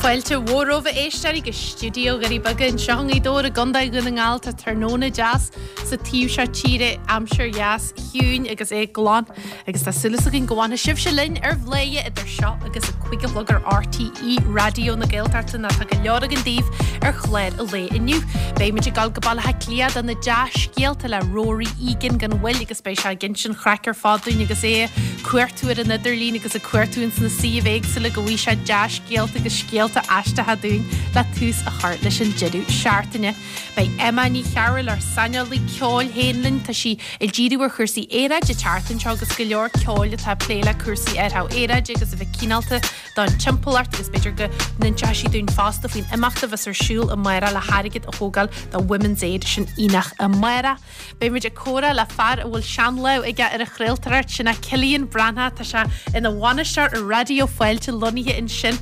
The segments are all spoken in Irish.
Fáilte mhór romhaibh a éisteoirí go stiúideo Dhoirí Beaga anseo i nGaoth Dobhair i gContae Dhún na nGall. Tá tráthnóna deas sa taobh seo tíre, aimsir dheas chiúin agus é glan agus tá súil againn go bhfanfaidh sibhse linn ar Bhladhaire idir seo agus a 5 a chlog ar RTÉ Raidió na Gaeltachta nó tá go leor againn daoibh ar chlár an lae inniu. Beidh muid ag dul go Baile Átha Cliath do na dea-scéalta le Rory Egan gan mhoill agus beidh sé ag insint an chraic ar fad dúinn agus é ag cuartú ar an idirlíon agus ag cuartú ins na suímh éagsúla go bhfaighidh sé dea-scéalta agus scéalta aisteacha dúinn le tús a chur leis an deireadh seachtaine. Beidh Emma Ní Chearúil, ár saineolaí ceoil féin linn. Tá sí ag díriú ar chúrsaí aeráide an tseachtain seo agus go leor ceoil atá ag plé le cúrsaí athrú aeráide agus a bheith cineálta don timpeallacht agus b'fhéidir go n-inseoidh sí dúinn fosta faoin imeacht a bheas ar siúl amárach le hairgead a thógáil do Women's Aid sin Aonach amárach. Beidh muid ag comhrá le fear a bhfuil seanlámh aige ar an chraoltóireacht, sin é Cillian Breathnach. Tá sé ina bhainisteoir ar Raidió Fáilte lonnaithe ansin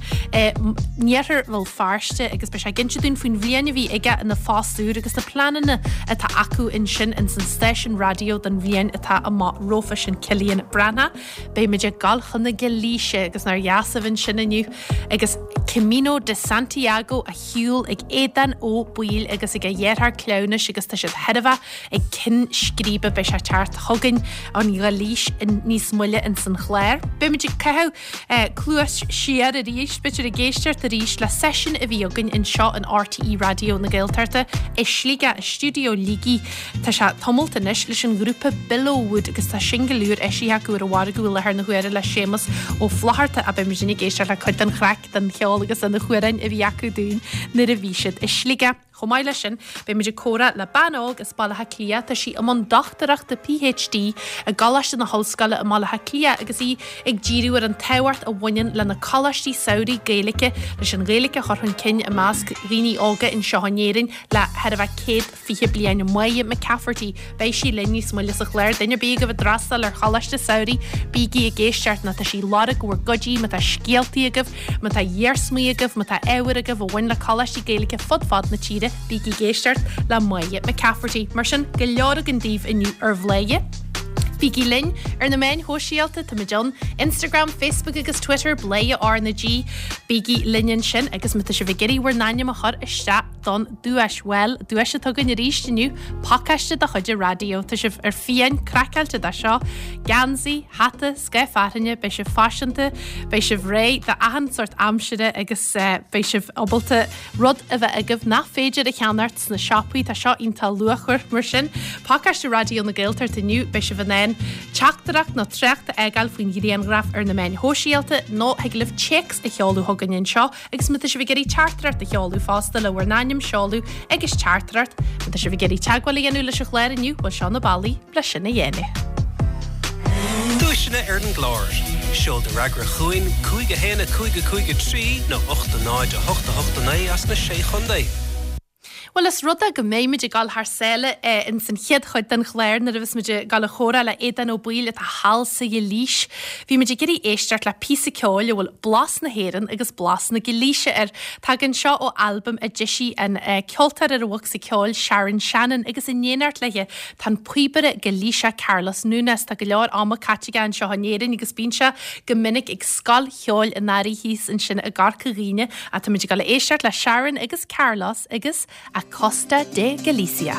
in iarthar Bhéal Feirste agus beidh sé ag inse dúinn faoin bhliain a bhí aige ina phost úr agus na pleananna atá acu ansin ins an stáisiún raidió don bhliain atá amach rompu sin Cillian Breathnach. Beidh muid ag dul chun na Gailíse agus nár dheas a bheith ansin inniu agus Camino de Santiago á shiúl ag Aodán Ó Baoill agus ag a dheartháir cleamhnais agus tá siad chóir a bheith ag cinn scríbe beidh sé ag teacht chugainn ón Ghailís níos moille ins an chlár. Beidh muid ag caitheamh cluas siar arís, b'fhéidir ag éisteacht arís le seisiún a bhí againn anseo in RTÉ Raidió na Gaeltachta i Sligeach, i stiúideo Shligigh. Tá sé tamalt anois leis an ghrúpa Billowwood agus tá singil úr eisithe acu ar an mhargadh i láthair na huaire le Séamus Ó Flaithearta a beidh muid ag éisteacht le cuid den chraic, den cheol agus de na hamhráin a bhí acu dúinn nuair a bhí siad i Sligeach. Chomh maith leis sin, beidh muid ag comhrá le bean óg as Baile Átha Cliath, tá sí i mbun dochtúireachta PhD i gColáiste na hOllscoile i mBaile Átha Cliath agus í ag díriú ar an tábhacht a bhaineann le na coláistí samhraidh Gaeilge leis an Ghaeilge a chur chun cinn i measc dhaoine óga anseo in Éirinn le chóir a bheith 100 20 bliain Máire McCafferty. Beidh sí linn níos moille sa chlár. Duine ar bith agaibh ag d'fhreastal ar choláiste samhraidh, bígí ag éisteacht nó tá sí ag lorg bhur gcuidí má tá scéaltaí agaibh, má tá iarsmaí agaibh, má tá ábhar agaibh a bhain le coláistí Gaeilge fud fad na tíre, bígí ag éisteacht le Máire McCafferty. Mar sin, go leor againn daoibh inniu ar Bhladhaire. Bígí linn ar na meáin shóisialta, táimid ann, Instagram, Facebook agus Twitter, Bladhaire R na G. Bígí linn ansin agus má tá sibh ag iarraidh bhur n-ainm a chur isteach don duais. Bhuel, duais atá againn arís inniu, pacáiste de chuid an raidió. Tá sibh ar fiáin craiceáilte de seo. Geansaí, hata, scáth fearthainne, beidh sibh faiseanta, beidh sibh réidh d'achan sórt aimsire agus beidh sibh ábalta rud a bheith agaibh nach féidir a cheannacht sna siopaí. Tá seo iontach luachmhar mar sin. Pacáiste Raidió na Gaeltachta inniu, beidh sibh in ann teachtaireacht nó trácht a fhágáil faoin ghrianghraf ar na meáin shóisialta nó thig libh téacs a sheoladh chugainn anseo Agus má tá sibh ag iarraidh teachtaireacht a sheoladh fosta le bhur n-ainm, seoladh agus teachtaireacht, má tá sibh ag iarraidh teagmháil a dhéanamh leis an chlár inniu, bhuel seo na bealaí le sin a dhéanamh. Duaiseanna ar an gclár. Seol do fhreagra chugainn, 5 1 5 5 3 nó 8 0 8 8 9 as na Sé Chontae. Bhuel, is rud é go mbeidh muid ag dul thar sáile ins an chéad chuid den chlár nuair a bheas muid ag dul a chomhrá le Aodán Ó Baoill atá thall sa Ghailís. Bhí muid ag iarraidh éisteacht le píosa ceoil a bhfuil blas na hÉireann agus blas na Gailíse air. Tagann seo ó albam a d'eisigh an ceoltóir ar an bhocsa ceoil Sharon Shannon agus in éineacht léi tá an píobaire Gailíseach Carlos Núñez. Tá go leor ama caite aige anseo in Éirinn agus bíonn sé go minic ag Scoil Cheoil an Earraigh thíos ansin i gCorca Dhuibhne. Ach tá muid ag dul a éisteacht le Sharon agus Carlos agus A Costa de Galicia.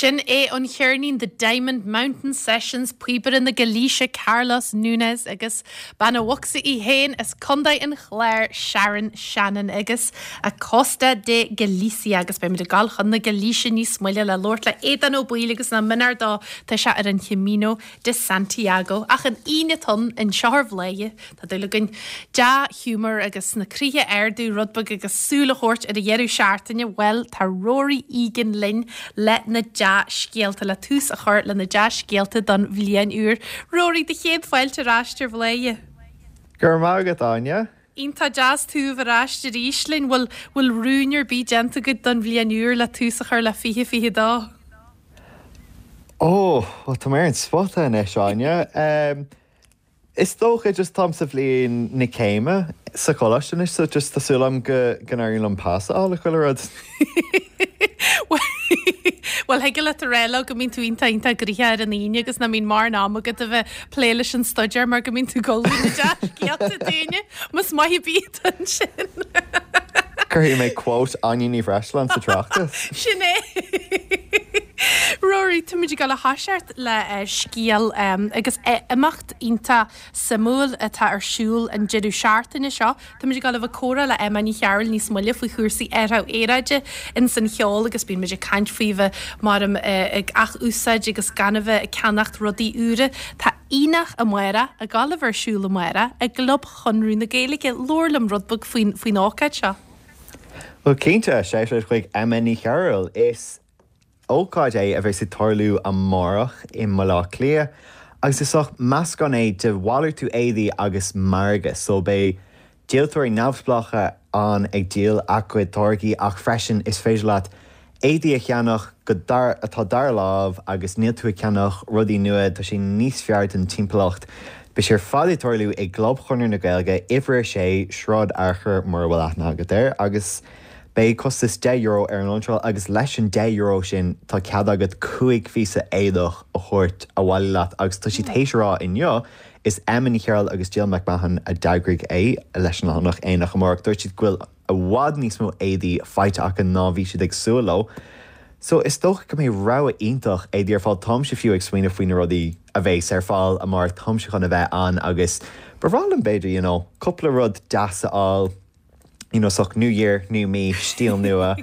Sin é an cheirnín The Diamond Mountain Sessions, píobaire na Gailíse Carlos Núñez agus bean a' bhocsa í féin as Contae an Chláir Sharon Shannon agus A Costa de Galicia agus beimid ag dul chun na Gailíse níos moille le labhairt le Aodán Ó Baoill agus nach mionar dó tá sé ar an Chamino de Santiago. Ach an Aoine atá ann anseo ar Bhladhaire. Tá dúil againn dea-ghiúmar agus na croíthe a ardú rud beag agus súil a thabhairt ar an dheireadh seachtaine, bhuel, tá Rory Egan linn le na dea-scéalta, le tús a chur le na dea-scéalta don bhliain úr. Rory, do chéad fáilte ar ais ar Bhladhaire. Go raibh maith agat, Áine. Iontach deas tú a bheith ar ais arís linn. Bhfuil, bhfuil rúin ar bith déanta agat don bhliain úr le tús a chur le 2022? Ó, bhuel, tá mé ar an spota anois, Áine. Is dócha, just táim sa bhliain na céime sa choláiste anois so just tá súil agam go go n-éiríonn liom pas a fháil i chuile rud. Bhuel, thig leat a rá leo go mbíonn tú iontach iontach gnoitheach ar an Aoine agus nach mbíonn mórán ama agat a bheith ag plé leis an staidéar mar go mbíonn tú ag ullmhú na dea-scéalta dúinne. Más maith ar bith atá ansin. Cuirfidh mé quote Áine Ní Bhreisleáin sa tráchtas. Sin é. Rory, táimid ag dul a thoiseacht le scéal agus imeacht iontach suimiúil atá ar siúl an deireadh seachtaine seo. Táimid ag dul a bheith ag comhrá le Emma Ní Chearúil níos moille faoi chúrsaí athrú aeráide ins an cheol agus bíonn muid ag caint faoi bheith mar ag ath-úsáid agus gan a bheith ag ceannacht rudaí úra. Tá Aonach amárach ag dul a bheith ar siúl amárach i gClub Chonradh na Gaeilge. Labhair liom rud beag faoin ócáid seo. Bhuel cinnte, shout out chuig Emma Ní Chearúil. Is ócáid é a bheas ag tarlú amárach i mBaile Átha Cliath agus is sórt meascán é de mhalartú éadaí agus margadh so beidh díoltóirí neamhspleácha ann ag díol a gcuid táirgí ach freisin is féidir leat éadaí a cheannach go dar atá dara lámh agus níl tú ag ceannach rudaí nua, tá sé níos fearr don timpeallacht. Beidh sé ar fad ag tarlú i gClub Chonradh na Gaeilge, uimhir 6, Sráid Fhearchair mura bhfuil aithne agat air agus Beidh costas €10 ar an iontráil agus leis an €10 sin tá cead agat 5 phíosa éadach a thabhairt abhaile leat agus tá siad théis a rá inniu, is Emma Ní Chearúil agus Jill McMahon a d'eagraigh é leis an leathanach Aonach Amárach, dúirt siad go bhfuil i bhfad níos mó éadaí faighte acu ná bhí siad ag súil leo. So is dócha go mbeidh rogha iontach éadaí ar fáil, táimse fiú ag smaoineamh faoi na rudaí a bheas ar fáil amárach, táimse chun a bheith ann agus ba bhreá liom b'fhéidir you know cúpla rud deas a fháil. you know, sórt new year, new me, stíl nua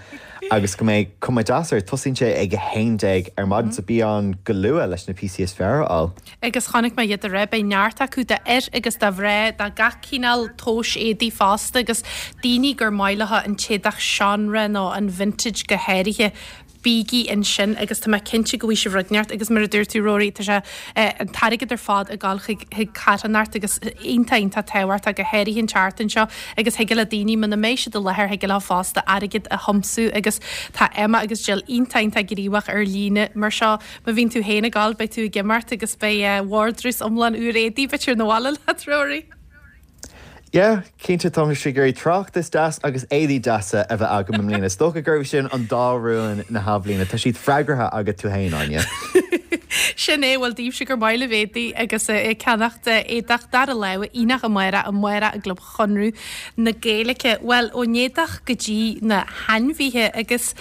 agus go mbeidh cuma deas air. Tosaíonn sé ag 11 ar maidin so bí ann go luath leis na píosaí is fearr a fháil. Agus chonaic mé iad aréir, beidh neart acu d'fhir agus do mhná, do gach cineál tomhais éadaí fosta agus daoine gur maith leo an t-éadach seanré nó an vintage go háirithe. Bígí ansin agus tá mé cinnte go bhfaighidh sibh rud inteacht agus mar a dúirt tú Rory, tá sé, an t-airgead ar fad ag dul chuig, chuig carthanacht agus iontach, iontach tábhachtach go háirithe an tseachtain seo agus thig le daoine muna mbeidh siad i láthair thig leo fosta airgead a thiomsú agus tá Emma agus Jill iontach, iontach gníomhach ar líne mar seo. Má bhíonn tú féin ag dul beidh tú ag imeacht agus beidh vardrús iomlán úr éadaí b'fhéidir 'na bhaile leat Rory. Yeah, cinnte tá mise ag iarraidh tráchtas deas agus éadaí deasa a bheith agam i mbliana. Is dócha gurb sin an dá rún na hathbhliana. Tá siad freagartha agat tú féin, Áine. Sin é, bhuel daoibhse gur maith libh éadaí agus ag ceannacht éadach dara láimhe, aonach amárach, amárach i gClub Chonradh na Gaeilge. Bhuel, ón éadach go dtí na hainmhithe agus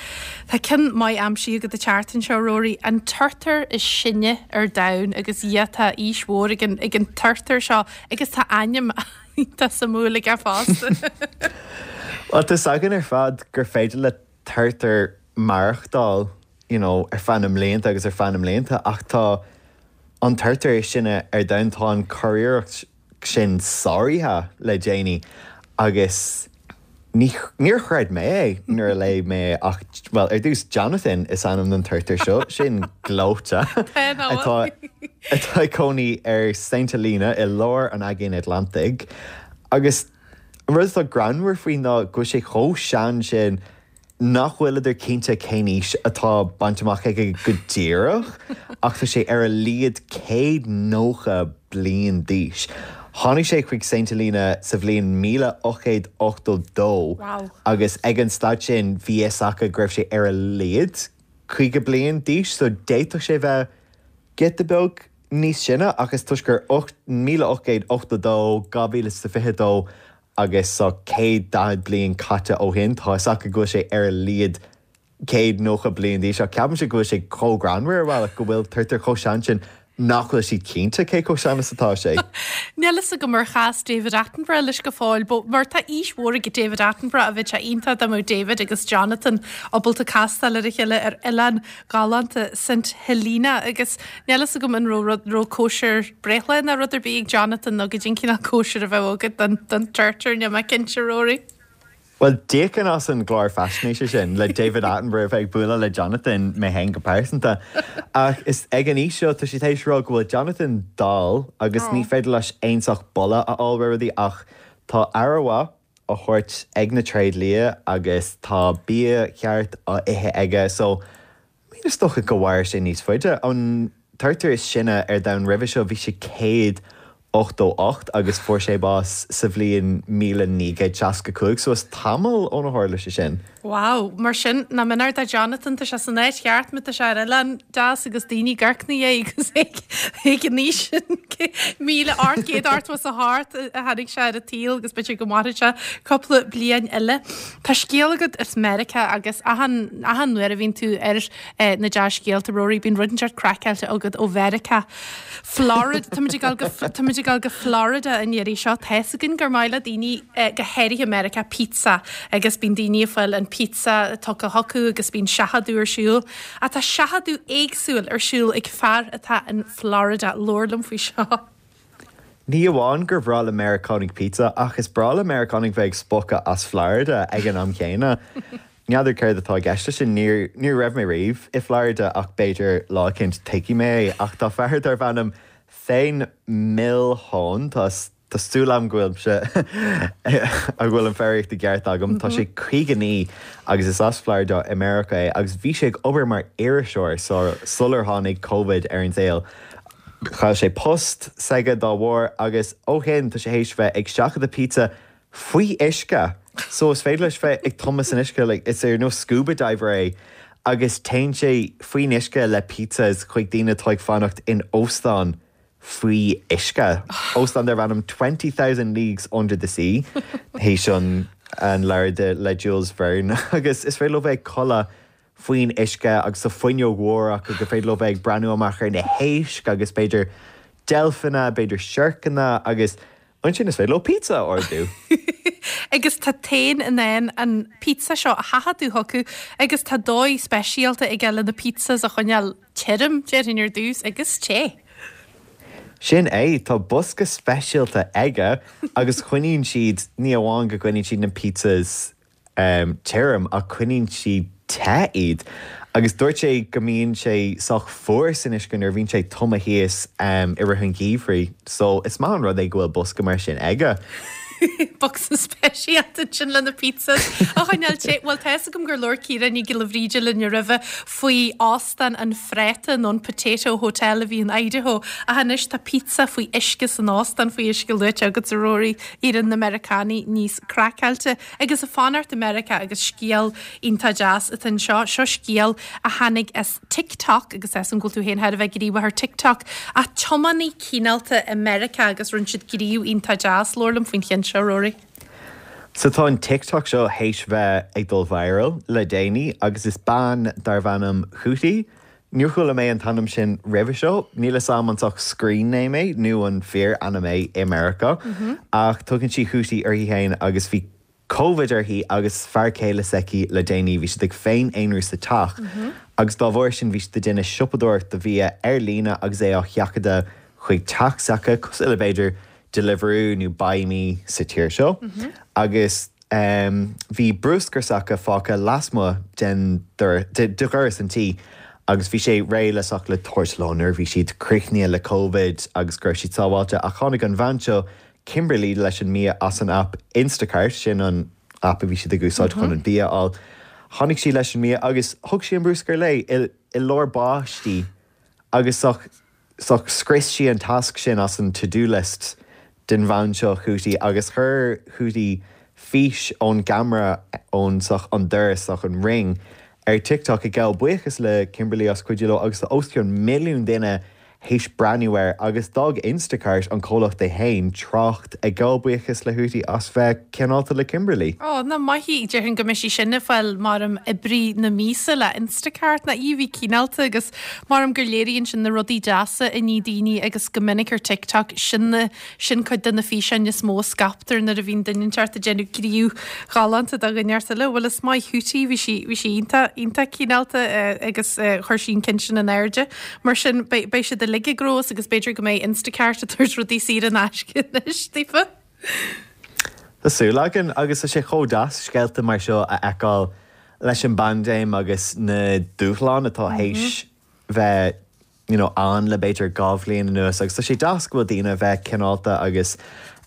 tá ceann maith aimsithe agat an tseachtain seo, Rory, an turtar is sine ar domhan agus yeah, tá aois mhór ag an, ag an turtar seo. Agus tá ainm iontach suimiúil aige fosta. Bhuel, tá 's againn ar fad gur féidir le turtar maireachtáil, you know, ar feadh na mblianta agus ar feadh na mblianta ach tá an turtar is sine ar domhan, tá an curiarracht sin sáraithe le déanaí agus Ní, níor chreid mé é nuair a léigh mé é ach, bhuel, ar dtús, Jonathan is ainm don turtar seo, sin gleoite, atá, atá ag cónaí ar Saint Helena i lár an Aigéin Atlantaigh. Agus an rud atá greannmhar faoi ná go bhfuil sé chomh sean sin nach bhfuileadar cinnte cén aois atá bainte amach aige go díreach, ach tá sé ar a laghad 190 bliain d'aois. Tháinig sé chuig Saint Helena sa bhliain 1882 agus ag an staid sin bhí fhios acu go raibh sé ar a laghad 50 bliain d'aois, so d'fhéadfadh sé bheith giota beag níos sine ach is toisc gur 1882, 2022 agus so 140 bliain caite ó shin, tá fhios acu go bhfuil sé ar a laghad. 190 bliain d'aois ach ceapaimse go bhfuil sé chomh greannmhar ar bhealach go bhfuil turtar chomh sean sin nach bhfuil siad cinnte cé chomh sean is atá sé. Níl fhios agam ar chas David Attenborough leis go fóill, but mar tá aois mhór ag David Attenborough a bheadh sé iontach dá mbeadh David agus Jonathan ábalta castáil ar a chéile ar oileán galánta St Helena agus níl fhios agam an raibh rud raibh cóisir breithlá nó rud ar bith ag Jonathan nó goidé an cineál cóisir a bheadh agat don don turtar níl mé cinnte Rory. Bhuel, d'íocfainn as an gclár faisnéise sin le David Attenborough a bheith ag bualadh le Jonathan, mé féin go pearsanta. Ach is ag an aois seo, tá sé tar éis rá go bhfuil Jonathan dall agus ní féidir leis aon sórt boladh a fháil ar rudaí ach tá aire mhaith á thabhairt ag na tréidlia agus tá bia ceart á ithe aige so I mean is dócha go mhairfidh sé níos faide. An turtar is sine ar domhan roimhe seo bhí sé 188 agus fuair sé bás sa bhliain 1965 so is tamall óna tharla sé sin. Wow, mar sin nach méanar do Jonathan, tá sé san áit cheart má tá sé ar oileán deas agus daoine ag amharc ina dhiaidh agus é ag an aois sin, 1888 a tháinig sé ar an tsaol agus b'fhéidir go mairfidh sé cúpla bliain eile. Tá scéal agat as Meiriceá agus achan, achan uair a bhíonn tú ar na dea-scéalta, Rory, bíonn rud inteacht craiceáilte agat ó Mheiriceá. Florida, táimid ag dul go, táimid ag dul go Florida an iarraidh seo. Tá fhios againn gur maith le daoine, go háirithe i Meiriceá, pizza agus bíonn daoine ag fáil an pizza tugtha chucu agus bíonn seachadadh ar siúl. Ach tá seachadadh éagsúil ar siúl ag fear atá in Florida. Labhair liom faoi seo. Ní amháin gur bhreá le Meiriceánaigh pizza, ach is breá le Meiriceánaigh bheith ag spochadh as Florida ag an am chéanna. N'fheadar céard atá i gceist leis sin, ní ní raibh mé riamh i Florida ach b'fhéidir lá eicínt tuigfidh mé é. Ach tá fear darb ainm Thane Milhoan, tá tá súil agam go bhfuilimse go bhfuil an foghraíocht i gceart agam, tá sé 59 agus is as Florida i Meiriceá é agus bhí sé ag obair mar iriseoir sular tháinig Covid ar an saol. Chaill sé post s'aige dá bharr agus ó shin tá sé théis bheith ag seachadadh pizza faoi uisce! So is féidir leis bheith ag tumadh san uisce, like is ar nós scuba diver é agus téann sé faoin uisce le pizzas chuig daoine atá ag fanacht in óstán faoi uisce. Óstán darb ainm 20,000 Leagues Under the Sea, théis an an leabhar de le Jules Verne agus is féidir leo bheith ag codladh faoin uisce agus tá fuinneog mhór acu gur féidir leo bheith ag breathnú amach ar na héisc agus b'fhéidir deilfeanna, b'fhéidir siorcanna agus ansin is féidir leo pizza a ordú. Agus tá Thane in ann an pizza seo a sheachadadh chucu agus tá dóigh speisialta aige le na pizzas a choinneáil tirim, déarfainn ar dtús, agus te. Sin é, tá bosca speisialta aige agus coinníonn siad, ní amháin go gcoinníonn siad na pizzas tirim ach coinníonn siad te iad. Agus dúirt sé go mbíonn sé sách fuar san uisce nuair a bhíonn sé tumtha thíos i rith an gheimhridh. So is maith an rud é go bhfuil bosca mar sin aige. Bosca speisialta ansin le na pizzas a choinneáil te. Bhuel tá fhios agam gur labhair Ciara Ní Ghiolla Bhríde linn roimhe faoi óstán an phráta nó an Potato Hotel a bhí in Idaho ach anois tá pizza faoi uisce san óstán faoi uisce luaite agat a Rory, éiríonn na Meiriceánaigh níos craiceáilte. Agus ag fanacht i Meiriceá agus scéal iontach deas atá anseo. Seo scéal a tháinig as TikTok agus tá 'fhios a'm go bhfuil tú féin thar a bheith gníomhach ar TikTok. Ach tiománaí cineálta i Meiriceá agus rinne siad gníomh iontach deas. Labhair liom faoin cheann seo, Rory. So tá an TikTok seo théis bheith ag dul viral le déanaí agus is bean darbh ainm Hootie Níor chuala mé an t-ainm sin roimhe seo. Níl 'fhios a'm an sórt screen name é nó an fíor-ainm é i Meiriceá. Ach tugann sí Hootie uirthi féin agus bhí Covid uirthi agus fear céile s'aici le déanaí. Bhí siad ag féin-aonrú sa teach agus dá bharr sin bhí siad ag déanamh siopadóireacht do bhia ar líne agus é á sheachadadh chuig teach s'acu, cosúil le b'fhéidir Deliveroo nó Buymie sa tír seo. Agus. Bhí bruscar s'acu fágtha lasmuigh den de dhoras an tí agus bhí sé réidh le sórt le tabhairt leo nuair a bhí siad críochnaithe le Covid agus go raibh siad sábháilte ach tháinig an bhean seo, Kimberly, leis an mbia as an aip Instacart, sin an aip a bhí siad ag úsáid chun an bia a fháil. Tháinig sí leis an mbia agus thug sí an bruscar léi i lár báistí agus sórt sórt scrios sí an tasc sin as an to do list den bhean seo Hootie agus chuir Hootie fís ón gceamara ón sórt an doras sórt an ring ar TikTok ag gabháil buíochas le Kimberly as cuidiú leo agus tá os cionn milliún duine. théis breathnú air agus d'fhág Instacart, an comhlacht é féin, trácht ag gabháil buíochas le Hootie as bheith cineálta le Kimberly. Ó, nach maith í. Déarfainn go mbeidh sí sin ag fáil maram oibrí na míosa le Instacart. Nach í a bhí cineálta agus maram gur léiríonn sin na rudaí deasa a ní daoine agus go minic ar TikTok sin na Sin cuid de na físeáin is mó a scaiptear nuair a bhíonn duine inteacht ag déanamh gníomh ghalánta do dhuine inteacht eile. Bhuel is maith Hootie, bhí sí, bhí sí iontach, iontach cineálta agus chuir sí an ceann sin in airde. Mar sin, beidh, beidh siad uilig ag gnóthú agus b'fhéidir go mbeidh Instacart ag tabhairt rudaí saor in aisce anois daofa. Tá súil againn agus tá sé chomh deas scéalta mar seo a fheiceáil leis an bpaindéim agus na dúshláin atá théis bheith you know, ann le b'fhéidir 2 bhliain anuas agus tá sé deas go bhfuil daoine a bheith cineálta agus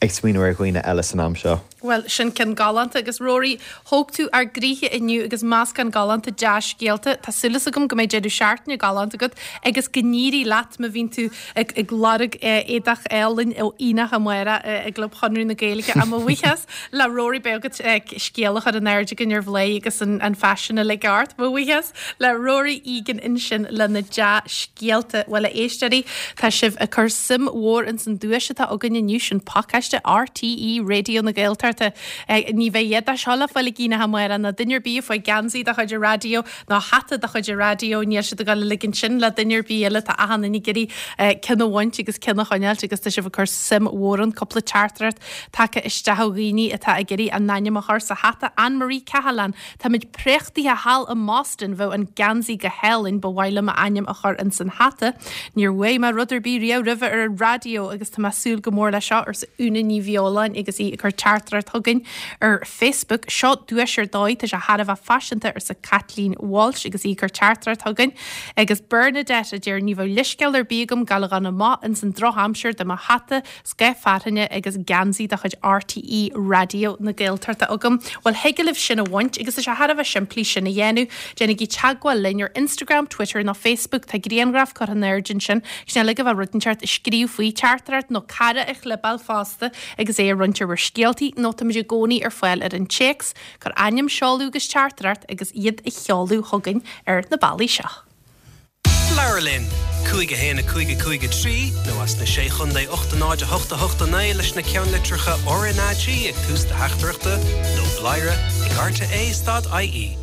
ag smaoineamh ar dhaoine eile san am seo. Bhuel, sin ceann galánta agus Rory, thóg tú ár gcroíthe inniu agus meascán galánta dea-scéalta. Tá súil agam go mbeidh deireadh seachtaine galánta agat agus go n-éirí leat má bhíonn tú ag ag lorg éadach álainn ó Aonach amárach i gClub Chonradh na Gaeilge. Ach mo bhuíochas le Rory beidh agat scéal a chur in airde againn ar Bhladhaire agus an faisean uilig ort. Mo bhuíochas. Le Rory Egan ansin lena dea-scéalta. Bhuel, a éisteoirí, tá sibh ag cur suim mhór ins an duais atá againn inniu, sin pacáiste RTÉ Raidió na Gaeltachta. Ní bheidh a dhath de seo le fáil ag Aonach amárach, ná duine ar bith a fuair geansaí de chuid an raidió, ná hata de chuid an raidió, níl siad ag dul a ligint sin le duine ar bith eile, tá achan duine ag iarraidh ceann a bhaint agus ceann a choinneáilt agus tá sibh ag cur suim mhór ann. Cúpla teachtaireacht tagtha isteach ó dhaoine atá ag iarraidh a n-ainm a chur sa hata, Anne Marie Cahalane, Táimid préachtaithe thall i mBoston, bheadh an geansaí go hálainn, ba mhaith liom m'ainm a chur ins an hata. Níor bhuaigh mé rud ar bith riamh roimhe ar an raidió agus tá mé ag súil go mór leis seo, arsa Úna Ní Bheoláin agus í ag cur teachtaireacht chugainn ar Facebook. Seo duais ar dóigh, tá sé thar a bheith faiseanta, arsa Caitlín Walsh agus í ag cur teachtaireacht chugainn. Agus Bernadette a deir ní bheadh leithscéal ar bith agam gabháil a dhul amach ins an drochaimsir dá mbeadh hata Scáth fearthainne agus geansaí de chuid RTÉ Raidió na Gaeltachta agam. Bhuel, thig libh sin a bhaint agus tá sé thar a bheith simplí sin a dhéanamh. Déanaigí teagmháil linn ar Instagram, Twitter nó Facebook. Tá grianghraf curtha in airde ansin. Sin uilig a bheadh rud inteacht a scríobh faoi, teachtaireacht nó cara a chlibeáil fosta agus é a roinnt ar bhur scéaltaí nó táimid i gcónaí ar fáil ar an téacs. Cuir ainm, seoladh agus teachtaireacht agus iad a sheoladh chugainn ar na bealaí seo. Labhair linn! 5 1 5 5 3 nó as na Sé Chondae 8 0 8 8 9 leis na ceannlitreacha RnaG ag tús do theachtaireachta nó bladhaire ag rte stad ie.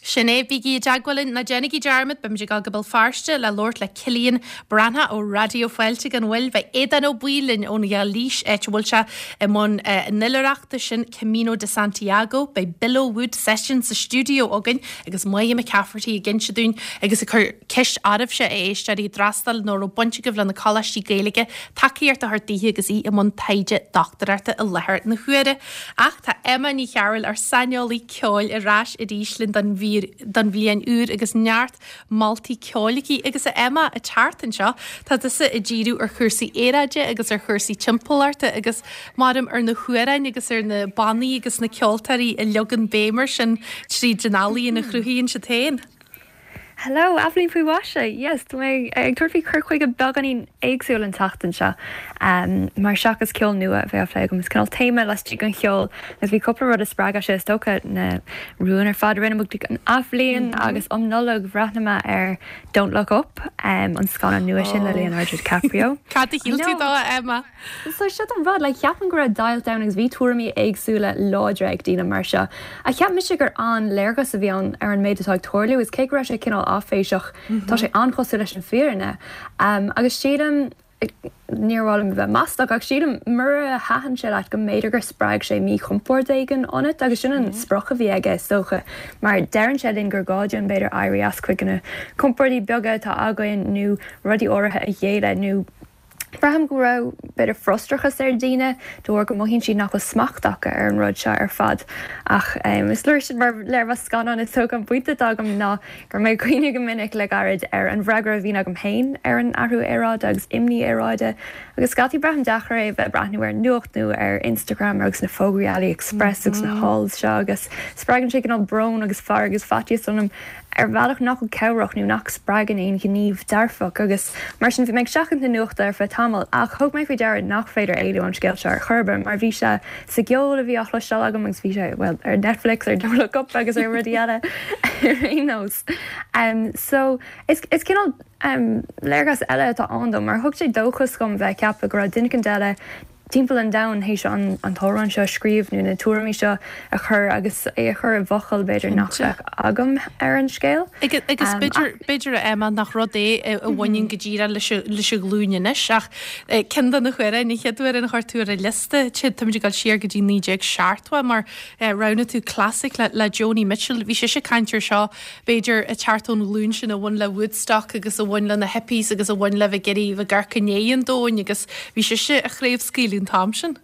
Sin é, bígí i dteagmháil linn, ná déanaigí dearmad, beimid ag dul go Béal Feirste le labhairt le Cillian Breathnach ó Raidió Fáilte gan mhoill. Beidh Aodán Ó Baoill linn ón Ghailís, áit a bhfuil sé i mbun an oilithreachta sin, Camino de Santiago. Beidh Bill O'Wood seisean sa stiúideo againn Agus Moya McCafferty ag inse dúinn agus ag cur ceist oraibhse, a éisteoirí, a d'fhreastail nó a raibh baint agaibh le na coláistí Gaeilge, tacaíocht a thabhairt daoithe agus í i mbun taighde dochtúireachta i láthair na huaire. Ach tá Emma Ní Chearúil, ár saineolaí ceoil, ar ais arís linn don don bhliain úr agus neart moltaí ceoil aici. Agus a Emma, an tseachtain seo, tá tusa ag díriú ar chúrsaí aeráide agus ar chúrsaí timpeallachta agus maram ar na hamhráin agus ar na bannaí agus na ceoltóirí a leagann béim air sin tríd an ealaíon a chruthaíonn siad féin. Hello, Athbhliain faoi mhaise! Yes, tá mé ag tabhairt faoi chur chuige beagáinín éagsúil an tseachtain seo. Mar seachas ceol nua a bheith á phlé agam, is cineál téama laistigh den cheol agus bhí cúpla rud a spreag é seo, is dócha na rúin ar fad a rinne muid don athbhliain agus um Nollaig bhreathnaigh mé ar Don't Look Up, an scannán nua sin le Leonardo DiCaprio. Cad a shíl tú dó, a Emma? So seo an rud, like cheapfainn go raibh deighilt ann agus bhí tuairimí éagsúla láidre ag daoine mar seo. Ach cheap mise gur an-léargas a bhí ann ar an méid atá ag tarlú is cé go raibh sé cineál áiféiseach, tá sé an-chosúil leis an bhfírinne. Agus sílim, níor mhaith liom a bheith maslach, ach sílim mura thaitin sé leat go mb'fhéidir gur spreag sé míchompord éigin ionat agus sin an sprioc a bhí aige is dócha mar deireann sé linn gur gá dúinn b'fhéidir éirí as cuid de na compordaí beaga atá againn nó rudaí áirithe a ghéilleadh nó Braithim go raibh b'fhéidir frustrachas ar dhaoine de bharr go mothaíonn siad nach bhfuil smacht acu ar an rud seo ar fad. Ach is leor sin mar léirmheas scannáin is dócha. An pointe atá agam ná go raibh mé ag cuimhneamh go minic le gairid ar an bhfreagra a bhíonn agam féin ar an athrú aeráide agus imní aeráide agus scaití braithim deacair é a bheith ag breathnú ar an nuacht nó ar Instagram agus na fógraí AliExpress agus na hauls seo agus spreagann sé cineál brón agus fearg agus faitíos ionam ar bhealach nach bhfuil cabhrach nó nach spreagann aon ghníomh dearfach agus mar sin bhí mé ag seachaint na nuachta ar feadh tamaill ach thug mé faoi deara nach féidir éalú ón scéal seo ar chor ar bith mar bhí sé sa gceol a bhí á chloisteáil agam agus bhí sé, bhuel, ar Netflix, ar Don't Look Up agus ar rudaí eile ar aon nós. So, is, is cineál. Léargas eile atá ann dom, mar thug sé dóchas dhom bheith ag ceapadh go raibh duine éicint eile timpeall an domhain théis an t-amhrán seo a scríobh nó na tuairimí seo a chur agus é a chur i bhfocail b'fhéidir nach Cinnte. bheadh agam ar an scéal. Agus b'fhéidir, b'fhéidir a Emma nach rud é a bhaineann go díreach leis an, leis an ghlúin anois ach ceann de na hamhráin, an chéad amhrán a chuir tú ar an liosta, táimid ag dul siar go dtí 1970 mar roghnaigh tú clasaic le, le Joni Mitchell. Bhí sise ag caint ar seo b'fhéidir, ag teacht ón ghlúin sin a bhain le Woodstock agus a bhain le na hippies agus a bhain le bheith ag iarraidh bheith ag amharc i ndiaidh an domhain agus bhí sise á chraobhscaoileadh an t-am sin.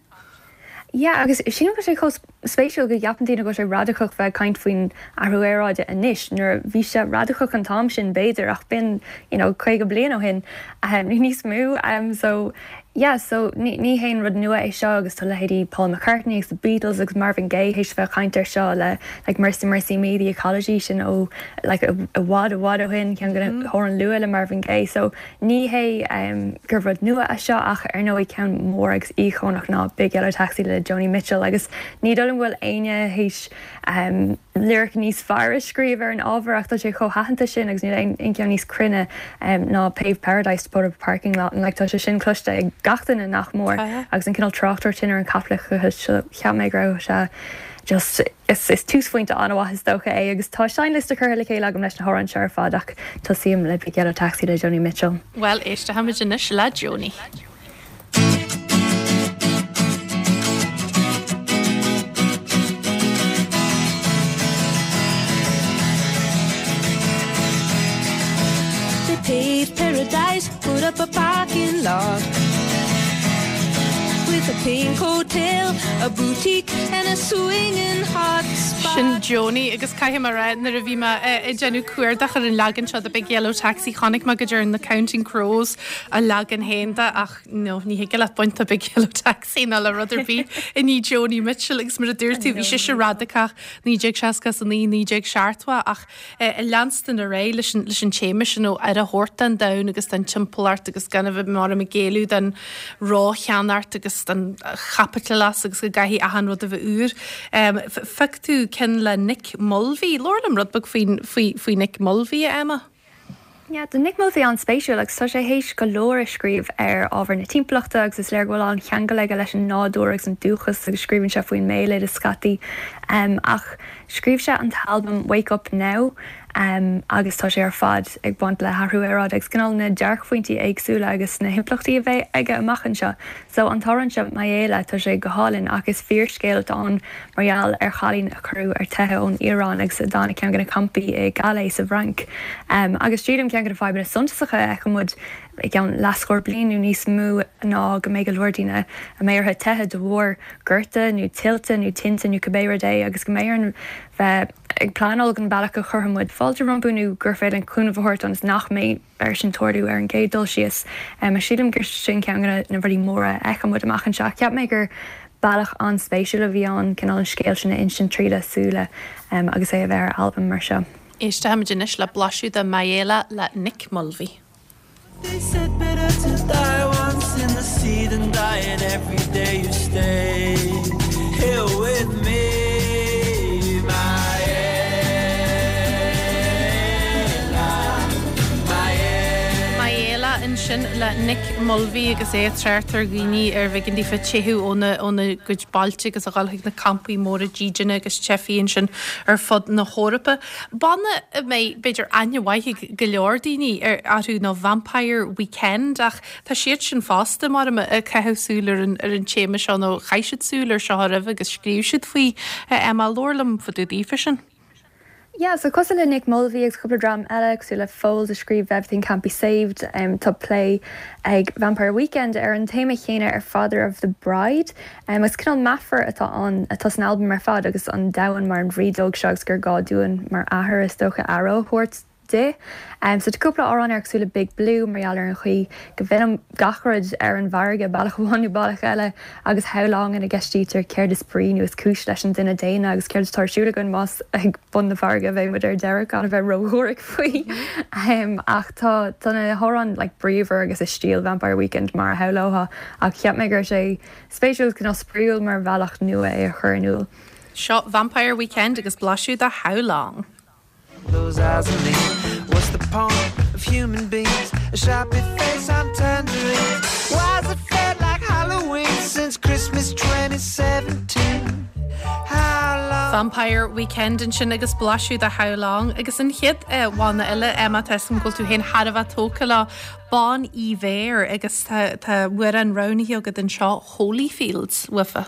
Yeah, agus sílim go bhfuil sé chomh spéisiúil go gceapann daoine go bhfuil sé radacach bheith ag caint faoin athrú aeráide anois nuair a bhí sé radacach an t-am sin b'fhéidir ach b'in you know 50 bliain ó shin nó níos mó so Yeah, so ní ní haon rud nua é seo agus tá leithéidí Paul McCartney agus The Beatles agus Marvin Gaye théis bheith ag caint air seo le like Mercy Mercy Me, The Ecology sin ó like i bhfad i bhfad ó shin, ceann de na hamhráin luath le Marvin Gaye. So ní hé um gur rud nua é seo ach ar ndóigh ceann mór agus íocónach ná Big Yellow Taxi le Joni Mitchell agus ní dóigh liom go bhfuil éinne théis um lyric níos fearr a scríobh ar an ábhar ach tá sé chomh haitheanta sin agus níl aon cheann níos cruinne ná Paved Paradise to put up a parking lot and like tá sé sin cloiste ag gach duine nach mór agus an cineál tráchtaireacht sin ar an chaipitleachas so cheap mé go raibh sé just is is túsphointe an-mhaith is dócha é agus tá seinnliosta curtha le chéile agam leis na hamhráin seo ar fad ach tosaím le Big Yellow Taxi le Joni Mitchell. Bhuel éistfimid anois le Joni. They paved paradise, put up a parking lot With a pink hotel, a boutique and a swinging hot spot Sin Joni agus caithfidh mé a rá nuair a bhí mé ag déanamh cuardach ar an leagan seo de Big Yellow Taxi chonaic mé go dtearn The Counting Crows a leagan féin de ach no, ní thig leat baint de Big Yellow Taxi ná le rud ar bith i ndiaidh Joni Mitchell agus mar a dúirt tú bhí sise radacach 1969, 1970 ach ag leanstan ar aghaidh leis an leis an téama sin ó aire a thabhairt don domhan agus don timpeallacht agus gan a bheith mar ag géilleadh don rócheannacht agus don chaipitleachas agus go gcaithfidh achan rud a bheith úr. Phioc tú ceann le Nick Mulvey. Labhair liom rud beag faoin faoi faoi Nick Mulvey, a Emma. Yeah, tá Nick Mulvey an-spéisiúil agus tá sé théis go leor a scríobh ar ábhar na timpeallachta agus is léir go bhfuil an-cheangal aige leis an nádúr agus an dúchas agus scríobhann sé faoin mbéaloideas scaití. Ach scríobh sé an t-albam Wake Up Now agus tá sé ar fad ag baint le hathrú aeráide agus cineál na dearcphointí éagsúla agus na himpleachtaí a bheidh aige amach anseo. So an t-amhrán seo Mayela, tá sé go hálainn ach is fíorscéal atá ann mar gheall ar chailín a cuireadh ar teitheadh ón Iaráin agus a d'fhan i gceann de na campaí i gCalais sa bhFrainc. Agus sílim ceann de na fadhbanna suntasacha a fheiceann muid i gceann leathscór bliain nó níos mó ná go mbeidh go leor daoine a mbeidh orthu teitheadh de bharr gorta nó tuilte nó tinte nó cibé rud é agus go mbeidh orainn bheith ag pleanáil don bhealach a chuirfidh muid fáilte rompu nó gur féidir linn cúnamh a thabhairt ionas nach mbeidh air sin tarlú ar an gcéad dul síos. Sílim gur sin ceann de na rudaí móra a fheiceann muid amach anseo. Cheap mé gur bealach an-spéisiúil a bhí ann cineál an scéal sin a insint tríd a súile agus é a bheith ar albam mar seo. Éistfimid anois le blaiseadh de Mayela le Nick Mulvey. They said better to die once in the sea than dying every day you stay here with me Mayela ansin le Nick Mulvey agus é ag trácht ar dhaoine ar bh'éigean daofa teitheadh óna óna gcuid bailte agus a dhul chuig na campaí móra dídine agus teifigh ansin ar fud na hEorpa. Banna a mbeidh b'fhéidir aithne mhaith ag go leor daoine orthu ná Vampire Weekend ach Tá siad sin fosta, maram, ag caitheamh súil ar an ar an téama seo nó chaith siad súil ar seo roimhe agus scríobh siad faoi. Emma, labhair liom fá dtaobh daofa sin. Yeah, so cosúil le Nick Mulvey agus cúpla dream eile, cosúil le Foals a scríobh Everything Can't Be Saved, tá plé ag Vampire Weekend ar an téama chéanna ar Father of the Bride. Agus cineál meafar atá ann, atá san albam ar fad agus an domhan mar an bhrídeog seo agus gur gá dúinn mar athair is dócha aire a thabhairt di. So tá cúpla amhrán air cosúil le Big Blue mar gheall ar an chaoi go bhfilleann gach rud ar an bhfarraige bealach amháin nó bealach eile agus How Long ina gceistítear céard is brí nó is cúis leis an duine daonna agus céard atá ar siúl againn más ag bun na farraige a bheidh muid ar deireadh gan a bheith ródhuairc faoi. Ach tá tá na hamhráin like bríomhar agus i stíl Vampire Weekend mar a shamhlófá ach cheap mé go raibh sé spéisiúil agus cineál spraíúil mar bhealach nua é a chur in iúl. Seo Vampire Weekend agus blaiseadh de How Long. Those eyes on me. What's the point? of human beings. A sharpie face on tangerines. Why's it felt like Halloween since Christmas 2017? How long? Vampire Weekend ansin agus blaiseadh de How Long agus an chéad bhanna eile, Emma, tá 'fhios agam go bhfuil tú féin thar a bheith tógtha leo, Bon Iver agus tá amhrán roghnaithe agat anseo, Holyfields, uafa.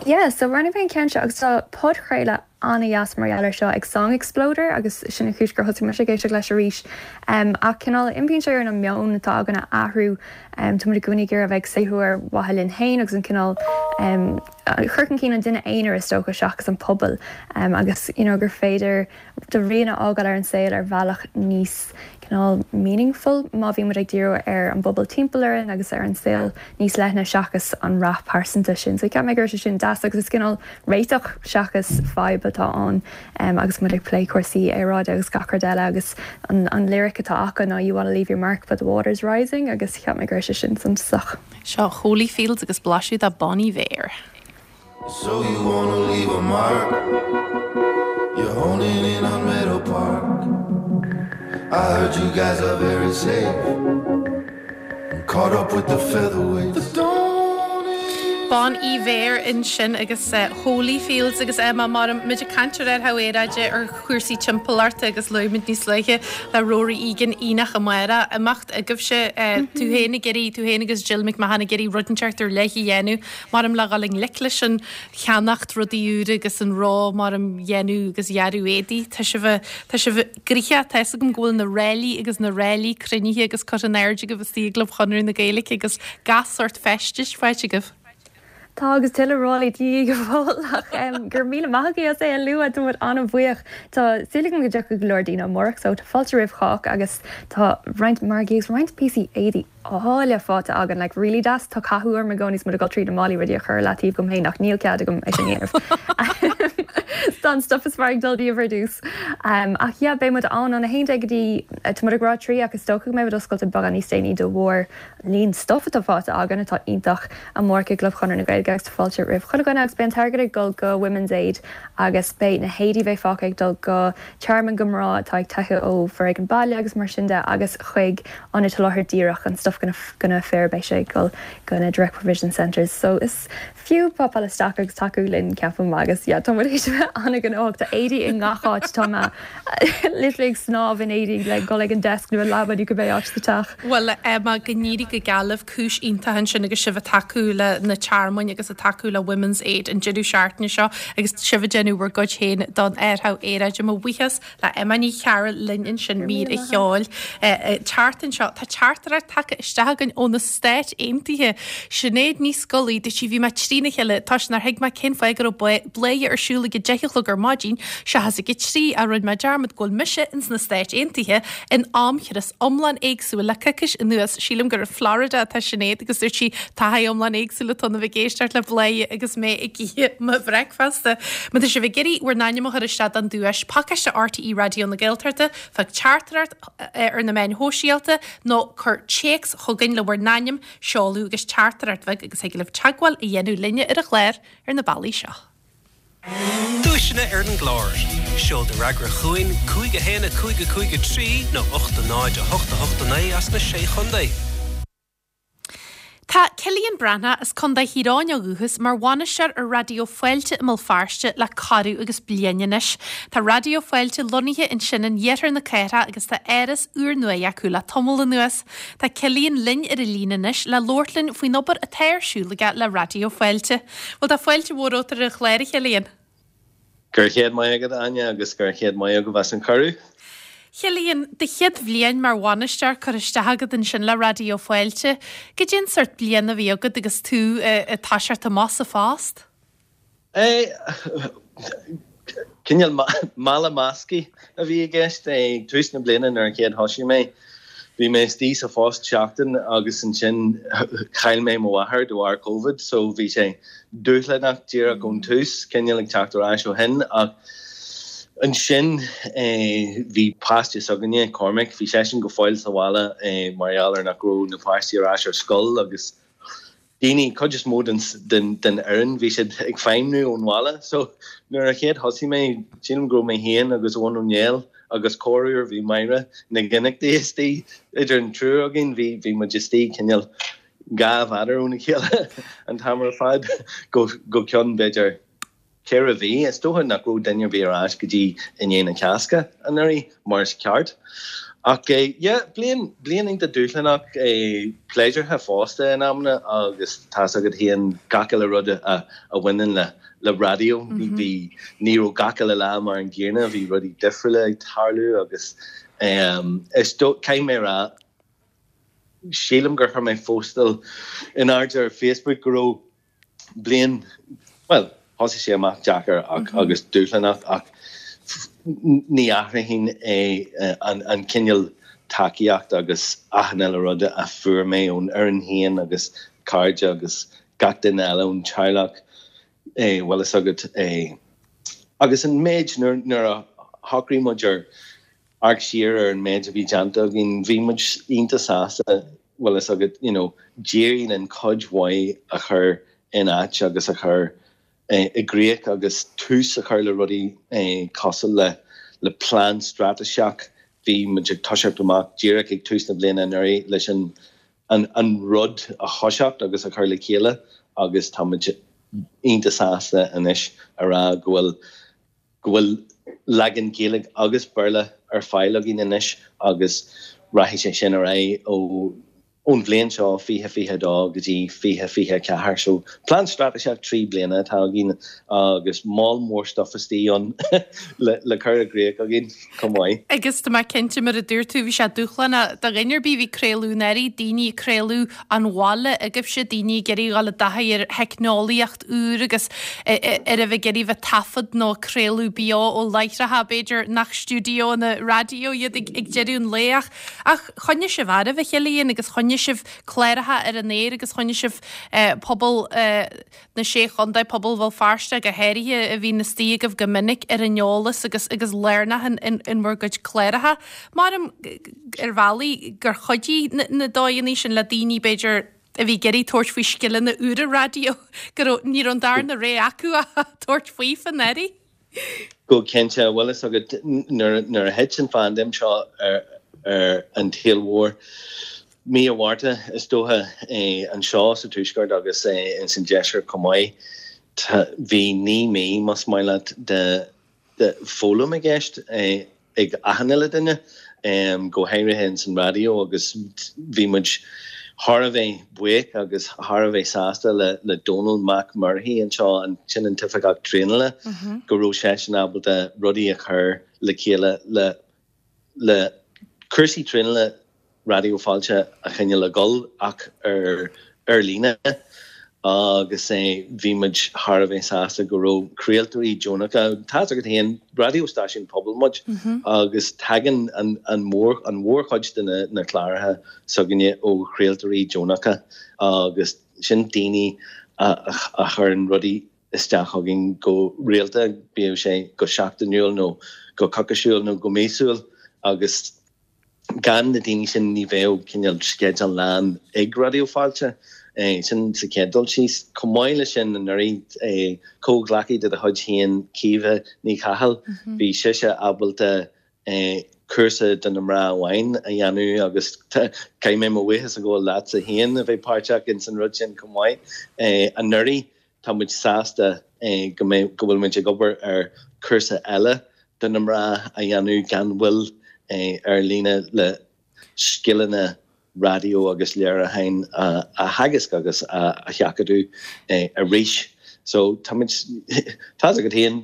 Yeah, so roghnaigh mé an ceann seo agus tá podchraoladh an-dheas mar gheall air seo ag Song Exploder agus sin an chúis gur thosaigh mise ag éisteacht leis arís. Ach cineál impíonn sé orainn an meon atá againn a athrú. Tá muid i gcónaí ag iarraidh a bheith ag saothrú ar mhaithe linn féin agus an cineál cur chun cinn an duine aonair is dócha seachas an pobal agus you know gur féidir do rian a fhágáil ar an saol ar bhealach níos cineál meaningful má bhíonn muid ag díriú ar an bpobal timpeall orainn agus ar an saol níos leithne seachas an rath pearsanta sin. So cheap mé go raibh sé sin deas agus is cineál réiteach seachas fadhb atá ann agus muid ag plé cúrsaí aeráide agus gach rud eile agus an an lyric atá acu ná you wanna leave your mark but the water's rising agus cheap mé go raibh sé sin suntasach. Seo Holyfields agus blaiseadh de Bon Iver. So you wanna leave a mark You're honing in on Meadow Park I heard you guys are very safe And caught up with the featherweights Bon Iver ansin agus Holyfields agus Emma mar muid ag caint ar athrú aeráide ar chúrsaí timpeallachta agus luaigh muid níos luaithe le Rory Egan Aonach amárach, imeacht agaibhse, tú féin ag iarraidh, tú féin agus Jill McMahon ag iarraidh rud inteacht ar leith a dhéanamh. Maram le dhul i ngleic leis an cheannacht rudaí úra agus an ró maram dhéanamh agus dhearadh éadaí. Tá sibh, tá sibh gnoitheach, tá fhios agam go bhfuil na ráillí agus na ráillí cruinnithe agus curtha in airde agaibh istigh i gClub Chonradh na Gaeilge agus gach sórt feistis faighte agaibh. Tá agus tuilleadh ráillí de dhíth go fóill ach go raibh míle maith agaibh as é a lua, tá muid an-bhuíoch. Tá súil agam go dtiocfaidh go leor daoine amárach so tá fáilte roimh chách agus tá roinnt margaí agus roinnt píosaí éadaí áille faighte againn, like really deas. Tá cathú orm i gcónaí is muid ag dul tríd na málaí rudaí a chur i leataobh dom féin ach níl cead agam é sin a dhéanamh. Tá an stuff is fearr ag dul díobh ar dtús. Ach yeah, beidh muid ann ón 11 go dtí, tá muid ag rá 3 ach is dócha go mbeidh muid oscailte beagán níos déanaí de bharr líon stuff atá faighte againn atá iontach amárach i gClub Chonradh na Gaeilge agus tá fáilte roimh chuile dhuine agus beidh an t-airgead ag dul go Women's Aid agus beidh na héadaí a bheidh fágtha ag dul go tearmainn go mná atá ag teitheadh ó foréigean baile agus mar sin de agus chuig Ionaid Soláthair Dhíreach, an stuff go na fir, beidh sé ag dul go na Direct Provision Centres. So is fiú popáil isteach agus tacú linn ceapaim agus yeah tá muid théis a bheith an-ghnóthach. Tá éadaí i ngach áit, tá mé literally ag snámh in éadaí le dul ag an desk nó an leaba nó cibé áit sa teach. Bhuel Emma, go n-éirí go geal libh, cúis iontach ansin agus sibh ag tacú le na tearmainn agus ag tacú le Women's Aid an deireadh seachtaine seo agus sibh ag déanamh bhur gcuid féin don athrú aeráide. Mo bhuíochas le Emma Ní Chearúil linn ansin mír a cheoil. Teacht anseo, tá teachtaireacht tagtha isteach againn ó na Stáit Aontaithe. Sinéad Ní Scolaí, dúirt sí, bhí mé trína chéile toisc nár thuig mé cén fáth go raibh Bladhaire ar siúl ag a deich a chlog ar maidin seachas ag a trí ach rinne mé dearmad go bhfuil mise ins na Stáit Aontaithe in amchrios iomlán éagsúil le coicís anuas. Sílim gur i Florida atá Sinéad agus dúirt sí taithí iomlán éagsúil atá ann a bheith ag éisteacht le Bladhaire agus mé ag ithe mo bhreicfeasta. Má tá sibh ag iarraidh bhur n-ainm a chur isteach don duais, pacáiste RTÉ Raidió na Gaeltachta, fág teachtaireacht ar na meáin shóisialta nó cuir téacs chugainn le bhur n-ainm, seoladh agus teachtaireacht bheag agus thig libh teagmháil a dhéanamh linne ar an chlár ar na bealaí seo. Duaiseanna ar an gclár. Seol do fhreagra chugainn, 5 1 5 5 3 nó 8 0 8 8 9 as na Sé Chontae. Tá Cillian Breathnach as Contae Thír Eoghain ó dhúchas mar bhainisteoir ar Raidió Fáilte i mBéal Feirste le corradh agus bliain anois. Tá Raidió Fáilte lonnaithe ansin in iarthar na cathrach agus tá áras úrnua acu le tamall anuas. Tá Cillian linn ar an líne anois le labhairt linn faoin obair atá ar siúl aige le Raidió Fáilte. Bhuel tá fáilte mhór romhat ar an chlár, a Chillian. Go raibh chéad maith agat, Áine, agus go raibh chéad maith agaibh as an cuireadh. Chillian, do chéad bhliain mar bhainisteoir curtha isteach agat ansin le Raidió Fáilte. Goidé an sórt bliain a bhí agat agus tú ag toiseacht amach sa phost? Cineál mála measctha a bhí i gceist. Ag tús na bliana nuair a chéad thosaigh mé, bhí mé istigh sa phost seachtain agus ansin chaill mé mo mháthair de bharr Covid so bhí sé dúshlánach díreach ón tús, cineál ag teacht ar ais ó shin ach ansin bhí páiste s'againne, Cormac, bhí seisean go fóill sa bhaile mar gheall ar nach raibh na páistí ar ais ar scoil agus daoine, cuid is mó den den fhoireann, bhí siad ag feidhmniú ón bhaile. So nuair a chéad thosaigh mé, sílim go raibh mé féin agus Eoin Ó Néill agus corruair bhí Máire Nic Fhionnachtaigh istigh idir an triúr againn, bhí, bhí muid istigh cineál 2 mhéadar óna chéile an t-am ar fad go, go ceann b'fhéidir 4 mhí. Is dócha nach raibh duine ar bith ar ais go dtí i ndiaidh na Cásca anuraidh, mar is ceart. Ach yeah, bliain, bliain iontach dúshlánach, pléisiúrtha fosta in amanna agus tá's agat féin gach uile rud a bhaineann le, le raidió. Bhí, ní raibh gach uile lá mar an gcéanna, bhí rudaí difriúla ag tarlú agus is dó, caithfidh mé a rá, sílim gur chuir mé postáil in airde ar Facebook go raibh bliain, bhuel, thosaigh sé amach deacair ach, agus dúshlánach ach ní athróinn é an cineál tacaíocht agus achan uile rud a fuair mé ón fhoireann féin agus cairde agus gach duine eile ón teaghlach, bhfuil fhios agat. Agus an méid nuair a shocraigh muid ar amharc siar ar an méid a bhí déanta againn, bhí muid iontach sásta, bhfuil fhios agat, you know, d'éirigh linn cuid mhaith a chur in áit agus a chur i gcrích agus tús a chur le rudaí cosúil le le plean straitéiseach. Bhí muid ag toiseacht amach díreach ag tús na bliana anuraidh leis an an rud a thoiseacht agus a chur le chéile agus tá muid iontach sásta anois a rá go bhfuil go bhfuil leagan Gaeilge agus Béarla ar fáil againn anois agus rachaidh sé sin ar aghaidh ó ón bhliain seo, 2022 go dtí 2024. So plean straitéiseach 3 bliana atá againn agus moll mór stuff istigh ann le le cur i gcrích againn chomh maith. Agus tá mé cinnte, mar a dúirt tú, bhí sé dúshlánach do dhuine ar bith a bhí ag craoladh anuraidh, daoine ag craoladh ón bhaile agaibhse, daoine ag iarraidh dhul i dtaithí ar theicneolaíocht, úr agus ar a bheith ag iarraidh bheith taifead nó craoladh beo ó láithreacha b'fhéidir nach stiúideonna raidió iad ag deireadh an lae ach ach choinnigh sibh oraibh a Chillian agus choinnigh sibh cláracha ar an aer agus choinnigh sibh pobal na Sé Chontae, pobal Bhéal Feirste go háirithe a bhíonn istigh agaibh go minic ar an eolas agus agus lárnach in in bhur gcuid cláracha. Maram ar bhealaí gur chuidigh na dóigheanna sin le daoine b'fhéidir a bhí ag iarraidh tabhairt faoi scileanna úra raidió, go raibh, ní raibh an darna rogha acu ach tabhairt faoi anuraidh. Go cinnte, bhfuil fhios agat, nuair a thit an phaindéim seo ar an tsaol mhór, mí an Mhárta is dócha, anseo sa Tuaisceart agus ins an Deisceart chomh maith, bhí 9 mí, más maith leat, de foghlaim i gceist ag achan uile duine, go háirithe ins an raidió agus bhí muid thar a bheith buíoch agus thar a bheith sásta le Dónal Mac Murchaidh anseo, sin an t-oifigeach traenála, go raibh seisean ábalta rudaí a chur le chéile le le cúrsaí traenála Raidió Fáilte a choinneáil ag dul ach ar ar líne agus bhí muid thar a bheith sásta go raibh craoltóirí deonacha, tá's agat féin, raidió stáisiún pobail muid agus tagann an an mhór an mhórchuid de na na cláracha s'againne ó chraoltóirí deonacha agus sin daoine a a chuireann rudaí isteach chugainn go rialta, bíodh sé go seachtainiúil nó go coicisiúil nó go míosúil agus gan na daoine sin ní bheadh cineál sceideal lán ag Raidió Fáilte. Sin sa chéad dul síos. Chomh maith leis sin anuraidh, comhghleacaí de do chuid féin, Caoimhe Ní Chathail, bhí sise ábalta cúrsa do na mná amháin a dhéanamh agus caithfidh mé mo bhuíochas a ghabháil leatsa féin a bheith páirteach ins an rud sin chomh maith anuraidh. Tá muid sásta go mbeidh, go bhfuil muid ag obair ar chúrsa eile do na mná a dhéanamh gan mhoill ar líne le scileanna raidió agus léiriúcháin a theagasc agus a sheachadadh arís. So tá muid, tá's agat féin,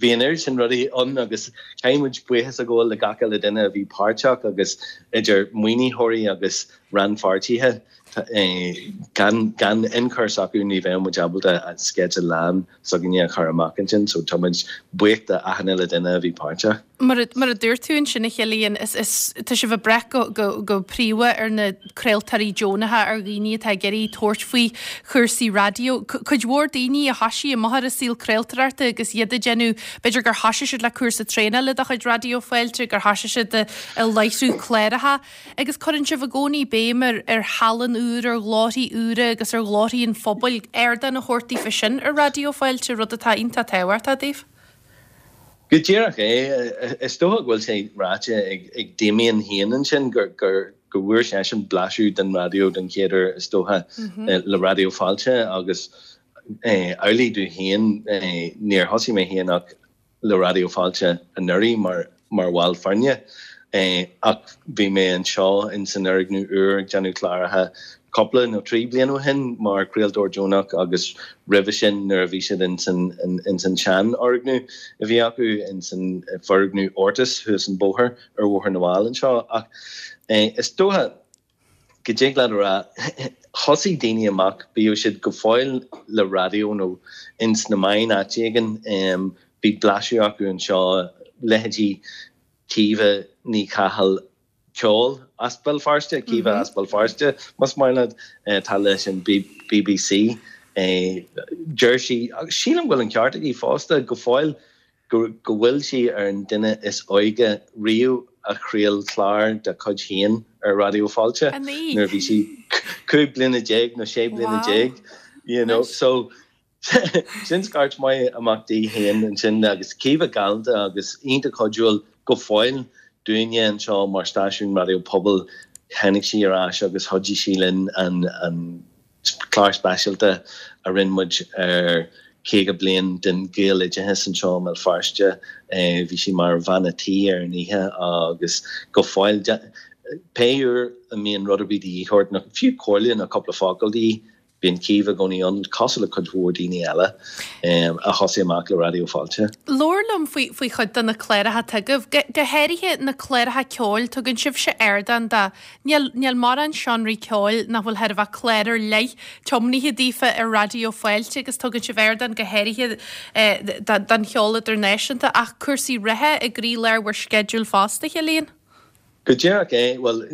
bhí an oiread sin rudaí ann agus caithfidh muid buíochas a ghabháil le gach uile duine a bhí páirteach agus idir maoinitheoirí agus rannpháirtithe. Gan gan ionchur s'acu ní bheadh muid ábalta an sceideal lán s'againne a chur amach ansin so tá muid buíoch de achan uile duine a bhí páirteach. Mar a mar a dúirt tú ansin a Chillian, is is tá sibh ag brath go go go príomha ar na craoltóirí deonacha, ar dhaoine atá ag iarraidh tabhairt faoi chúrsaí raidió. Cuid mhór daoine a thoisigh amach ar an saol craoltóireachta agus iad ag déanamh, b'fhéidir gur thoisigh siad le cúrsa traenála de chuid Raidió Fáilte, gur thoisigh siad ag láithriú cláracha. Agus cuireann sibh i gcónaí béim ar ar thallann úr, ar ghlórthaí úra agus ar ghlórthaí an phobail, ardán a thabhairt daofa sin ar Raidió Fáilte, rud atá iontach tábhachtach daoibh. Go díreach é. Is dócha go bhfuil sé ráite ag Damien féin ansin go bhfuair seisean blaiseadh den raidió den chéad uair is dócha le Raidió Fáilte agus amhlaidh domh féin, níor thosaigh mé féin ach le Raidió Fáilte anuraidh mar mar bhall foirne ach bhí mé anseo in san fhoirgneamh úr ag déanamh cláracha cúpla nó 3 bliain ó shin mar chraoltóir deonach agus roimhe sin nuair a bhí siad in san in san seanfhoirgneamh a bhí acu in san foirgneamh Ortus thuas an bóthar ar Bhóthar na bhFál anseo ach is dócha go dtig leat a rá, thosaigh daoine amach, bíodh siad go fóill le raidió nó ins na meáin áit éigin, bhí blaiseadh acu anseo, leithéidí Caoimhe Ní Chathail, ceol as Béal Feirste, Caoimhe as Béal Feirste, más maith leat, atá leis an BBC. Deir sí, agus sílim go bhfuil an ceart aici fosta, go fóill, go bhfuil sí ar an duine is óige riamh a chraol clár dá cuid féin ar Raidió Fáilte nuair a bhí sí 15 bliana nó 16 bliana, you know. So, sin scairt maith amach di féin ansin agus Caoimhe galánta agus iontach cuidiúil go fóill dúinne anseo mar stáisiún raidió pobail. Tháinig sí ar ais agus chuidigh sí linn an Clár speisialta a rinne muid ar 50 bliain den Ghaeloideachas anseo i mBéal Feirste. Bhí sí mar bhean a' tí ar an oíche agus go fóill, pé uair a mbíonn rud ar bith de dhíth ort, nó fiú comhairle nó cúpla focal de dhíth, bíonn Caoimhe i gcónaí ann, cosúil le cuid mhór daoine eile a thosaigh amach le Raidió Fáilte. Labhair liom faoi faoi chuid de na cláracha atá agaibh, go háirithe na cláracha ceoil, tugann sibhse ardán do Níl, níl mórán seánraí ceoil nach bhfuil chóir a bheith clár ar leith tiomnaithe daofa ar Raidió Fáilte agus tugann sibh ardán go háirithe don cheol idirnáisiúnta ach cúrsaí reatha i gcroílár bhur sceideal fosta, a Chilliain. Go díreach é. Bhuel,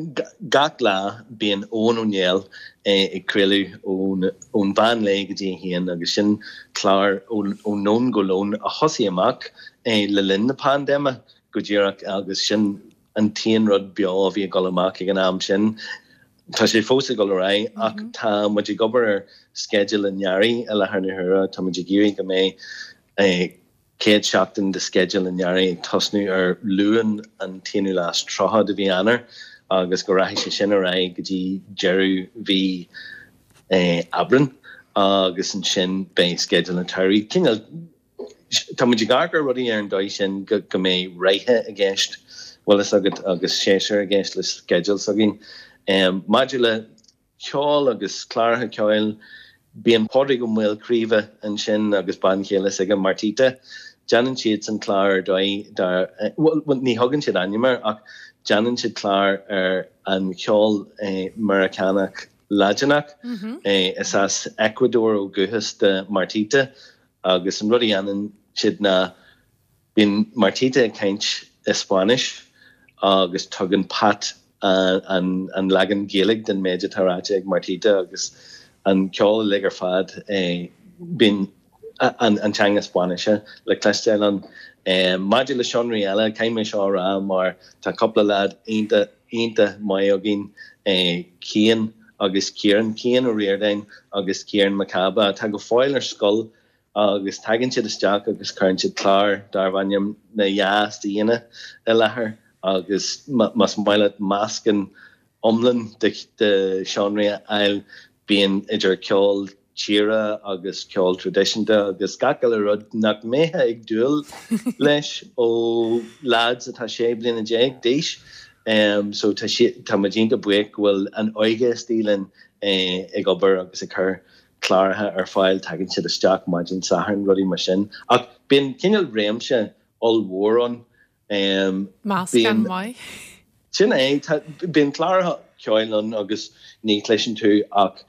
gach lá bíonn Eoin Ó Néill ag craoladh ón mheán lae go dtí a haon agus sin clár ó nóin go lón a thosaigh amach le linn na paindéime go díreach agus sin an t-aon rud beo a bhí ag dul amach ag an am sin. Tá sé fós ag dul ar aghaidh ach tá muid ag obair ar sceideal an earraigh i láthair na huaire. Tá muid ag iarraidh go mbeidh chéad seachtain de sceideal an earraigh ag tosnú ar Luan an t-aonú lá is 30 de mhí Eanáir agus go rachaidh sé sin ar aghaidh go dtí deireadh mhí Aibreán agus ansin beidh sceideal an tsamhraidh. Cineál Tá muid ag amharc ar rudaí ar an dóigh sin go mbeidh ráithe i gceist, bhfuil fhios agat, agus séasúir i gceist le sceideal s'againn. Maidir le ceol agus cláracha ceoil, bíonn Pádraig Ó Maolchraoibhe ansin agus bean chéile s'aige, Martita. Déanann siadsan clár ar dóigh dar, bhuel, ní thugann siad ainm air ach déanann siad clár ar an cheol Meiriceánach Laidineach. Is as Ecuador ó dhúchas do Martita Agus an rud a dhéanann siad ná bíonn Martita ag caint i Spáinnis agus tugann Pat an leagan Gaeilge den méid atá ráite ag Martita agus an ceol uilig ar fad, bíonn an teanga Spáinnise le cloisteáil ann. Maidir le seánraí eile, caithfidh mé seo a rá mar tá cúpla leaid iontach, iontach maith againn, Cian agus Ciarán, Cian Ó Ríordáin agus Ciarán Mac Cába, atá go fóill ar scoil agus tagann siad isteach agus cuireann siad clár darb ainm Na Yeahs-daoine i láthair agus más maith leat meascán iomlán de sheánraí a fháil, bíonn idir ceol tíre agus ceol traidisiúnta agus gach uile rud nach mbeifeá ag dúil leis ó leaids atá 16 bliana d'aois. So tá tá muid iontach buíoch go bhfuil an óige istigh linn ag obair agus ag cur cláracha ar fáil, tagann siad isteach maidin Sathairn, rudaí mar sin. Ach bíonn cineál réimse ollmhór ann. Meascán maith. Sin é. Bíonn cláracha ceoil ann agus ní chloiseann tú ach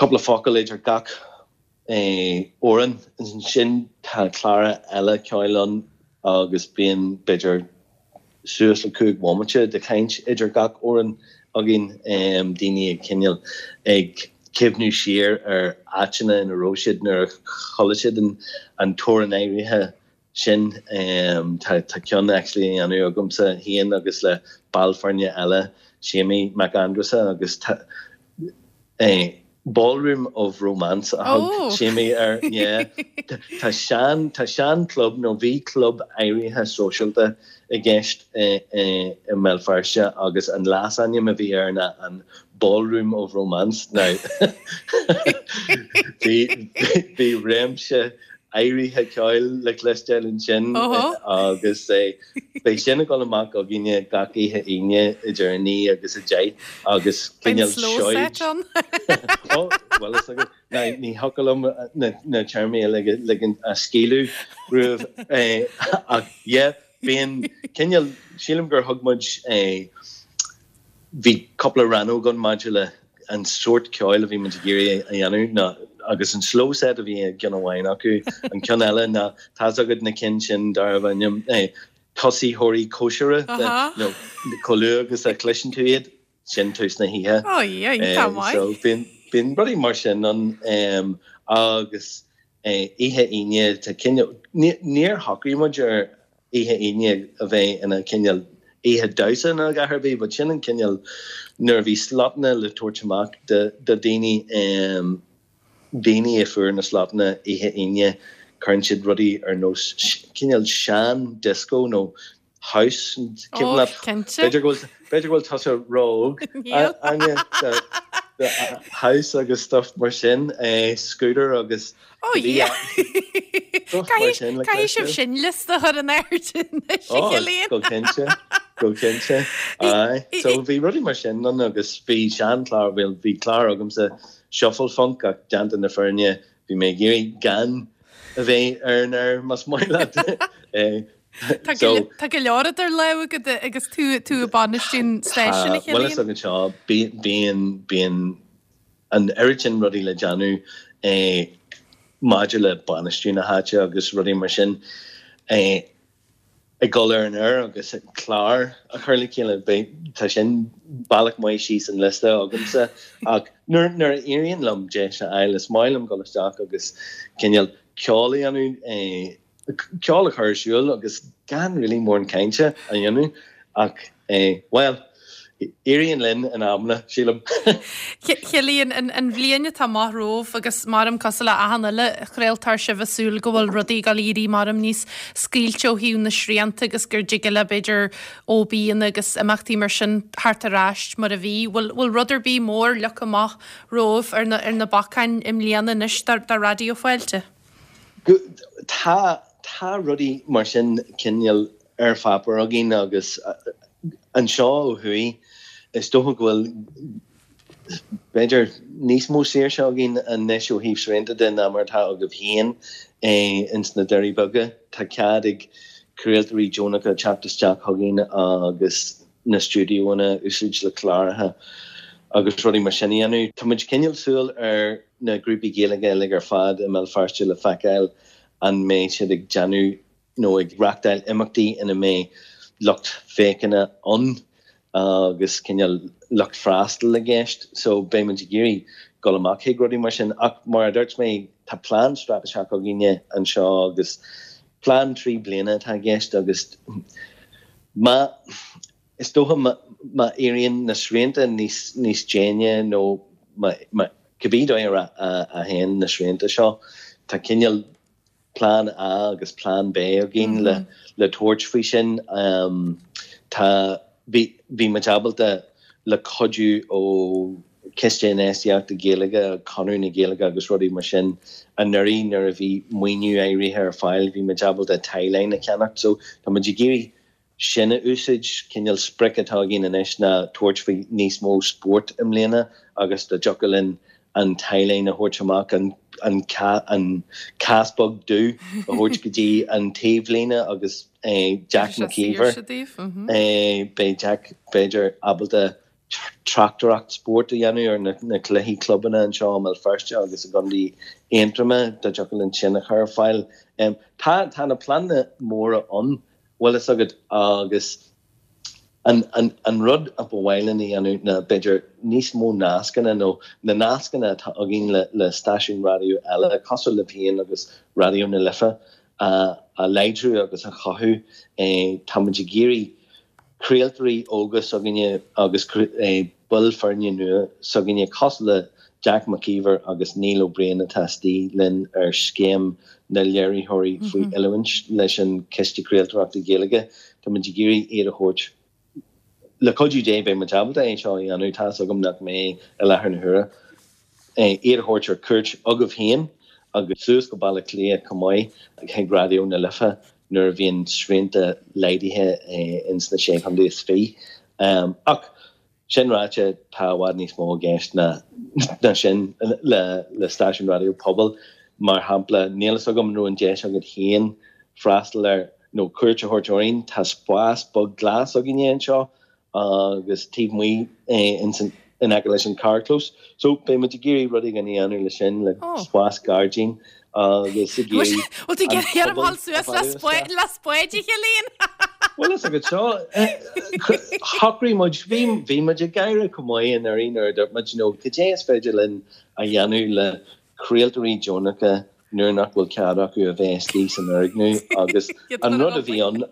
cúpla focal idir gach amhrán. Ansin tá cláracha eile ceoil ann agus bíonn b'fhéidir suas le 5 bhomaite de chaint idir gach amhrán againn, daoine ag cineál ag cuimhniú siar ar áiteanna ina raibh siad nuair a chuala siad an t-amhrán áirithe sin. Tá ceann actually á dhéanamh agamsa féin agus le ball foirne eile, Séimí Mac Aindreasa, agus tá. Ballroom of Romance a thug Séimí air, yeah. Tá sean, tá sean club nó bhí club áirithe sóisialta i gceist i mBéal Feirste agus an leasainm a bhí air ná an Ballroom of Romance. Now bhí, bhí réimse áirithe ceoil le cloisteáil ansin agus beidh sin ag dul amach againne gach oíche Aoine idir 9 agus 10 agus cineál seoid. Ó, bhuel is agat, ní thiocfadh liom na téarmaí a ligean a scaoileadh romhaibh ach yeah, bíonn cineál, sílim gur thug muid Bhí cúpla rannóg ann maidir le an sórt ceoil a bhí muid ag iarraidh a dhéanamh ná agus an slow set a bhí i gceann amháin acu, an ceann eile ná tá's agat na cinn sin darbh ainm tosaitheoirí cóisire nó chomh luath agus a chloiseann tú iad, sin tús na hoíche. So bíonn bíonn rudaí mar sin ann agus oíche Aoine tá cineál níor shocraigh muid ar oíche Aoine a bheith ina cineál oíche damhsa nó a dhath ar bith, but sin an cineál nuair a bhí slotanna le tabhairt amach do daoine, daoine a fuair na slotanna oíche Aoine, cuireann siad rudaí ar nós cineál sean disco nó house, cuimhin leat, b'fhéidir go bhfuil, b'fhéidir go bhfuil tusa ró-óg, Áine, do house agus stuff mar sin, Scooter agus Ó yeah! Caithfidh sibh sin liosta a chur in airde anois, a Chillian. Go cinnte, go cinnte. Aye. So bhí rudaí mar sin ann agus bhí seanchlár, bhuel bhí clár agamsa, Shuffle Funk ach déanta na fírinne bhí mé ag iarraidh gan a bheith ar an aer más maith leat. Tá go leor idir lámha agat agus tú tú ag bainistiú an stáisiúin, a Chillian. Bhuel is agat seo, bíonn, bíonn an oiread sin rudaí le déanamh maidir le bainistiú na háite agus rudaí mar sin, ag dul ar an aer agus clár a chur le chéile, beidh, tá sin bealach maith síos an liosta agamsa ach nuair, nuair a éiríonn liom deis a fháil is maith liom dul isteach agus cineál ceol a dhéanamh, ceol a chur ar siúl agus gan really mórán cainte a dhéanamh ach bhuel, éiríonn linn in amanna, sílim. Chillian, an bhliain atá amach romhaibh agus maram cosúil le achan uile chraoltóir sibh ag súil go bhfuil rudaí ag dul a éirí maram níos scaoilte ó thaobh na srianta agus gur dtig le b'fhéidir OBanna agus imeachtaí mar sin theacht ar ais mar a bhí. Bhfuil bhfuil rud ar bith mór leagtha amach romhaibh ar na ar na bacáin i mbliana anois do Raidió Fáilte? Tá, tá rudaí mar sin cineál ar pháipéar againn agus anseo ó thuaidh is dócha go bhfuil b'fhéidir níos mó saoirse againn anois ó thaobh srianta de ná mar atá agaibh féin ins na Doirí Beaga. Tá cead ag craoltóirí deonacha teacht isteach chugainn agus na stiúideoanna a úsáid le cláracha agus rudaí mar sin a dhéanamh. Tá muid cineál súil ar na grúpaí Gaeilge uilig ar fad i mBéal Feirste le feiceáil an mbeidh siad ag déanamh nó ag reachtáil imeachtaí ina mbeidh lucht féachana ann agus cineál lucht freastail i gceist. So beidh muid ag iarraidh dul amach chuig rudaí mar sin. Ach mar a dúirt mé, tá plean straitéiseach againne anseo agus plean 3 bliana atá i gceist agus má Is dócha má éiríonn na srianta níos níos déine nó má cibé dóigh a théann na srianta seo, tá cineál plean A agus plean B againn le le tabhairt faoi sin. Tá bhí bhí muid ábalta le cuidiú ó Chiste Infheistíochta Gaeilge, Conradh na Gaeilge agus rudaí mar sin anuraidh nuair a bhí maoiniú áirithe ar fáil bhí muid ábalta tie-line a cheannacht so tá muid ag iarraidh sin a úsáid. Cineál sprioc atá againn anois ná tabhairt faoi níos mó spóirt i mbliana agus dá dtiocfadh linn an tie-line a thabhairt amach, an an cás beag dubh a thabhairt go dtí an taobhlíne agus Jack McKeever, beidh Jack b'fhéidir ábalta tráchtaireacht spóirt a dhéanamh ar na cluichí clubanna anseo i mBéal Feirste agus i gContae Aontroma dá dtiocfadh linn sin a chur ar fáil. Tá tá na pleananna móra ann bhfuil fhios agat agus an an an rud a ba mhaith linn a dhéanamh ná b'fhéidir níos mó nascanna nó na nascanna atá againn le le stáisiúin raidió eile cosúil libh féin agus Raidió na Life a a láidriú agus a chothú. Tá muid ag iarraidh craoltóirí óga s'againne agus baill foirne nua s'againne cosúil le. Jack Mac Íomhair agus Neil Ó Briain atá istigh linn ar scéim na léiritheoirí faoi oiliúint leis an Chiste Craoltóireachta Gaeilge. Tá muid ag iarraidh iad a thabhairt, le cuidiú Dé beidh muid ábalta é seo a dhéanamh, tá's agam nach mbeidh i láthair na huaire, iad a thabhairt ar cuairt chugaibh féin agus suas go Baile Átha Cliath chomh maith chuig Raidió na Life nuair a bhíonn srianta laghdaithe ins na Sé Chontae is Fiche. Ach sin ráite, tá i bhfad níos mó i gceist ná sin le stáisiún raidió pobail. Mar shampla, níl fhios agam an raibh an deis agat féin freastal ar nó cuairt a thabhairt orainn, tá spás beag glas againne anseo agus taobh amuigh ins an, in aice leis an carrchlós. So beidh muid ag iarraidh rud éigin a dhéanamh leis sin, le spás gairdín agus ag iarraidh Bhfuil tú ag iarraidh orm dhul suas le spáid a Chillian? Bhuel is agat seo, shocraigh muid, bhí, bhí muid ag gáire chomh maith anuraidh nuair a dúirt muid, you know, cad é is féidir linn a dhéanamh le craoltóirí deonacha nuair nach bhfuil cead acu a bheith istigh san fhoirgneamh agus an rud a bhí ann,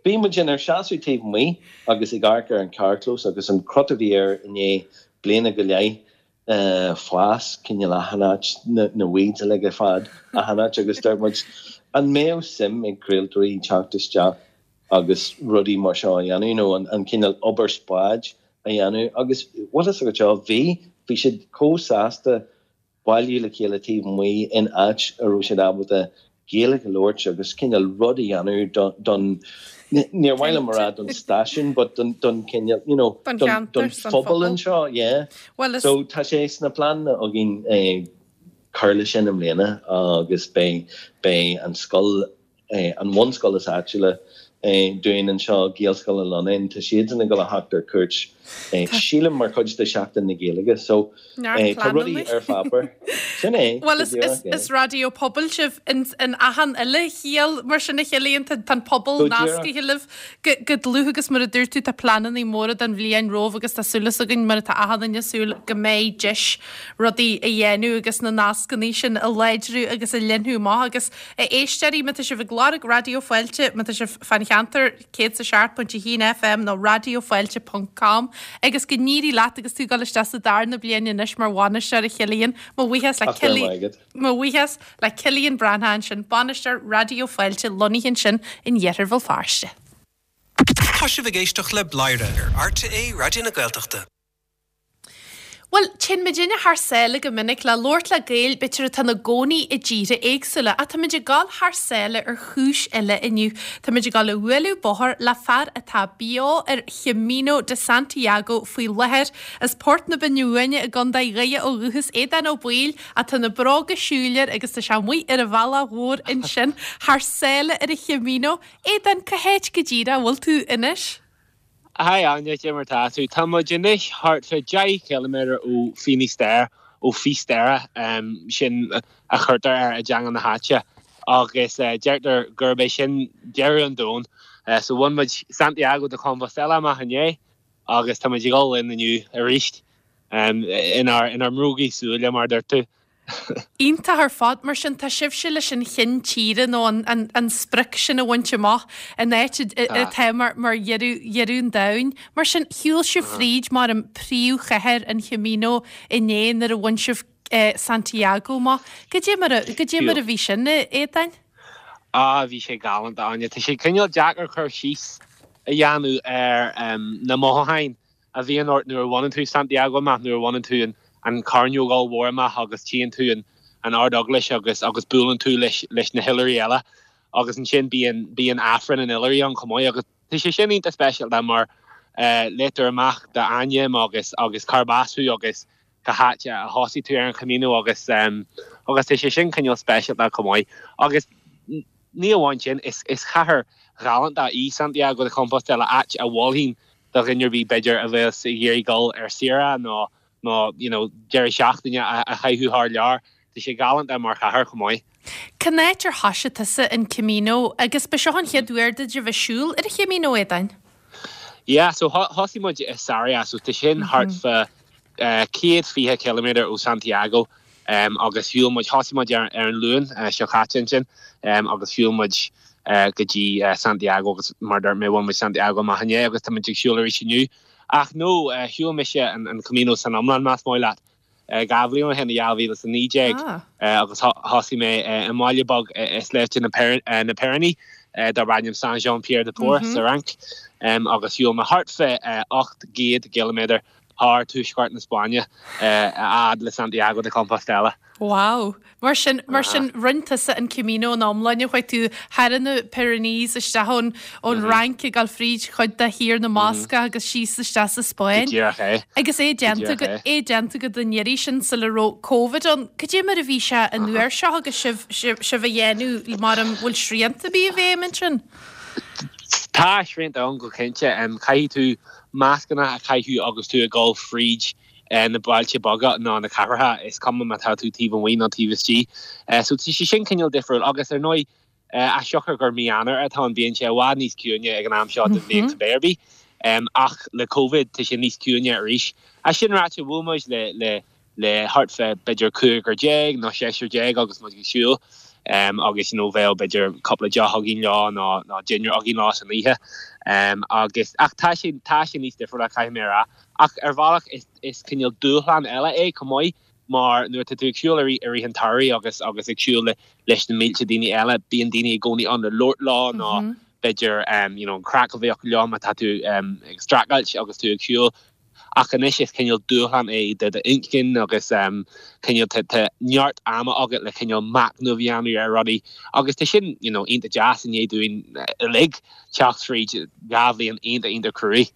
bhí muid inár seasamh taobh amuigh agus ag amharc ar an charrchlós agus an crot a bhí air i ndiaidh bliana go leith fás cineál achan áit, na weeds uilig ar fad achan áit agus dúirt muid an mbeadh suim ag craoltóirí teacht isteach agus rudaí mar seo a dhéanamh nó an cineál obair spáid a dhéanamh agus bhfuil fhios agat seo, bhí, bhí siad chomh sásta bailiú le chéile taobh amuigh in áit a raibh siad ábalta Gaeilge a labhairt agus cineál rud a dhéanamh don, níor mhaith liom a rá don stáisiún but don don cineál, you know, Don don cheantar, don don phobal phobal. anseo, yeah. Bhuel is. So tá sé sna pleananna againn cur leis sin i mbliana agus beidh beidh an scoil an bhunscoil is áitiúla dúinn anseo, Gaelscoil an Lonnáin, tá siadsan ag dul a theacht ar cuairt, sílim, mar chuid de Sheachtain na Gaeilge. So, tá rudaí ar pháipéar. Sin é, Bhuel, is, is, is raidió pobail sibh in, in achan uile chiall mar sin a Chillian, tá, tá an pobal nascaithe libh go, go dlúth agus mar a dúirt tú, tá pleananna móra don bhliain romhaibh agus tá súil againn, mar atá achan duine ag súil, go mbeidh deis rudaí a dhéanamh agus na nascanna sin a láidriú agus a leathnú amach agus A éisteoirí, má tá sibh ag lorg Raidió Fáilte, má tá sibh fán cheantar, 107.1 FM nó raidiofáilte ponc com agus go n-éirí leat agus tú ag dul isteach sa darna bliain anois mar bhainisteoir a Chillian. Mo bhuíochas le Cillian, mo bhuíochas le Cillian Breathnach ansin, bainisteoir Raidió Fáilte lonnaithe ansin in iarthar Bhéal Feirste. Tá sibh ag éisteacht le Bladhaire ar RTÉ Raidió na Gaeltachta. Bhuel, téann muidinne thar sáile go minic le labhairt le Gaeil, b'fhéidir atá ina gcónaí i dtíortha éagsúla, ach táimid ag dul thar sáile ar chúis eile inniu. Táimid ag dul a bhualadh bóthar le fear atá beo ar Chamino de Santiago faoi láthair. As Port na Binne Uaine i gContae Dhoire ó dhúchas, Aodán Ó Baoill, ach tá na bróga siúil air agus tá sé amuigh ar an bhealach mhór ansin thar sáile ar an Chamino. Aodán, cá háit go díreach a bhfuil tú anois? Hi Áine, cé mar tá tú? Tá muid anois thart fá 10 chiliméadar ó Finisterre, ó Fisterra, sin a chuirtear air i dteanga na háite, agus deirtear gurb é sin deireadh an domhain. So bhain muid Santiago de Compostela amach inné agus tá muid ag dul linn inniu arís inár mbrógaí súile, mar a dúirt tú. Iontach ar fad. Mar sin, tá sibhse leis an chinn tíre nó an sprioc sin a bhaint amach, an áit atá mar dheireadh an domhain. Mar sin, shiúil sibh fríd mar an príomhchathair an Chamino inné nuair a bhain sibh Santiago amach. Goidé mar a, goidé mar a bhí sin, a Aodáin? Ah, bhí sé galánta, Áine. Tá sé cineál deacair cur síos a dhéanamh ar na mothúcháin a bhíonn ort nuair a bhaineann tú Santiago amach, nuair a bhaineann tú an chearnóg ollmhór amach agus tchíonn tú an Ard-Eaglais agus agus buaileann tú leis leis na hoilithrigh eile agus ansin bíonn bíonn Aifreann an Oilithrigh ann chomh maith agus tá sé sin iontach speisialta mar léitear amach d'ainm agus agus cárb as thú agus cá háit a thosaigh tú ar an Chamino agus agus tá sé sin cineál speisialta chomh maith agus ní amháin sin is is chathair ghalánta í Santiago de Compostela áit a mholfainn do dhuine ar bith b'fhéidir a bheas ag iarraidh dul ar saoire nó nó you know deireadh seachtaine a chaitheamh thar lear. Tá sé galánta mar chathair chomh maith. Cén áit ar thoisigh tusa an Camino agus ba seo an chéad uair duit a bheith ag siúl ar an Chamino, Aodáin? Yeah, so thosaigh muid i Sarria, so tá sin thart fá 120 ciliméadar ó Santiago agus shiúil muid, thosaigh muid ar an Luan seo caite ansin agus shiúil muid go dtí Santiago agus mar a dúirt mé bhain muid Santiago amach inné agus tá muid ag siúl arís inniu. Ach no, shiúil mise an Camino san iomlán más maith leat. 2 bhliain ó shin, i 2019, agus thosaigh mé i mbaile beag i sléibhte na Piréiní darb ainm Saint-Jean-Pied-de-Port sa Fhrainc, agus shiúil mé thart fé 800 ciliméadar thar tuaisceart na Spáinne a fhad le Santiago de Compostela. Wow! Mar sin, mar sin, rinne tusa an Camino ina iomláine, chuaigh tú thar na Pyrenees isteach ón ón Fhrainc ag dul fríd chuid de Thír na mBascach agus síos isteach sa Spáinn. Go díreach é. Agus é déanta Go díreach é. é déanta agat an iarraidh sin sula raibh Covid ann. Cad é mar a bhí sé an uair seo agus sibh sibh sibh á dhéanamh mar an bhfuil srianta ar bith i bhfeidhm ansin? Tá srianta ann go cinnte. Caithfidh tú mascanna a chaitheamh agus tú ag dul fríd na bailte beaga ná na cathracha, is cuma má tá tú taobh amuigh nó taobh istigh. So tá sé sin cineál difriúil agus ar ndóigh as siocair gur mí Eanáir atá ann bíonn sé i bhfad níos ciúine ag an am seo den bhliain cibé ar bith. Ach le Covid tá sé níos ciúine arís. As sin ráite bhuail muid le le le thart fé b'fhéidir cúigear déag nó seisear déag agus muid ag siúl agus you know bheadh b'fhéidir cúpla deoch againn leo nó nó dinnéar againn leo san oíche agus ach tá sé tá sé níos difriúla caithfidh mé a rá. Ach ar bhealach is is cineál dúshlán eile é chomh maith mar nuair atá tú ag siúl i rith i rith an tsamhraidh agus agus ag siúl le leis na mílte daoine eile bíonn daoine i gcónaí ann le labhairt leo nó b'fhéidir you know an craic a bheith acu leo má tá tú ag streachailt agus tú ag siúl. Ach anois is cineál dúshlán é do d'inchinn agus cineál tá tá neart ama agat le cineál machnamh a dhéanamh ar rudaí agus tá sin you know iontach deas i ndiaidh dúinn uilig teacht fríd 2 bhliain iontach iontach cruaidh.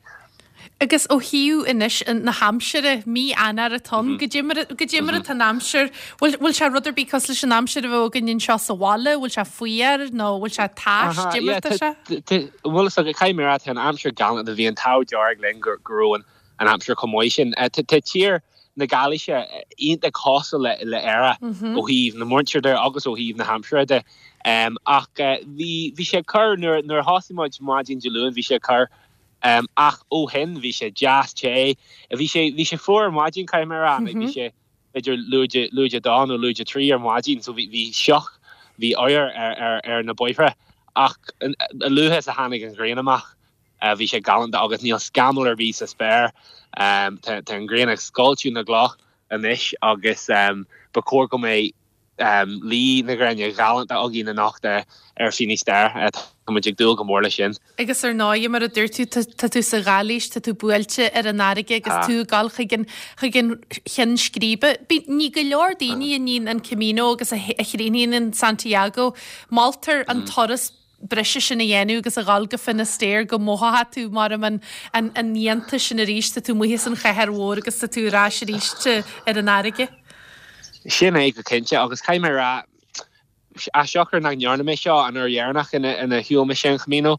Agus ó thaobh anois na haimsire, mí Eanáir atá ann, goidé mar, goidé mar atá an aimsir, bhfuil, bhfuil sé rud ar bith cosúil leis an aimsir a bheadh againn anseo sa bhaile, bhfuil sé fuar nó bhfuil sé tais, goidé mar atá sé? Bhuel is dócha, caithfidh mé a rá, tá an aimsir galánta, bhí an t-ádh dearg linn go go raibh an an aimsir chomh maith sin. Tá tá tír na Gailíse iontach cosúil le le Éire ó thaobh na muintire de agus ó thaobh na haimsire de. Ach bhí bhí sé corr nuair nuair a thosaigh muid maidin Dé Luain bhí sé corr Ach ó shin bhí sé deas te. Bhí sé, bhí sé fuar ar maidin, caithfidh mé a rá. Like bhí sé b'fhéidir lúide, lúide dó nó lúide trí ar maidin so bhí, bhí sioc, bhí oighear ar, ar, ar na bóithre. Ach a luaithe is a tháinig an ghrian amach, bhí sé galánta agus níl scamall ar bith sa spéir. Tá, tá an ghrian ag scoilteadh na gcloch anois agus ba chóir go mbeidh, Luí na gréine galánta againn anocht ar Finisterre. Tá muid ag dúil go mór leis sin. Agus ar ndóigh, mar a dúirt tú, tá tú sa Ghailís, tá tú buailte ar an fharraige agus tú ag dul chuig an, chuig an cheann scríbe. Bíonn, ní go leor daoine a níonn an Camino agus a chríochnaíonn in Santiago. Moltar an turas breise sin a dhéanamh agus a dhul go Finisterre go mothóidh tú mar an an iontas sin arís, tá tú amuigh as an chathair mhór agus tá tú ar ais arís ar an fharraige. Sin é go cinnte agus caithfidh mé a rá, as siocair nach ndearna mé seo an uair dheireanach ina shiúil mise an Camino,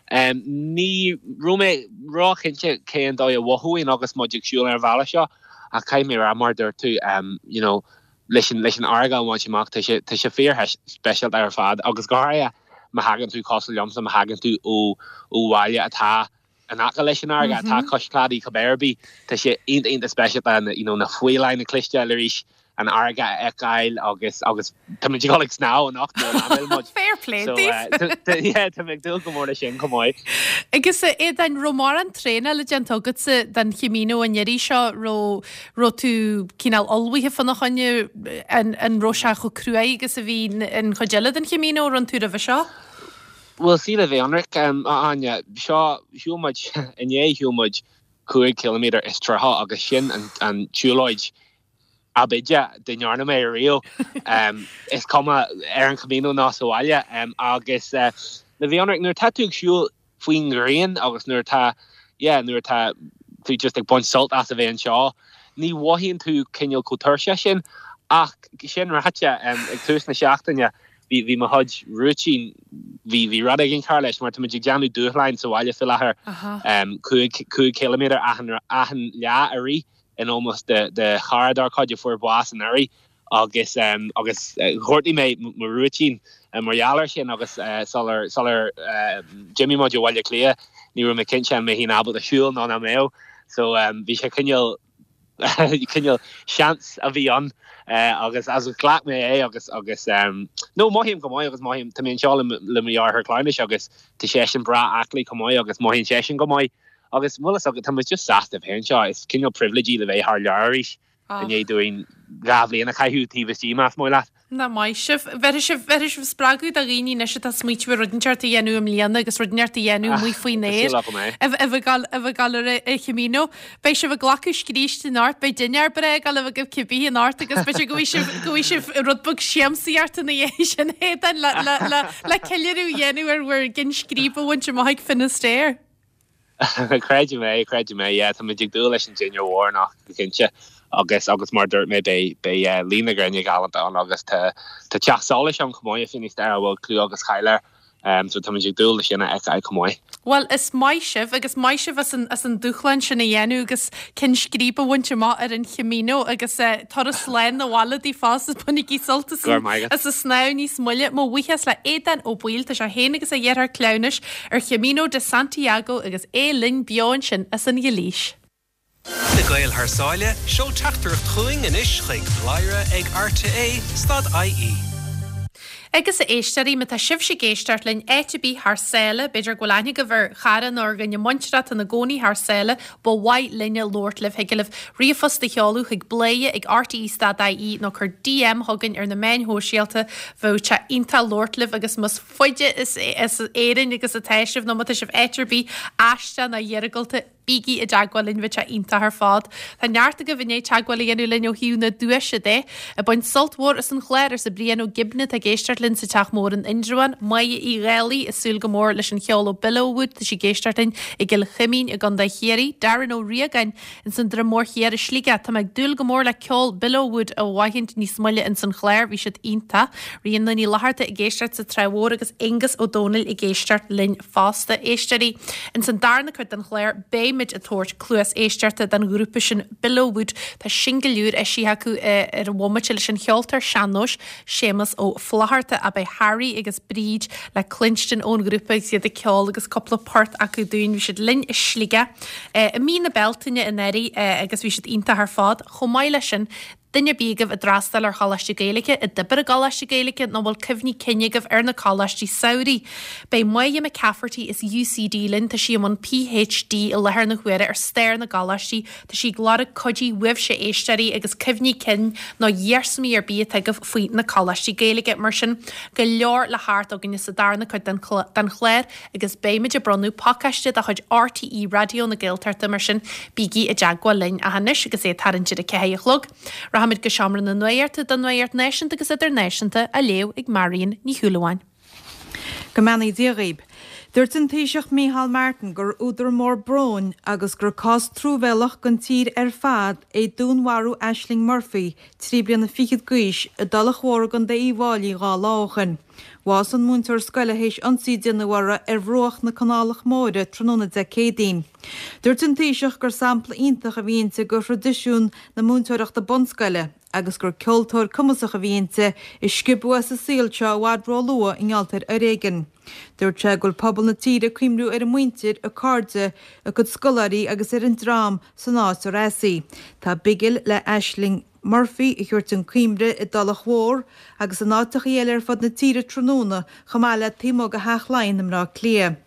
ní raibh mé róchinnte cén dóigh a mhothóinn agus muid ag siúl ar an bhealach seo ach caithfidh mé a rá, mar a dúirt tú, you know, leis an leis an fharraige a bhaint amach tá sé tá sé fíor-speisialta ar fad agus go háirithe má thagann tú cosúil liomsa má thagann tú ó ó bhaile atá in aice leis an fharraige atá cois cladaigh cibé ar bith tá sé iontach iontach speisialta na you know na faoileáin a chloisteáil arís an fharraige a fheiceáil agus agus tá muid ag dul ag snámh anocht nuair a landáil muid. Fair play So daoibh! yeah tá mé ag dúil go mór leis sin chomh maith. Agus a Aodáin, raibh mórán traenála déanta agatsa don Chamino an iarraidh seo, raibh raibh tú cineál ullmhaithe fána choinne, an an raibh sé chomh cruaidh agus a bhí an chuid eile den Chamino a rinne tú roimhe seo? Bhuel, sea, le bheith ionraic, a Áine, seo, shiúil muid, inné shiúil muid 5 ciliméadar is 30 agus sin an an tsiúlóid ab fhaide dá ndearna mé ariamh, is cuma ar an Chamino nó sa bhaile. Agus le bheith ionraic, nuair atá tú ag siúl faoin ghrian agus nuair atá, yeah, nuair atá tú just ag baint sult as a bheith anseo, ní mhothaíonn tú cineál chomh tuirseach sin. Ach sin ráite, ag tús na seachtaine, bhí, bhí mo chuid rúitín, bhí, bhí rud éigin cearr leis mar tá muid ag déanamh dúshláin sa bhaile faoi láthair, 5, 5 chiliméadar achan, achan lá i rith in ómós do, do chara dár gcuid a fuair bás anuraidh. agus agus ghortaigh mé mo rúitín mar gheall air sin agus sular sular d'imigh muid ó Bhaile Átha Cliath ní raibh mé cinnte an mbeinn ábalta siúl nó nach mbeadh so bhí sé cineál cineál seans a bhí ann agus agus ghlac mé é agus agus no mothaím go maith agus mothaím tá mé anseo le le mo dheartháir cleamhnais agus tá seisean breá aclaí chomh maith agus mothaíonn seisean go maith agus bhfuil fhios agat tá muid just sásta a bheith anseo is cineál privilege le bheith thar lear arís. I ndiaidh dúinn 2 bhliain a chaitheamh taobh istigh, más maith leat. Nach maith sibh. Bhéarfaidh sibh, bhéarfaidh sibh spreagadh do dhaoine anois atá ag smaoitiú ar rud inteacht a dhéanamh i mbliana agus rud inteacht a dhéanamh amuigh faoin aer. Tá súil agam é. A bheith ag dul, a bheith ag dul ar an Chamino. Beidh sibh ag glacadh scríste anocht, beidh dinnéar breá ag dul a bheith agaibh cibé anocht agus b'fhéidir go bhfaighidh sibh, go bhfaighidh sibh rud beag siamsaíochta ina dhiaidh sin Aodán le, le, le, le ceiliúradh a dhéanamh ar bhur gcinn scríbe a bhaint amach ag Finisterre. Creidim é, creidim é, yeah, táimid ag dúil leis an dinnéar mhór anocht go cinnte agus agus mar a dúirt mé beidh beidh luí na gréine galánta ann agus tá tá teach solais ann chomh maith i Finisterre a bhfuil clú agus cáil air so táimid ag dúil leis sin a fheiceáil chomh maith. Bhuel, is maith sibh agus maith sibh as an as an dúshlán sin a dhéanamh agus ceann scríbe a bhaint amach ar an Chamino agus turas slán abhaile daoibh fosta bainigí sult as Go raibh maith agat. as an snámh níos moille. Mo bhuíochas le Aodán Ó Baoill, tá sé féin agus a dheartháir cleamhnais ar Chamino de Santiago agus é linn beo ansin as an Ghailís. Na Gaeil thar sáile, seol teachtaireacht chugainn anois chuig bladhaire ag rte stad ie. Agus a éisteoirí, má tá sibhse ag éisteacht linn áit ar bith thar sáile, b'fhéidir go bhfuil aithne agaibh ar chara nó ar dhuine muinteartha atá ina gcónaí thar sáile, ba mhaith linne labhairt libh, thig libh ríomhphost a sheoladh chuig bladhaire ag rte stad ie nó cuir DM chugainn ar na meáin shóisialta, bheadh sé iontach labhairt libh agus más faide as Éirinn agus atá sibh nó má tá sibh áit ar bith aisteach nó iargúlta, bígí i dteagmháil linn, bheadh sé iontach ar fad. Tá neart agaibh i ndiaidh teagmháil a dhéanamh linn ó thaobh na duaise de. Ag baint sult mhór as an chlár, arsa Brian Ó Gibne atá ag éisteacht linn sa Teach Mór in Indreabhán. Máire Uí Dhálaigh ag súil go mór leis an cheol ó Billowwood, tá sí ag éisteacht linn i gCill Chuimín i gContae Chiarraí. Darren Ó Riagáin Ins an Droim Mór Thiar i Sligeach. Tá mé ag dúil go mór le ceol Billowwood a aithint níos moille ins an chlár, bhí siad iontach. Ríona Ní Fhlatharta ag éisteacht sa Trá Mhór agus Aonghus Ó Domhnaill ag éisteacht linn fosta. Éisteoirí, ins an darna cuid den chlár beimid ag tabhairt cluas éisteachta don ghrúpa sin Billowwood. Tá singil úr eisithe acu ar an bhomaite leis an cheoltóir sean-nóis Séamus Ó Flatharta ach beidh Harry agus Bríd le cluinstin ón ghrúpa agus iad ag ceol agus cúpla port acu dúinn. Bhí siad linn i Sligeach i mí na Bealtaine anuraidh agus bhí siad iontach ar fad. Chomh maith leis sin, duine ar bith agaibh a d'fhreastail ar Choláiste Gaeilge, a d'oibir i gColáiste Gaeilge nó a bhfuil cuimhní cinn agaibh ar na coláistí samhraidh, beidh Moya McCafferty as UCD linn, tá sí i mbun PhD i láthair na huaire ar stair na gcoláistí, Tá sí ag lorg cuidiú uaibhse a éisteoirí agus cuimhní cinn nó iarsmaí ar bith atá agaibh faoi na coláistí Gaeilge. Mar sin, go leor le theacht againne sa darna cuid den chlár agus beimid ag bronnadh pacáiste de chuid RTÉ Raidió na Gaeltachta mar sin bígí i dteagmháil linn. Ach anois agus é ag tarraingt ar a ceathair a chlog, rachaimid go Seomra na Nuachta don Nuacht Náisiúnta agus Idirnáisiúnta á léamh ag Marion Ní Shúilleabháin. Go mbeannaí Dia dhaoib. Dúirt an Taoiseach Micheál Martin gur údar mór bróin agus gur cás truamhéalach don tír ar fad é dúnmharú Ashling Murphy, 3 bliana fichead d'aois, i dTulach Mhór i gContae Uíbh Fháilí 2 lá ó shin. Bhásaigh an múinteoir scoile théis ionsaí a déanadh uirthi ar bhruach na Canálach Móire tráthnóna Dé Céadaoin. Dúirt an Taoiseach gur sampla iontach a bhí inti de thraidisiún na múinteoireachta bunscoile, agus gur ceoltóir cumasach a bhí inti, a sciobadh as an saol seo i bhfad róluath i ngeall ar fhoréigean. Dúirt sé go bhfuil pobal na tíre ag cuimhniú ar a muintir, a cairde, a cuid scoláirí agus ar an dream san áit ar as í. Tá bigil le Ashling Murphy a thabhairt chun cuimhne i dTulach Mhór agus in áiteachaí eile ar fud na tíre tráthnóna chomh maith le taobh amuigh de Theach Laighean i mBleá Cliath.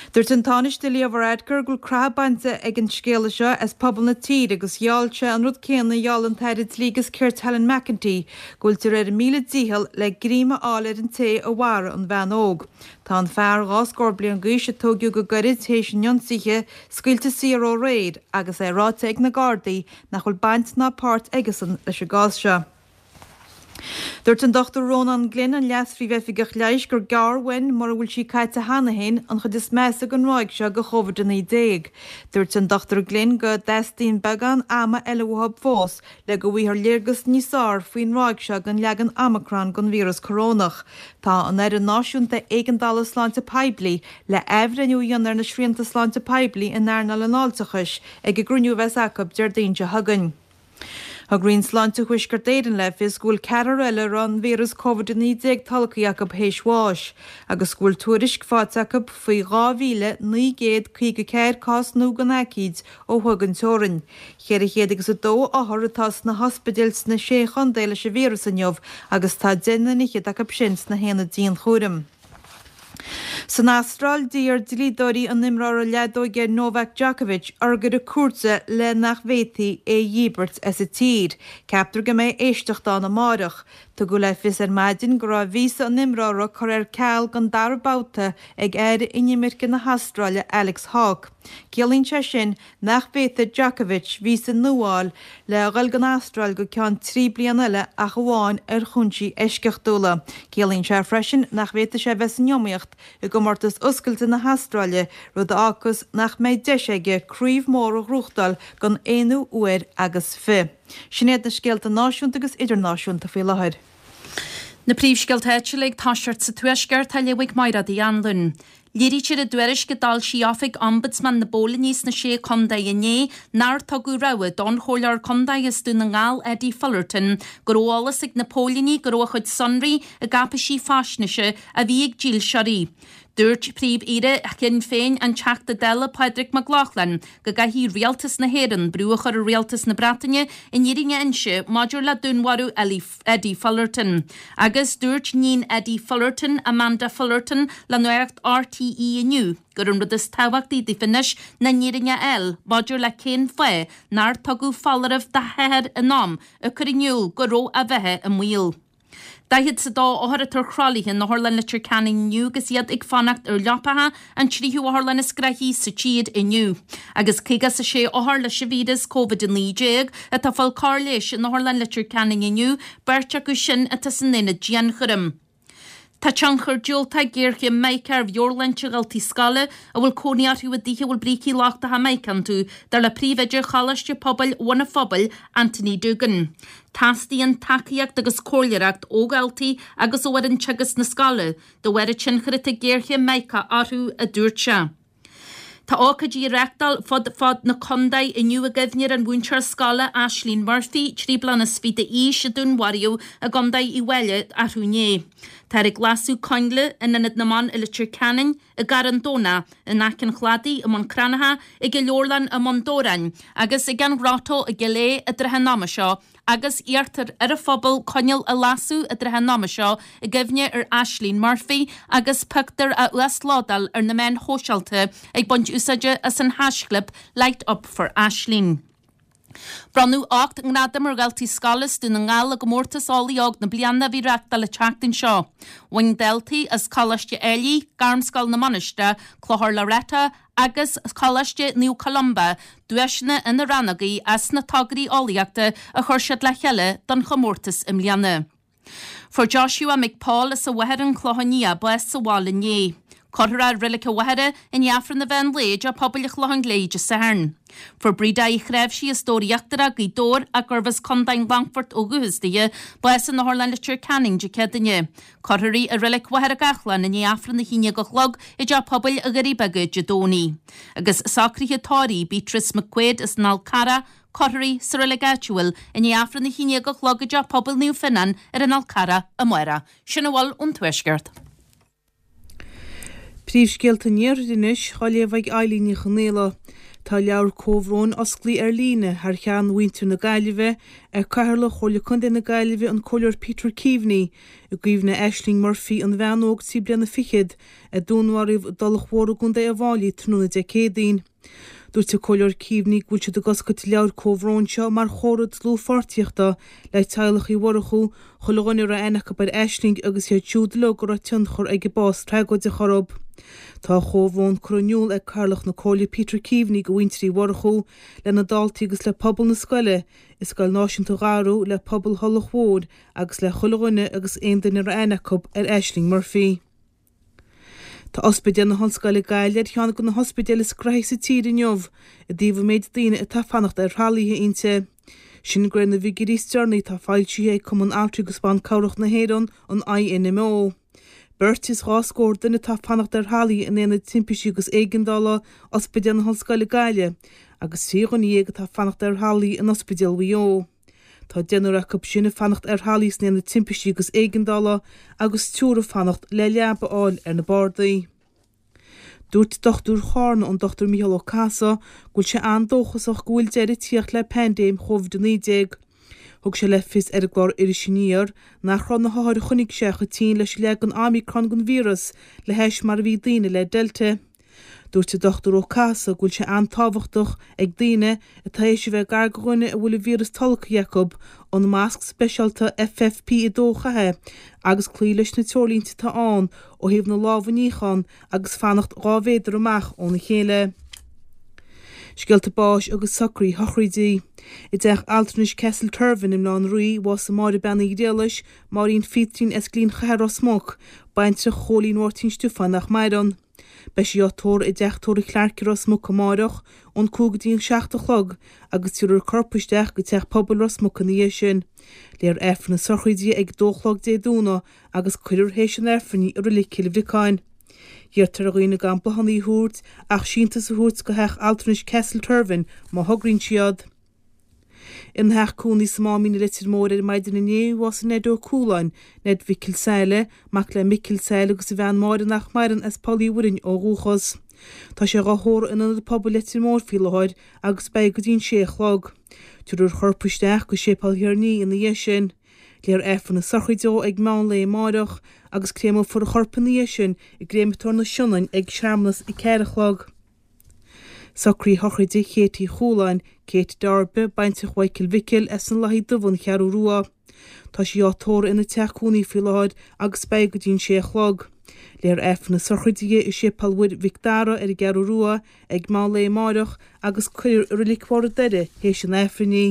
Dúirt an Tánaiste Leo Varadkar go bhfuil croitheadh bainte ag an scéala seo as pobal na tíre agus gheall sé an rud céanna a gheall an tAire Dlí agus Cirt Helen McEntee, go bhfuiltear ar a míle dícheall le greim a fháil ar an té a mharaigh an bhean óg. Tá an fear, 2 scór bliain d'aois, a tóigeadh go gairid théis an ionsaithe, scaoilte saor ó aréir agus é ráite ag na Gardaí nach bhfuil baint ná páirt aigesan leis an gcás seo. Dúirt an Dr Rónán Glynn, an Leas-Phríomh-Oifigeach Leighis, gur gearr uainn, mura bhfuil sí caite cheana féin, an chuid is measa den ráig seo de Covid-19. Dúirt an Dr Glynn go dteastaíonn beagán ama eile uathu fós le go bhfaighfear léargas níos fearr faoin ráig seo den leagan Omicron den víreas corónach. Tá an Fhoireann Náisiúnta Éigeandála Sláinte Poiblí le athbhreithniú a dhéanamh ar na srianta sláinte poiblí in earnáil an fháilteachais ag an gcruinniú a bheas acu Déardaoin seo chugainn. Thug Roinn Sláinte Thuaisceart Éireann le fios go bhfuil ceathrar eile a raibh an víreas Covid-19 tolgtha acu théis bháis agus go bhfuil tuairisc faighte acu faoi 2,954 cás nua den aicíd ó thuaidh den teorainn. 400 agus 2 othar atá sna hospidéil sna Sé Chontae leis an víreas inniu agus tá deich nduine fhichead acu sin sna haonaid dianchúraim. San Astráil, d'iarr dlíodóirí an imreora leadóige Novak Djokovic urghaire cúirte le nach bhféadfaí é a dhíbirt as an tír. Ceaptar go mbeidh éisteacht ann amáireach. Tugadh le fios ar maidin go raibh víosa an imreora curtha ar ceal don dara babhta ag Aire Inimirce na hAstráile Alex Hawke. Ciallaíonn sé sin nach bhféadfaidh Djokovic víosa nua a fháil le dhul don Astráil go ceann 3 bliana eile ach amháin ar chúinsí eisceachtúla. Ciallaíonn sé freisin nach bhféadfaidh sé bheith san iomaíocht i gcomórtas Oscailte na hAstráile, rud a fhágfas nach mbeidh deis aige craobh mhór a ghnóthachtáil don aonú huair agus fi. Sin iad na scéalta náisiúnta agus idirnáisiúnta faoi láthair. Na príomhscéalta áitiúla ag toiseacht sa Tuaisceart á léamh ag Máiréad Uí Anluain. Léirítear i dtuairisc a d'fhoilsigh Oifig Ombudsman na bPóilíní sna Sé Contae inné nár tugadh rabhadh don Chomhairleoir Contae as Dún na nGall Eddie Fullerton go raibh eolas ag na póilíní go raibh a chuid sonraí i gcáipéisí faisnéise a bhí ag dílseoirí. Dúirt Príomh-Aoire Shinn Féin, an Teachta Dála Pádraig Mac Lochlainn, go gcaithfidh Rialtas na hÉireann brú a chur ar Rialtas na Breataine an fhírinne a inse maidir le dúnmharú Eddie Fullerton. Agus dúirt níon Eddie Fullerton, Amanda Fullerton, le Nuacht RTÉ inniu gur an rud is tábhachtaí daofa anois ná an fhírinne a fháil maidir le cén fáth nár tugadh foláireamh dá hathair in am ag cur in iúl go raibh a bheatha i mbaol. 42 othar atá ar thralaithe in Otharlann Leitir Ceanainn inniu agus iad ag fanacht ar leapacha, an tríú otharlann is gnoithí sa tír inniu. Agus 56 othar leis an víreas Covid-19 atá ag fáil cóir leighis in Otharlann Leitir Ceanainn inniu, beirt acu sin atá san aonad dianchúraim. Tá tionchar diúltach ag géarchéim mica ar mheabhairshláinte dhaltaí scoile a bhfuil cónaí orthu i dtithe a bhfuil brící lochtacha mica iontu, dar le príomhoide Choláiste Pobail Bhun an Phobail, Anthony Doogan. Teastaíonn tacaíocht agus comhairleoireacht ó dhaltaí agus ó fhoireann teagaisc na scoile de bharr an tionchair atá ag géarchéim mica orthu, a dúirt sé. Tá ócáidí á reáchtáil fud fad na contae inniu i gcuimhne ar an mhúinteoir scoile Ashling Murphy, 23 bliana d'aois, a dúnmharaíodh i gContae Uíbh Fhailí arú inné. Táthar ag lasadh coinnle in Ionad na mBan i Leitir Ceanainn, i gCarn Domhnach, in aice an Chladaigh, i mBun Cranncha, ag an Leabharlann i mBun Dobhráin agus ag an Ghrotto i gCill Aodha i dtrátha an ama seo agus iarrtar ar an phobal coinneal a lasadh i dtrátha an ama seo i gcuimhne ar Ashling Murphy agus pictiúr a uaslódáil ar na meáin shóisialta ag baint úsáide as an haischlib Light Up For Ashling. Bronnadh 8 ngradam ar dhaltaí scoile as Dún na nGall i gcomórtas Eolaí Óg na Bliana a bhí reáchtáil an tseachtain seo. Bhain daltaí as Coláiste Ailigh, Gairmscoil na Mainistreach, Clochar Loreto agus Coláiste Naomh Columba duaiseanna ina rannógaí as na tograí eolaíochta a chuir siad le chéile don chomórtas i mbliana. Fuair Joshua McPaul as an Mhachaire an Clochán Liath bás sa bhaile inné. Cuirfear é i Reilig an Mhachaire i ndiaidh Aifreann an mheán lae i dTeach Pobail an Chlocháin Léith Dé Sathairn. Fuair Breda Uí Chnáimhsí as Dobhar Íochtarach, Gaoth Dobhair, ach gurbh as Contae an Longfoirt ó dhúchas dithe, bás in Otharlann Leitir Ceanainn Dé Céadaoine. Cuirfear í i Reilig Mhachaire Gathlán i ndiaidh Aifreann 11 a chlog i dTeach Pobail Dhoirí Beaga Dé Domhnaigh. Agus socruithe tórraimh Beatrice McQuaid as an Fhál Carrach, cuirfear í sa reilig áitiúil i ndiaidh Aifreann 11 a chlog i dTeach Pobail Naomh Fionnán ar an Fhál Carrach amárach. Sin a bhfuil ón Tuaisceart. Príomhscéalta an Iarthair anois, á léamh ag Eilín Ní Chonaola. Tá leabhar comhbhróin osclaithe ar líne thar cheann mhuintir na Gaillimhe ag Cathaoirleach Chomhairle Contae na Gaillimhe an Comhairleoir Peter Keaveney i gcuimhne Aisling Murphy, an bhean óg 23 bliana fichead a dúnmharaíodh i dTulach Mhór i gContae Uíbh Fhailí tráthnóna Dé Céadaoin. Dúirt an Comhairleoir Keaveney go bhfuil siad ag oscailt an leabhair comhbhróin seo mar chomhartha dlúthpháirtíochta le teaghlach Uí Mhurchú, chuile dhuine a raibh aithne acu ar Aisling agus iad siúd uilig a raibh tionchar ag a bás tragóideach orthu. Tá a chomhbhrón curtha in iúl ag Cathaoirleach na Comhairle Peter Keaveney go mhuintir Uí Mhurchú, lena daltaí agus le pobal na scoile i Scoil Náisiúnta Dharú, le pobal Thulach Mhór agus le chuile dhuine agus aon duine a raibh aithne acu ar Aisling Murphy. Tá Ospidéal na hOllscoile Gaillimh ar cheann de na hospidéil is gnoithí sa tír inniu i dtaobh an méid daoine atá ag fanacht ar thralaithe inti. Sin de réir na bhfigiúirí is deireanaí atá foilsithe ag Cumann Altraí agus Ban Cabhrach na hÉireann, an INMO. Beirt is dhá scór duine atá ag fanacht ar thralaithe in Aonad Timpistí agus Éigeandála Ospidéal na hOllscoile Gaillimh agus 13 dhuine atá ag fanacht ar thralaithe in Ospidéal Mhaigh Eo. Tá deichniúr acu sin ag fanacht ar thralaí san Aonad Timpistí agus Éigeandála agus triúr ag fanacht le leaba a fháil ar na bardaí. Dúirt dochtúir Charna, an Dr Mícheál Ó Cathasaigh, go bhfuil sé an-dóchasach go bhfuil deireadh ag tíocht le paindéim Covid-19. Thug sé le fios ar an gclár Iris Aniar nach raibh na hothair a choinnigh sé chomh tinn leis an leagan Omicron den víreas le hais mar a bhí daoine le Delta. Dúirt an Dr Ó Cathasaigh go bhfuil sé an-tábhachtach ag daoine atá théis a bheith gar do dhuine a bhfuil an víreas tolgtha acu an masc speisialta FFP2 a chaitheamh agus cloí leis na treoirlínte atá ann ó thaobh na lámha a níochán agus fanacht 2 mhéadar amach óna chéile. Scéalta báis agus socruithe sochraide. I dteach altranais Castle Tervin i mBaile Átha an Rí, bhásaigh Máire Bean Uí Ghriallais, Máirín Phítrín as Gleann Chatha Ros Muc, baintreach Chóilín Mháirtín Stiofáin nach maireann. Beidh sí á tórramh i dteach tórraimh Clarke i Ros Muc amáireach ón 5 go dtí an 7 a chlog agus tabharfar a corp isteach go Teach Pobail Ros Muc ina dhiaidh sin. Léifear Aifreann na sochraide di ag 2 a chlog Dé Domhnaigh agus cuirfear théis an Aifrinn í i Reilig Chill Bhriocáin. Iarrtar ar dhaoine gan bláthanna a thabhairt ach síntiús a thabhairt go theach altranais Castle Tervin má thograíonn siad. Ina theach cónaí sa Máimín i Leitir Móir ar maidin inné, bhásaigh Ned Ó Cualáin, Ned Mhicil Saile, mac le Micil Saile agus a bhean Máire nach maireann as Poll Uí Mhuirinn ó dhúchas. Tá sé dhá thórramh in Ionad Pobail Leitir Móir faoi láthair agus beidh go dtí an sé a chlog. Tabharfar a chorp isteach go Séipéal Thír an Fhia ina dhiaidh sin. Léifear Aifreann na sochraide dó ag meán lae amáireach agus créamófar a chorp ina dhiaidh sin i gCréamatóir na Sionainne ag searmanas ag ceathair a chlog. Socruithe sochraide Kate Uí Chualáin, Kate Darby, baintreach Mhichael Mhicil as an Lathaí Dubh, An Cheathrú Rua. Tá sí á tórramh ina teach cónaí faoi láthair agus beidh go dtí an sé a chlog. Léifear Aifreann na sochraide di i Séipéal Mhuire Mhic Dara ar an gCeathrú Rua ag meán lae amáireach agus cuirfear i Reilig Bharr an Doire théis an Aifrinn í.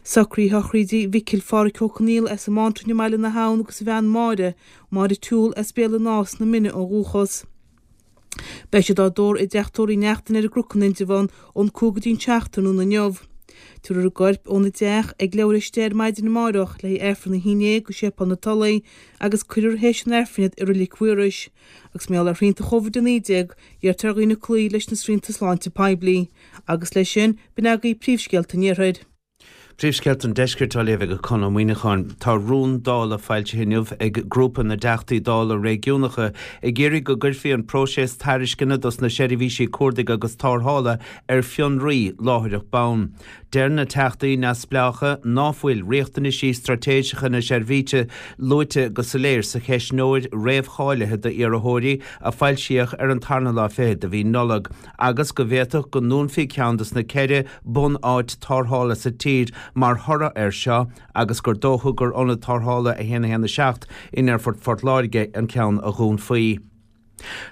Socruithe sochraide Mhicil Phádhraic Ó Conaola as an mBántrainn i mBaile na hAbhann agus a bhean Máire, Máire Toole as Béal an Átha sna Mine ó dhúchas. Beidh siad á dtórramh i dteach tórraimh Uí Neachtain ar an gCnoc in Indreabhán ón 5 go dtí an 7 tráthnóna inniu. Tabharfar a gcoirp óna dteach ag leathuair théis 10 ar maidin amárach le haghaidh Aifreann a haon déag go Séipéal na Tulaí agus cuirfear théis an Aifrinn iad i Reilig Mhaorais. Agus mar gheall ar shrianta Covid-19, iarrtar ar dhaoine cloí leis na srianta sláinte poiblí. Agus leis sin, b'in agaibh príomhscéalta an Iarthair. Príomhscéalta an Deiscirt á léamh ag Conn Ó Muíneacháin. Tá rún Dála foilsithe inniu ag Grúpa na dTeachtaí Dála Réigiúnacha ag iarraidh go gcuirfí an próiseas tairisceana dos na seirbhísí cuardaigh agus tarrthála ar fionraí láithreach bonn. Deir na Teachtaí neamhspleácha ná fuil riachtanaisí straitéiseacha na seirbhíse luaite go soiléir sa cheistneoir réamhcháilithe d'iarrthóirí a foilsíodh ar an tarna lá fichead de mhí Nollag. agus go bhféadfadh go ndúnfaí ceann dos na ceithre bun-áit tarrthála sa tír mar thoradh air seo agus gur dócha gur Ionad Tarrthála 1 1 7 in Aerfort Phort Láirge an ceann a dhúnfaí.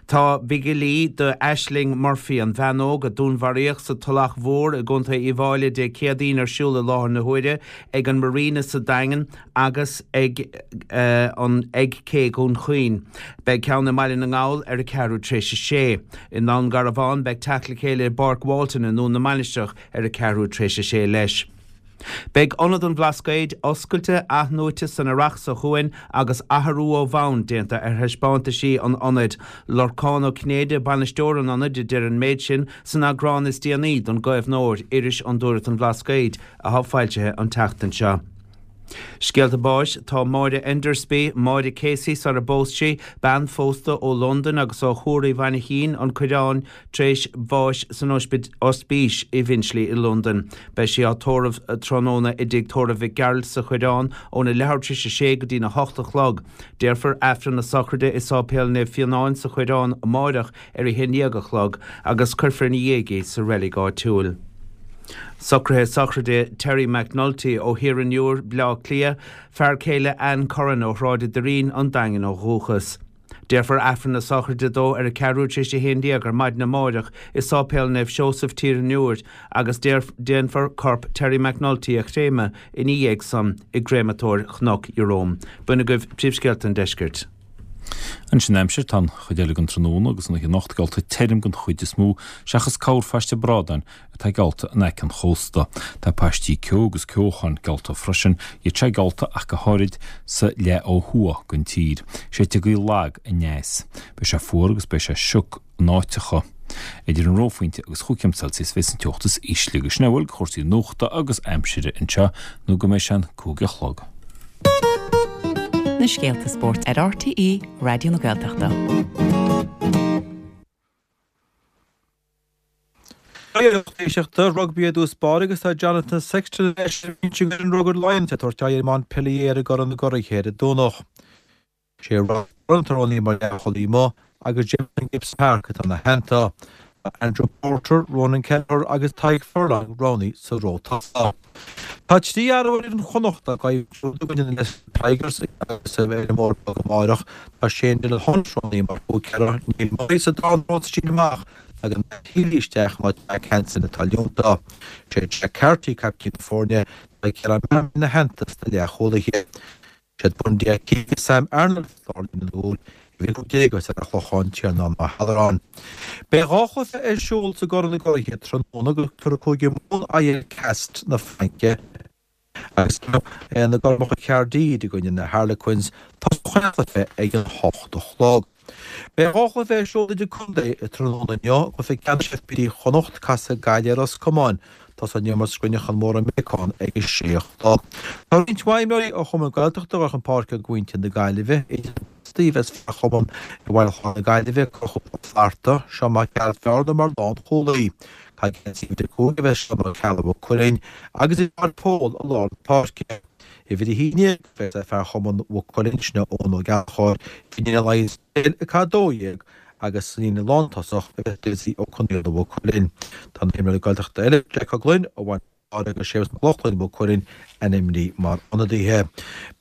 Tá bigilí do Ashling Murphy, an bhean óg a dúnmharaíodh sa Tulach Mhór i gContae Uíbh Fháilí Dé Céadaoin ar siúl i láthair na huaire ag an Marina sa Daingean agus ag an ag Cé Dhún Chaoin. Beidh ceann i mBaile na nGall ar a ceathrú tar éis a sé. I nDún Garbhán beidh teacht le chéile i bPáirc Walton i nDún na Mainistreach ar a ceathrú tar éis a sé leis. Beidh Ionad an Bhlascaoid oscailte athnuaite san earrach seo chugainn agus athrú ó bhonn déanta ar thaispeántaisí an ionaid. Lorcán Ó Cinnéide, bainisteoir an ionaid, a deir an méid sin san eagrán is déanaí don gCaomhnóir, iris Fhondúireacht an Bhlascaoid, atá foilsithe an tseachtain seo. Scéalta báis, Tá Máire Endersby, Máire Casey sar a bpós sí, bean phósta ó Londain agus ó Thuar Uí Mhainchín, An Coireán, tar éis bháis san ospís i bhFinchley i Londain. Beidh sí á tórramh tráthnóna i dTigh Tórraimh Mhic Gearailt sa Choireán óna leathuair tar éis a sé go dtína hocht a chlog. Déarfar Aifreann na sochraide i Sáipéal Naomh Fionáin sa Choireán amáireach ar a haon dhéag a chlog agus cuirfear ina dhiaidh í sa reilig áitiúil. Socruithe sochraide Terry McNulty ó Thír an Iúir, Bleá Cliath, fear céile Anne Curran ó Shráid an Doirín, An Daingean ó dhúchas. Déarfar Aifreann na sochraide dó ar a ceathrú tar éis a haon déag ar maidin amáireach i Sáipéal Naomh Seosamh, Tír an Iúir agus déanfar corp Terry McNulty a chréamadh ina dhiaidh san i gCréamatóir Chnoc Ieróm. B'in agaibh príomhscéalta an deiscirt. Anois an aimsir, tá an chuid eile den tráthnóna agus an oíche anocht geallta tirim den chuid is mó, seachas corrphaiste bradáin atá geallta in aice an chósta. Tá paistí ceo agus ceocháin geallta freisin, iad seo geallta ach go háirid sa leath ó thuaidh den tír. Séidfidh gaoth lag aneas. Beidh sé fuar agus beidh sé sioc in áiteacha. Idir an reophointe agus chúig chéim Celsius a bheas an teocht is ísle agus sin a bhfuil de chúrsaí nuachta agus aimsire anseo nó go mbeidh sé an 5 a chlog. Na scéalta spóirt ar RTÉ Raidió na Gaeltachta. Lucht éisteachta, Rugbaí i dtús báire agus tá Jonathan Sexton ar ais ar an mbinse ag an Rugar Lions ag tabhairt aghaidh ar Montpellier i gCorn na gCuradh ar an Domhnach. Sé Ross Byrne atá roghnaithe mar leathchúlaí amuigh agus Jamison Gibson-Park atá ina theannta. Tá Andrew Porter, Ronan Kelleher agus Tadhg Furlong roghnaithe sa ró tosaigh. Tá 3 fhear ar fhoireann Chonnacht ag coimhlint i gcoinne na Leicester Tigers agus ar an mBóthar Beag amárach. Tá Shane Dillon-Hunt roghnaithe mar húicéara, Neil Murray sa dara ró sa síneadh amach Tagann Matt Healy isteach in áit Jack Hanson atá leonta. Sé Jack Carty caiptín na foirne, tá Ciarán Mahon ina theannta sna leathchúlaithe. Siad Bundee Aki agus Sam Arnold sa lárlíne na gcúl, uimhir 15 as an Chlochán, Tiarnán Ó hAlluráin. Beidh 2 chluiche ar siúl sa gCorn na gCuraithe tráthnóna agus tabharfaidh Cúige Mumhan aghaidh ar Castres na Fraince. Agus na Gormacha Caerdydd i gcoinne na Harlequins, tosóidh an cluiche ag an hocht a chlog. Beidh 2 chluiche ar siúl idir contae tráthnóna inniu, cluiche ceannais FBD Chonnacht, casfaidh Gaillimh ar Ros Comáin. Tosóidh an imirt i gCruinneachán Mór i mBéacán ag a sé a chlog. Tá roinnt mhaith imreoirí ó chumainn Gaeltachta ag dul chun páirce do mhuintir na Gaillimhe, idir na postaí a bheas fear chumann i bhFaill Chláir na Gaillimhe, Conchúr Ó Flatharta, Seán Mac Gearailt mar lánchúlaí. Ag geansaí uimhir 5 a bheas Seán Ó Ceallaigh Mhaigh Cuilinn agus is é Pól i lár na páirce. Uimhir 11 a bheas ag fear chumann Mhaigh Cuilinn, sin é Eoin Ó Gallchóir, Finian Ó Laighean ag caitheamh 12 agus sa líne lántosach a bheas Dessie Ó Conaola Mhaigh Cuilinn. Tá na himreoirí Gaeltachta eile, Jack Ó Gloinn ó Bhaile agus Séamus Mac Lochlainn Mhaigh Cuilinn ainmnithe mar ionadaithe.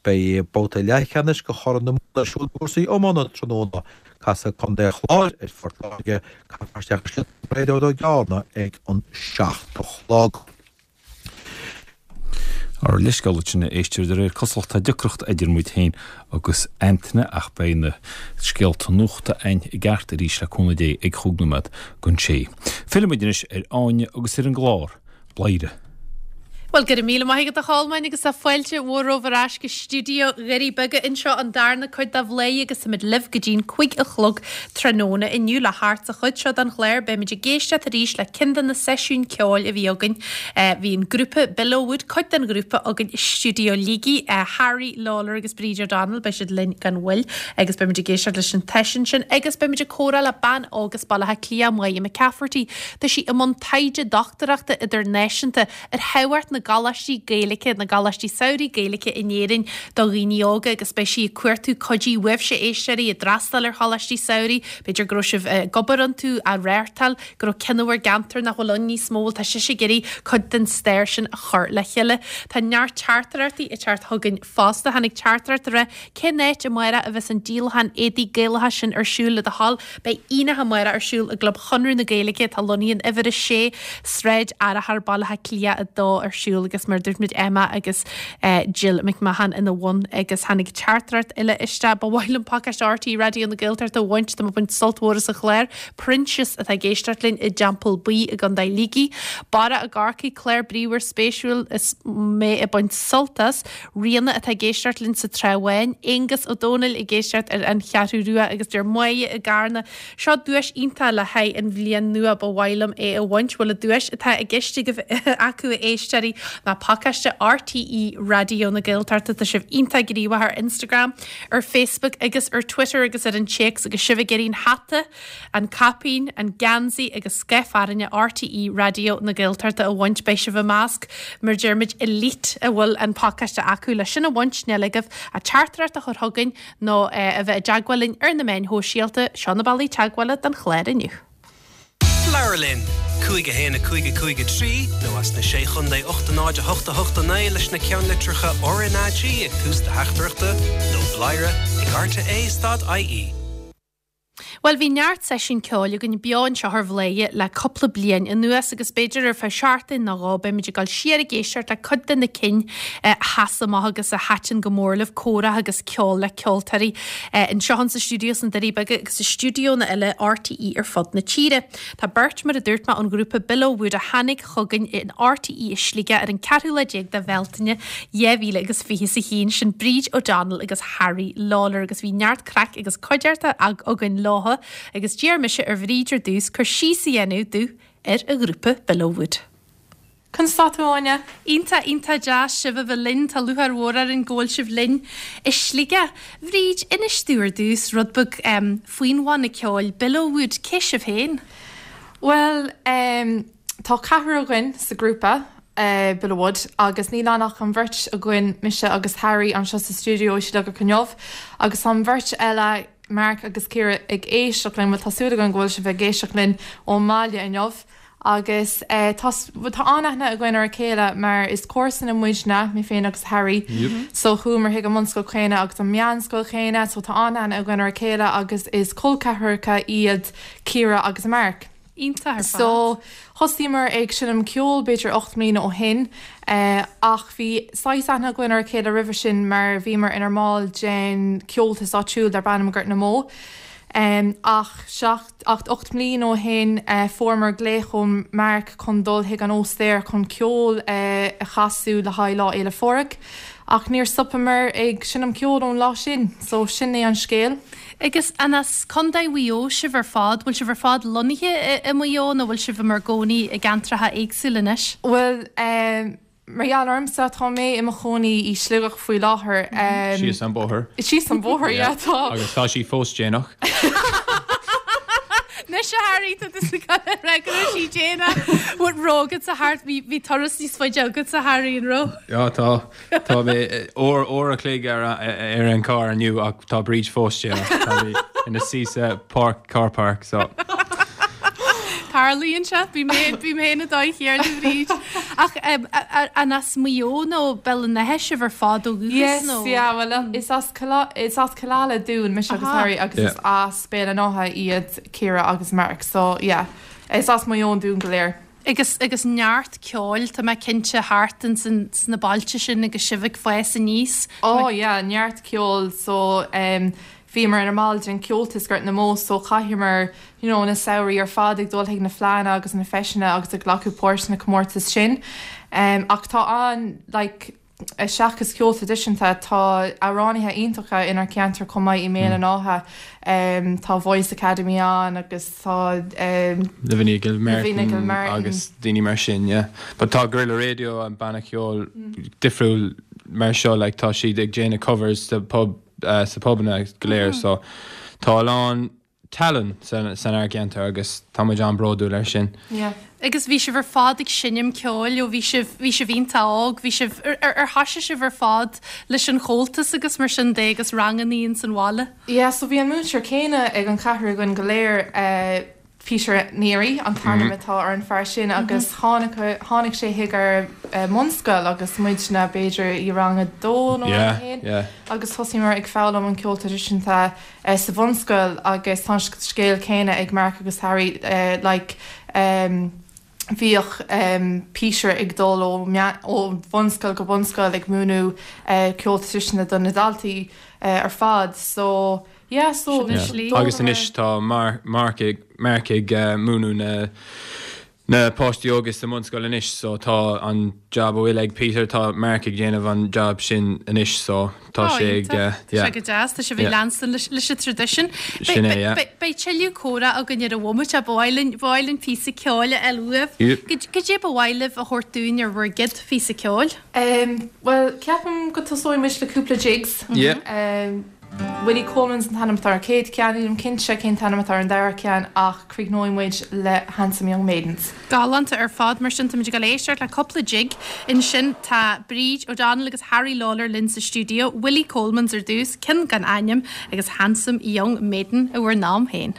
Beidh babhta leathcheannais de Chorn na Mumhan ar siúl i gcúrsaí iomána tráthnóna. Casfaidh Contae an Chláir ar Phort Láirge, caithfear isteach i sliotar Bréadóid Ó Gearna ag an 7 a chlog. Ár leithscéal duit sin a éisteoir, de réir cosúlachta tá deacracht idir muid féin agus Antaine ach beidh na scéalta nuachta a'inn i gceart arís le cúnamh Dé ag chúig nóiméad don sé. Fillfidh muid anois ar Áine agus ar an gclár. Bladhaire. Bhuel, go raibh míle maith agat a Cholmáin agus tá fáilte mhór romhaibh ar ais go stiúideo Dhoirí Beaga anseo an darna cuid de Bhladhaire agus táimid libh go dtí'n 5 a chlog tráthnóna inniu. Le theacht sa chuid seo den chlár beimid ag éisteacht arís le ceann de na seisiúin ceoil a bhí againn. Bhí an grúpa Billowwood, cuid den ghrúpa, againn i stiúideo Shligigh, Harry Lawlor agus Bríd O'Donnell, beidh siad linn gan mhoill agus beimid ag éisteacht leis an tseisiún sin agus beimid ag comhrá le bean óg as Baile Átha Cliath, Máire McCafferty. Tá sí i mbun taighde dochtúireachta idirnáisiúnta ar thábhacht na gcoláistí Gaeilge, na gcoláistí samhraidh Gaeilge in Éirinn do dhaoine óga agus beidh sí ag cuartú cuidiú uaibhse, éisteoirí, a d'fhreastail ar choláistí samhraidh, b'fhéidir go raibh sibh ag obair iontu, á reáchtáil, go raibh ceann i bhur gceantar nach bhfuil ann níos mó, bhuel tá sise ag iarraidh cuid den stair sin a chur le chéile. Tá neart teachtaireachtaí ag teacht chugainn fosta. Tháinig teachtaireacht ag rá Cén áit amárach a bheas an díolachán éadaí Gaelacha sin ar siúl le do thoil? Beidh aonach amárach ar siúl i gClub Chonradh na Gaeilge atá lonnaithe in Uimhir 6, Sráid Fhearchair, Baile Átha Cliath 2 ar siúl agus mar a dúirt muid Emma agus Jill McMahon ina bhun agus tháinig teachtaireacht eile isteach. Ba mhaith liom pacáiste RTÉ Raidió na Gaeltachta a bhaint, tá mé ag baint sult mhór as an chlár. Proinsias atá ag éisteacht linn i dTeampall Buí i gContae Shligigh. Barra i gCorcaigh, clár bríomhar spéisiúil is mé ag baint sult as. Ríona atá ag éisteacht linn sa Trá Bháin, Aonghus Ó Dónaill ag éisteacht ar an Cheathrú Rua agus deir Máire i gCarna, Seo duais iontach le haghaidh an bhliain nua, ba mhaith liom é a bhaint. Bhuel an duais atá i gceist agaibh acu a éisteoirí ná pacáiste RTÉ Raidió na Gaeltachta. Tá sibh iontach gníomhach ar Instagram, ar Facebook agus ar Twitter agus ar an téacs agus sibh ag iarraidh an hata An caipín, an geansaí agus scaif fearthainne RTÉ Raidió na Gaeltachta a bhaint. Beidh sibh i measc, mar a deir muid, elite a bhfuil an pacáiste acu. Le sin a bhaint, níl agaibh ach teachtaireacht a chur chugainn nó a bheith i dteagmháil linn ar na meáin shóisialta. Seo na bealaí teagmhála don chlár inniu. Labhair linn! 5 1 5 5 3 nó as na Sé Chontae 8 0 8 8 9 leis na ceannlitreacha RnaG ag tús do theachtaireachta nó bladhaire ag rte stad ie. Bhuel, bhí neart seisiún ceoil againn beo anseo ar Bhladhaire le cúpla bliain anuas agus b'fhéidir ar feadh seachtain nó dhó beimid ag dul siar ag éisteacht le cuid de na cinn a sheas amach agus a thaitin go mór libh, comhrá agus ceol le ceoltóirí anseo insa stiúideo sna Doirí Beaga agus i stiúideonna eile RTÉ ar fud na tíre. Tá beirt, mar a dúirt mé, ón ghrúpa Billow Wood a tháinig chugainn in RTÉ i Sligeach ar an ceathrú lá déag de Bhealtaine 2000 agus 21, sin Bríd O'Donnell agus Harry Lawlor agus bhí neart craic agus cuideachta againn leotha agus d'iarr mise ar Bhríd ar dtús cur síos a dhéanamh domh ar an ghrúpa Billow Wood. Conas tá tú, Áine? Iontach, iontach deas sibh a bheith linn. Tá lúcháir mhór orainn go bhfuil sibh linn i Sligeach. Bhríd, inis domh ar dtús rud beag faoin bhanna ceoil Billow Wood. Cé sibh féin? Bhuel,. tá ceathrar againn sa ghrúpa, Bill Wood, agus níl ann ach an bheirt againn, mise agus Harry, anseo sa stiúideo i Sligeach inniu, agus tá an bheirt eile, Mark agus Ciara, ag éisteacht linn, bhuel tá súil againn go bhfuil sibh ag éisteacht linn ón mbaile inniu. Agus tá tá an-aithne againn ar a chéile mar is comharsana muidne, mé féin agus Harry. So chuamar chuig an mbunscoil chéanna agus an meánscoil chéanna, so tá an-aithne againn ar a chéile agus is col ceathracha iad Ciara agus Mark. Iontach ar fad. So thosaíomar ag seinm ceoil b'fhéidir 8 mbliana ó shin ach bhí saghas aithne againn ar a chéile roimhe sin mar bhíomar inár mball den Comhaltas áitiúil darb ainm Gort na mBó. Ach seacht Ach 8 mbliana ó shin fuaireamar glaoch ó Mark chun dul chuig an óstaer chun ceol a chasadh le haghaidh Lá Fhéile Phádraig. Ach níor stopamar ag seinm ceoil ón lá sin. So sin é an scéal. Agus an as Contae Mhaigh Eo sibh ar fad? Bhfuil sibh ar fad lonnaithe i Maigh Eo nó bhfuil sibh i bhur gcónaí i gceantracha éagsúla anois? Bhuel, Mar gheall ormsa, tá mé i mo chónaí i Sligeach faoi láthair. Síos an bóthar. Síos an bóthar, yeah, tá. Agus tá sí fós déanach. Anois a Harry, tá tusa ag dul a rá go raibh sí déanach. An raibh agatsa thart, bhí turas níos faide agatsa Harry, an raibh? Yeah, tá. Tá mé uair, uair a chloig ar, ar an carr inniu ach tá Bríd fós déanach. Tá mé ina suí sa park, car park, so. Tarlaíonn sé, bím féin, bím féin an dóigh chéanna a Bhríd. Ach an as Maigh Eo nó Béal an Átha sibh ar fad ó dhúchas Yes, nó? yeah, well is as is as Cill Ala dúinn, mise agus Harry, agus is as Béal an Átha iad Ciara agus Mark, so yeah, is as Maigh Eo dúinn go léir. Agus agus neart ceoil, tá mé cinnte, thart ins an sna bailte sin agus sibh ag fás aníos. Oh yeah, neart ceoil, so um, Bhíomar ina mball den Comhaltas Gort na mBó so chaitheamar you know na samhraí ar fad ag dul chuig na fleánna agus na feiseanna agus ag glacadh páirt sna comórtais sin. Ach tá an like seachas ceol traidisiúnta tá amhránaithe iontacha inár ceantar chomh maith i mBéal an Átha. Tá Voice Academy ann agus tá Lavinia Gilmartin agus daoine mar sin yeah. But tá Gorilla Radio an banna ceoil difriúil mar seo like tá siad ag déanamh covers sa pub sa phubanna go léir so tá a lán tallann san ár gceantar agus tá muid an-bhródúil ar sin. Yeah. Agus bhí sibh ar fad ag seinm ceoil ó bhí sibh, bhí sibh iontach óg, bhí sibh, ar, ar, ar thoisigh sibh ar fad leis an Chomhaltas agus mar sin de agus rangannaí ins an bhaile? Yeah, so bhí an múinteoir céanna ag an cheathrar againn go léir, eh, Peter Neary an t-ainm atá ar an fear sin agus tháinig tháinig sé chuig ár mbunscoil agus muidne b'fhéidir i rang a dó nó rang a haon agus thosaíomar ag foghlaim an ceol traidisiúnta sa bhunscoil agus tá an scéal céanna ag Mark agus Harry like bhíodh Peter ag dul ó ó bhunscoil go bunscoil ag múineadh ceol traidisiúnta do na daltaí ar fad so Yeah, so Sin an slí. Agus anois tá Mark ag Mark ag múineadh na na páistí óga sa mbunscoil anois so tá an job a bhfuil ag Peter tá Mark ag déanamh an job sin anois so tá Ó, sé ag iontach. Tá yeah. sé go deas, tá sibh ag Yeah. leanstan leis leis an traidisiún. Sin é, yeah. Beidh beidh tuilleadh comhrá againn ar an bhomaite ach ba mhaith linn ba mhaith linn píosa ceoil a fháil uaibh. Yep. Cad cad é ba mhaith libh a thabhairt dúinn ar bhur gcéad phíosa ceoil? Um, well, ceapaim go tosóidh muid le cúpla jigs. Yeah. Um, Willie Coleman's an t-ainm atá ar an chéad cheann, nílim cinnte cén t-ainm atá ar an dara ceann ach críochnóidh muid le Handsome Young Maidens. Galánta ar fad, mar sin táimid ag dul éisteacht le cúpla jig. Ansin tá Bríd O'Donnell agus Harry Lawlor linn sa stiúideo, Willie Coleman's ar dtús, ceann gan ainm, agus Handsome Young Maiden i bhur n-am féin.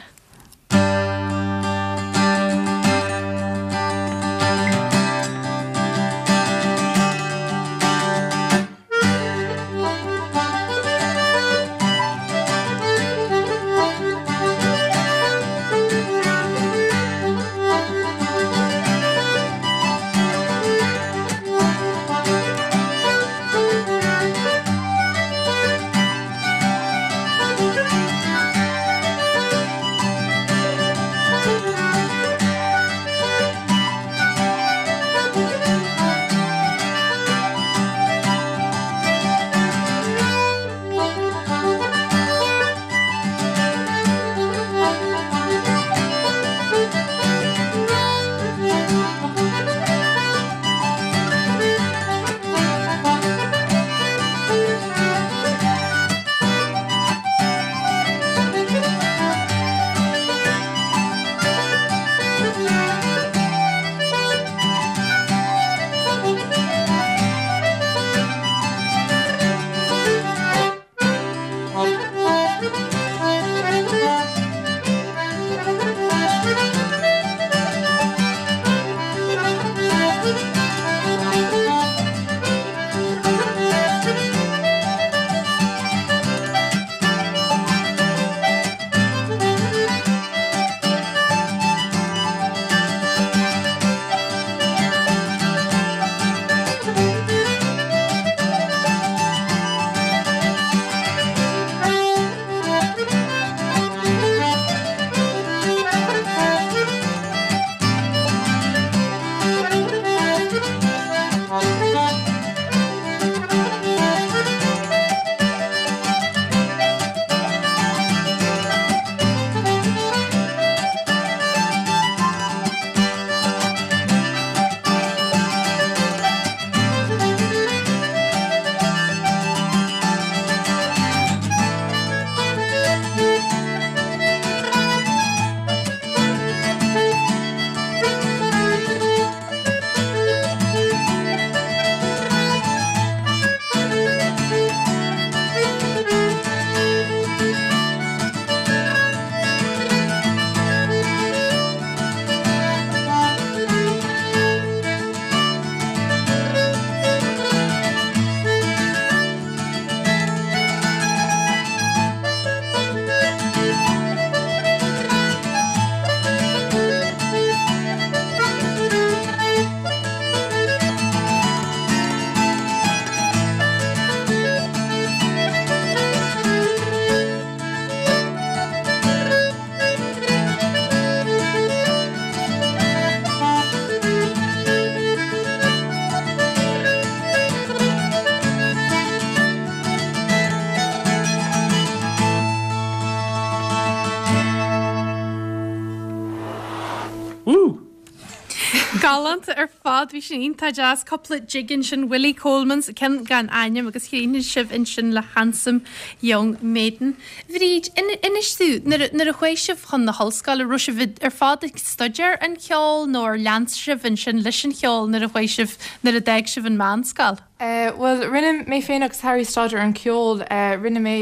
Galánta ar fad, bhí sin iontach deas. Cúpla jig ansin, Willie Coleman's, ceann gan ainm agus chríochnaigh sibh ansin le Handsome Young Maiden. Bhríd, inis domh, nuair a chuaigh sibh chun na hollscoile, raibh sibh ar fad ag staidéar an cheoil nó ar lean sibh ansin leis an cheol nuair a chuaigh sibh, nuair a d'fhág sibh an mheánscoil? Bhuel, rinne mé féin agus Harry staidéar ar an cheol. Rinne mé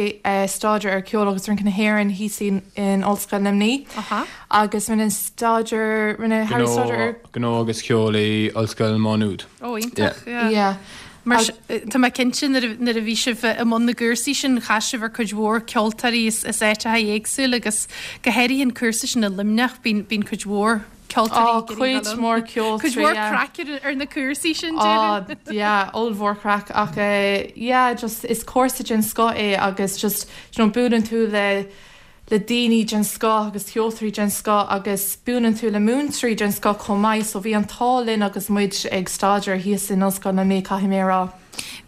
staidéar ar ceol agus rince na hÉireann thíos in Ollscoil Luimnigh. Agus rinne staidéar, rinne Harry staidéar ar. Gnó agus ceol i Ollscoil Mhá Nuad. Ó, iontach, yeah. Yeah. Mar tá mé cinnte nuair a bhí sibh i mbun na gcúrsaí sin, chas sibh ar cuid mhór ceoltóirí as áiteacha éagsúla agus go háirithe an cúrsa sin i Luimneach, bíonn cuid mhór ceoltóirí ag iarraidh dul ann. Cuid mhór ceoltóirí, Cuid mhór craic ar na cúrsaí sin, déarfainn. Á, yeah, ollmhór craic ach yeah, just is cúrsa den scoth é agus just, you know, buaileann tú le le daoine den scoth agus ceoltóirí den scoth agus buaileann tú le múinteoirí den scoth chomh maith so bhí an t-ádh linn agus muid ag staidéar thíos in Ollscoil Luimnigh, caithfidh mé a rá.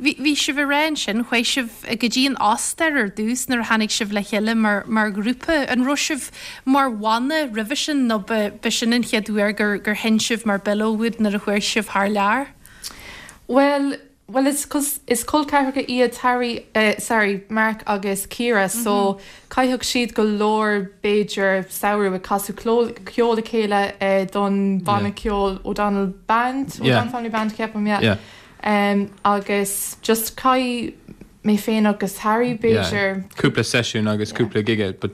Bhí, bhí sibh ag rá ansin, chuaigh sibh go dtí an Ostair ar dtús nuair a tháinig sibh le chéile mar, mar ghrúpa. An raibh sibh mar bhanna roimhe sin nó ba, ba sin an chéad uair gur, gur sheinn sibh mar Billowwood nuair a chuaigh sibh thar lear? Bhuel, bhuel is, is col ceathracha iad Harry, eh sorry, Mark agus Ciara so caitheadh siad go leor b'fhéidir samhradh ag casadh ceol le chéile eh don bhanna ceoil O'Donnell Band, O'Donnell Family Band ceapaim, yeah. Agus just chaith mé féin agus Harry b'fhéidir. Cúpla seisiún agus cúpla gig but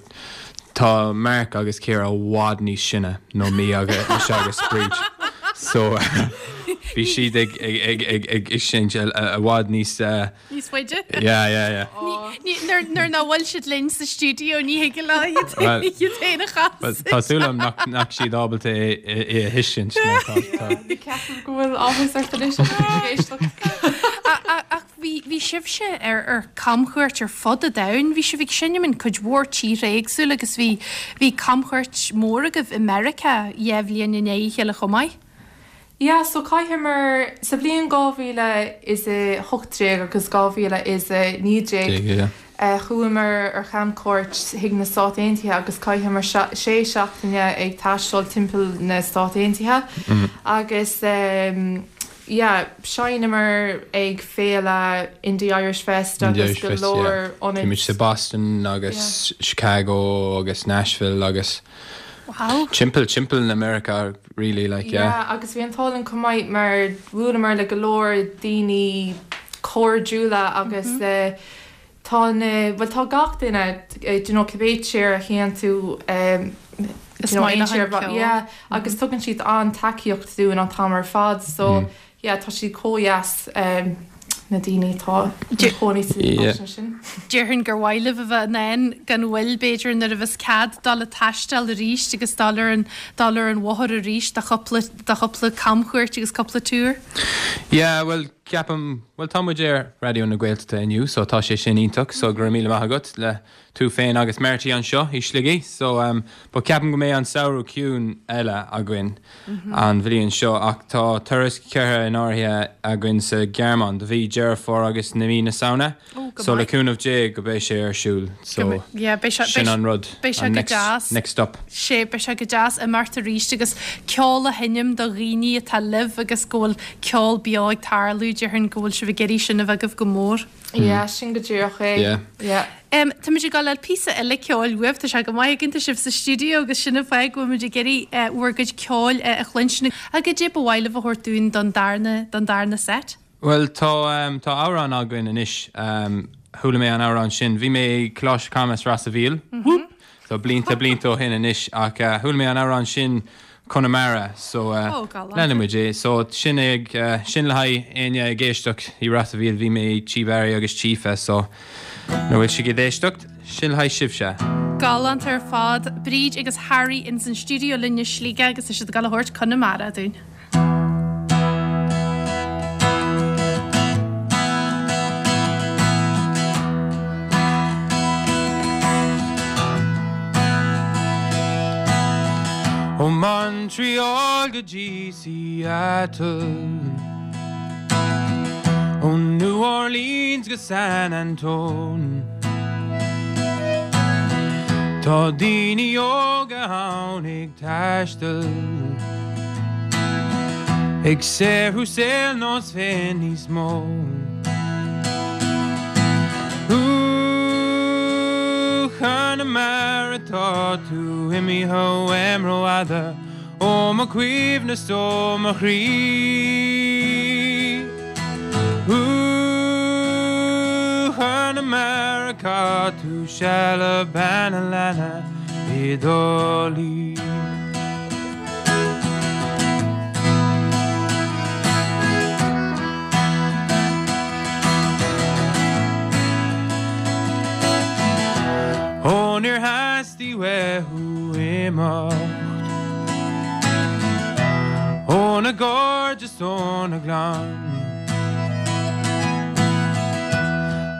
tá Mark agus Ciara i bhfad níos sine ná mé agus mise agus Bríd so bhí siad ag ag ag ag ag seinnt i bhfad níos Níos faide? Yeah, yeah, yeah. Nuair nuair nach bhfuil siad linn sa stiúideo ní thig leo iad Well, iad féin a Well, chasadh. tá súil agam nach nach siad ábalta é é a thuiscint mar tá tá Ceapaim go bhfuil áthas ort anois agus tú ag éisteacht. Ach bhí bhí sibhse ar ar camchuairt ar fud an domhain. Bhí sibh ag seinm in cuid mhór tíortha éagsúla agus bhí bhí camchuairt mhór agaibh i Meiriceá dhá bhliain i ndiaidh a chéile chomh maith. Yeah, so chaitheamar, sa bhliain 2018 agus 2019, chuamar ar chamchuairt chuig na Stáit Aontaithe agus chaitheamar sé seachtaine ag taisteal timpeall na Stát Aontaithe agus yeah, sheinneamar ag féile Indie Irish Fest agus go leor ionaid. Bhí muid sa Boston agus Chicago agus Nashville agus Wow. Timpeall, timpeall na Meiriceá really like yeah. Yeah agus bhí an t-ádh linn chomh maith mar bhuaileamar le go leor daoine cairdiúla agus tá na, bhuel tá gach duine do you know cibé tír a théann tú Is maith leo an ceol. Yeah agus tugann siad an-tacaíocht dúinn an t-am ar fad so Yeah, tá siad chomh dheas, na daoine atá ina chónaí san áiteanna sin. Déarfainn gur mhaith libh a bheith in ann gan mhoill, b'fhéidir, nuair a bheas cead dul ag taisteal arís agus dul ar an, dul ar an bhóthar arís do chúpla, do chúpla camchuairt agus cúpla tour. Yeah, bhuel, ceapaim, bhuel tá muid ar Raidió na Gaeltachta inniu so tá sé sin iontach so go raibh míle maith agat le tú féin agus Marty anseo i Sligigh so um but ceapaim go mbeidh an samhradh ciúin eile againn an bhliain seo ach tá turas curtha in áirithe againn sa Ghearmáin do mhí Deireadh Fómhair agus na mí na Samhna Oh, go so le maith. cúnamh Dé go beidh sé ar siúl so Go mbeidh- yeah, beidh sé- sin beidh- an rud beidh sé an go next deas. next stop. Sea, beidh sé go deas imeacht arís agus ceol a sheinm do dhaoine atá libh agus go bhfuil ceol beo ag tarlú, déarfainn go bhfuil sibh ag iarraidh sin a bheith agaibh go mór. Yeah, sin go díreach é. Yeah. Yeah. Em, táimid ag dul le píosa eile ceoil uaibh, tá sé go maith againn, tá sibh sa stiúideo agus sin an fáth go bhfuil muid ag iarraidh eh, bhur gcuid ceoil eh, a chluinstin. Ach goidé ba mhaith libh a thabhairt dúinn don darna, don darna set? Bhuel, tá, em, tá amhrán againn anois, em, chuala mé an amhrán sin, bhí mé i Coláiste Camus Ros a' Mhíl, whoop, so blianta, blianta ó shin anois ach eh, chuala mé an amhrán sin Conamara so Ó, galánta. leanfaidh muid é. So sin ag, sin le haghaidh éinne ag éisteacht i Ros a' Mhíl, bhí mé i Tí Barry agus Tí Aoife so nuair bhfuil sibh ag éisteacht, sin le haghaidh sibhse. Galánta ar fad. Bríd agus Harry ins an stiúideo linn i Sligeach agus tá siad ag dul a thabhairt Conamara dúinn. Ó Montreal go dtí Seattle Ó New Orleans go San Antone Tá daoine óga ann ag taisteal. Ag saothrú saol nós féin níos mó. Ooh, Chonamara tá tú imithe uaim rófhada ó mo chuimhne 's ó mo chroí. Ooh, Chonamara chaith tú seal le bean a' leanna i dTrá Lí. Ó níor theastaigh uait thú imeacht óna gcairde 's óna gclann.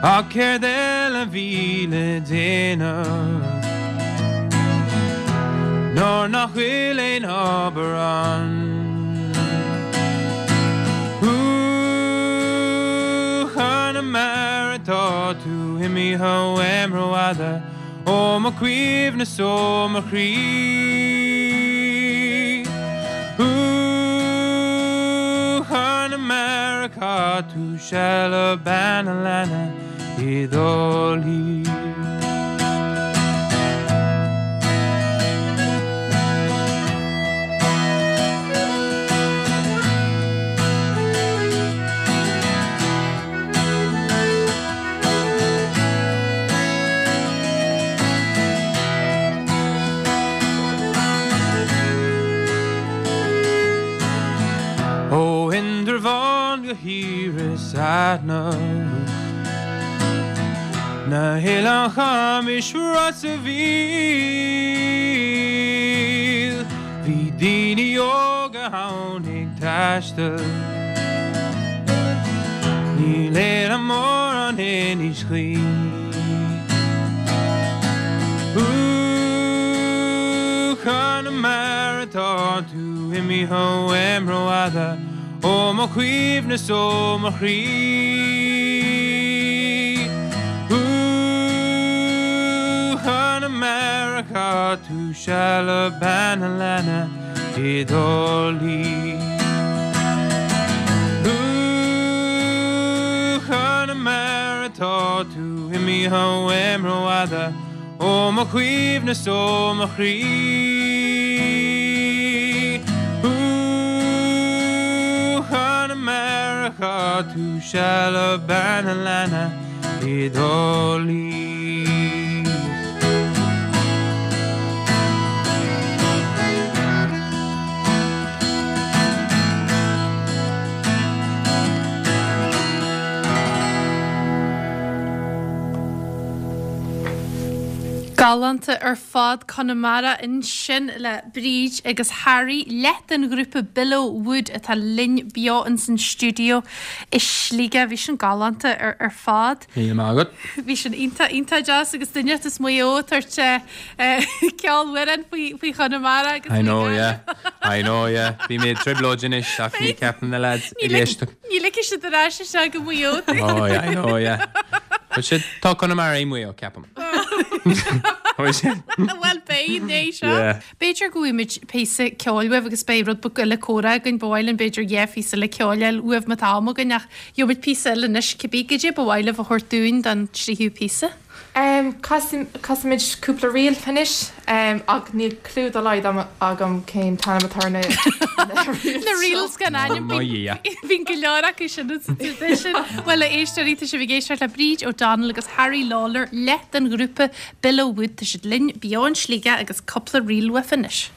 Ach céard eile a bhí le déanamh nuair nach bhfuil aon obair ann? Ooh, Chonamara tá tú imithe uaim rófhada ó mo chuimhne 's ó mo chroí. Ooh, Chonamara chaith tú seal le bean a' leanna i dTrá Lí. Ó Indreabhán go hIorras Aithneach, Na hOileáin Chamais Ros a' Mhíl, Bhí daoine óga ann ag taisteal. Níl éileamh mór ann anois choíche. Ooh, Chonamara tá tú imithe uaim rófhada ó mo chuimhne 's ó mo chroí. Ooh, Chonamara chaith tú seal le bean a' leanna i dTrá Lí. Ooh, Chonamara tá tú imithe uaim rófhada ó mo chuimhne 's ó mo chroí. Ooh, Chonamara chaith tú seal le bean a' leanna i dTrá Lí. Galánta ar fad Conamara ansin le Bríd agus Harry, leath den ghrúpa Billow Wood atá linn beo ins an stiúideo i Sligeach. Bhí sin galánta ar fad. Míle maith agat. Bhí sin iontach, iontach deas agus duine as Maigh Eo ag tabhairt ceolmhaireán faoi, faoi Chonamara agus I know, yeah. I know, yeah. Bhí mé i dtrioblóid anois ach ní ceapaim na lads ag éisteacht. Ní ligfidh siad ar ais isteach go Maigh Eo. Oh, yeah, I know, yeah. But siad, tá Conamara i Maigh Eo, ceapaim. Bhuel, beidh, ní seo. Yeah. B'fhéidir go bhfaighimid píosa ceoil uaibh agus beidh rud beag eile comhrá againn, ba mhaith linn b'fhéidir dhá phíosa eile ceoil a fháil uaibh má tá am againn ach gheobhaimid píosa eile anois cibé, goidé ba mhaith libh a thabhairt dúinn don tríú píosa? Casfaimid cúpla ríl anois ach níl clue dá laghad agam cén t-ainm atá ar na reels. Na reels gan ainm, bíonn go leor acu sin sa traidisiún. Bhuel a éisteoirí, tá sibh ag éisteacht le Bríd O'Donnell agus Harry Lawlor, leath den ghrúpa Billow Wood, tá siad linn beo in Sligeach agus cúpla ríl uaibh anois.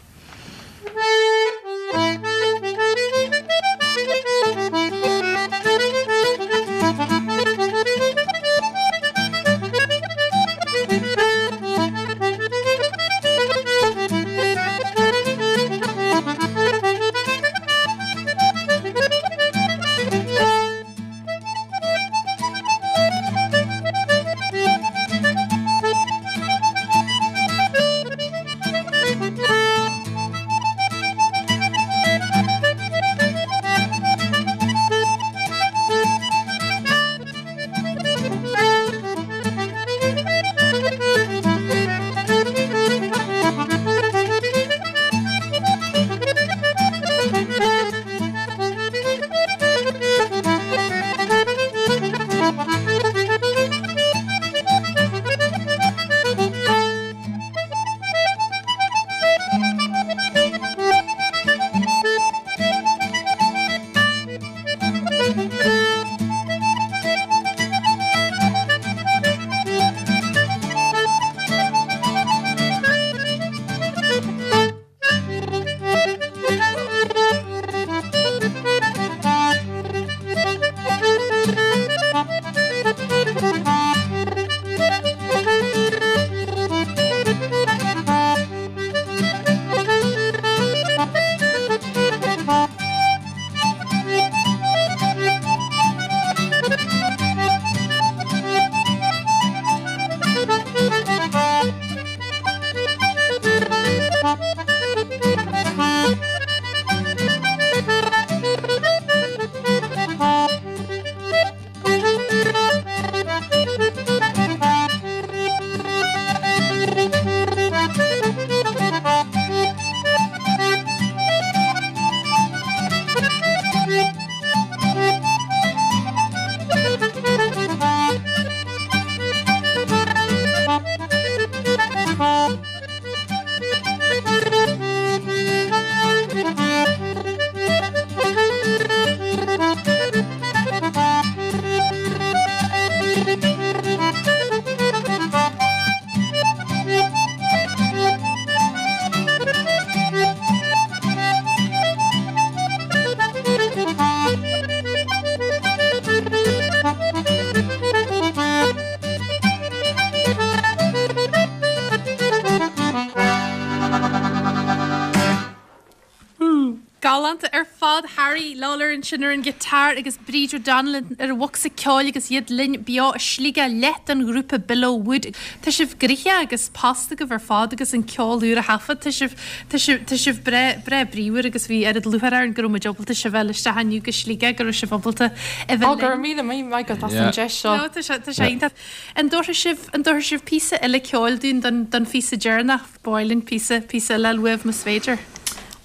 Galánta ar fad, Harry Lawlor ansin ar an ghiotár agus Bríd O'Donnell ar an bhocsa ceoil agus iad linn beo i Sligeach, leath den ghrúpa Below Wood. Tá sibh gnoitheach agus post agaibh ar fad agus an ceol úr a thaifead. Tá sibh, tá sibh, tá sibh breá, breá bríomhar agus bhí oiread lúcháir orainn go raibh muid ábalta sibh a fháil isteach inniu go Sligeach, go raibh sibh ábalta a bheith Ó, go linn. raibh míle maith agat as an deis seo. No, tá sé, tá sé iontach. An dtabharfaidh sibh, an dtabharfaidh sibh píosa eile ceoil dúinn don, don phíosa deireanach? Ba mhaith linn píosa, píosa eile a fháil uaibh más féidir.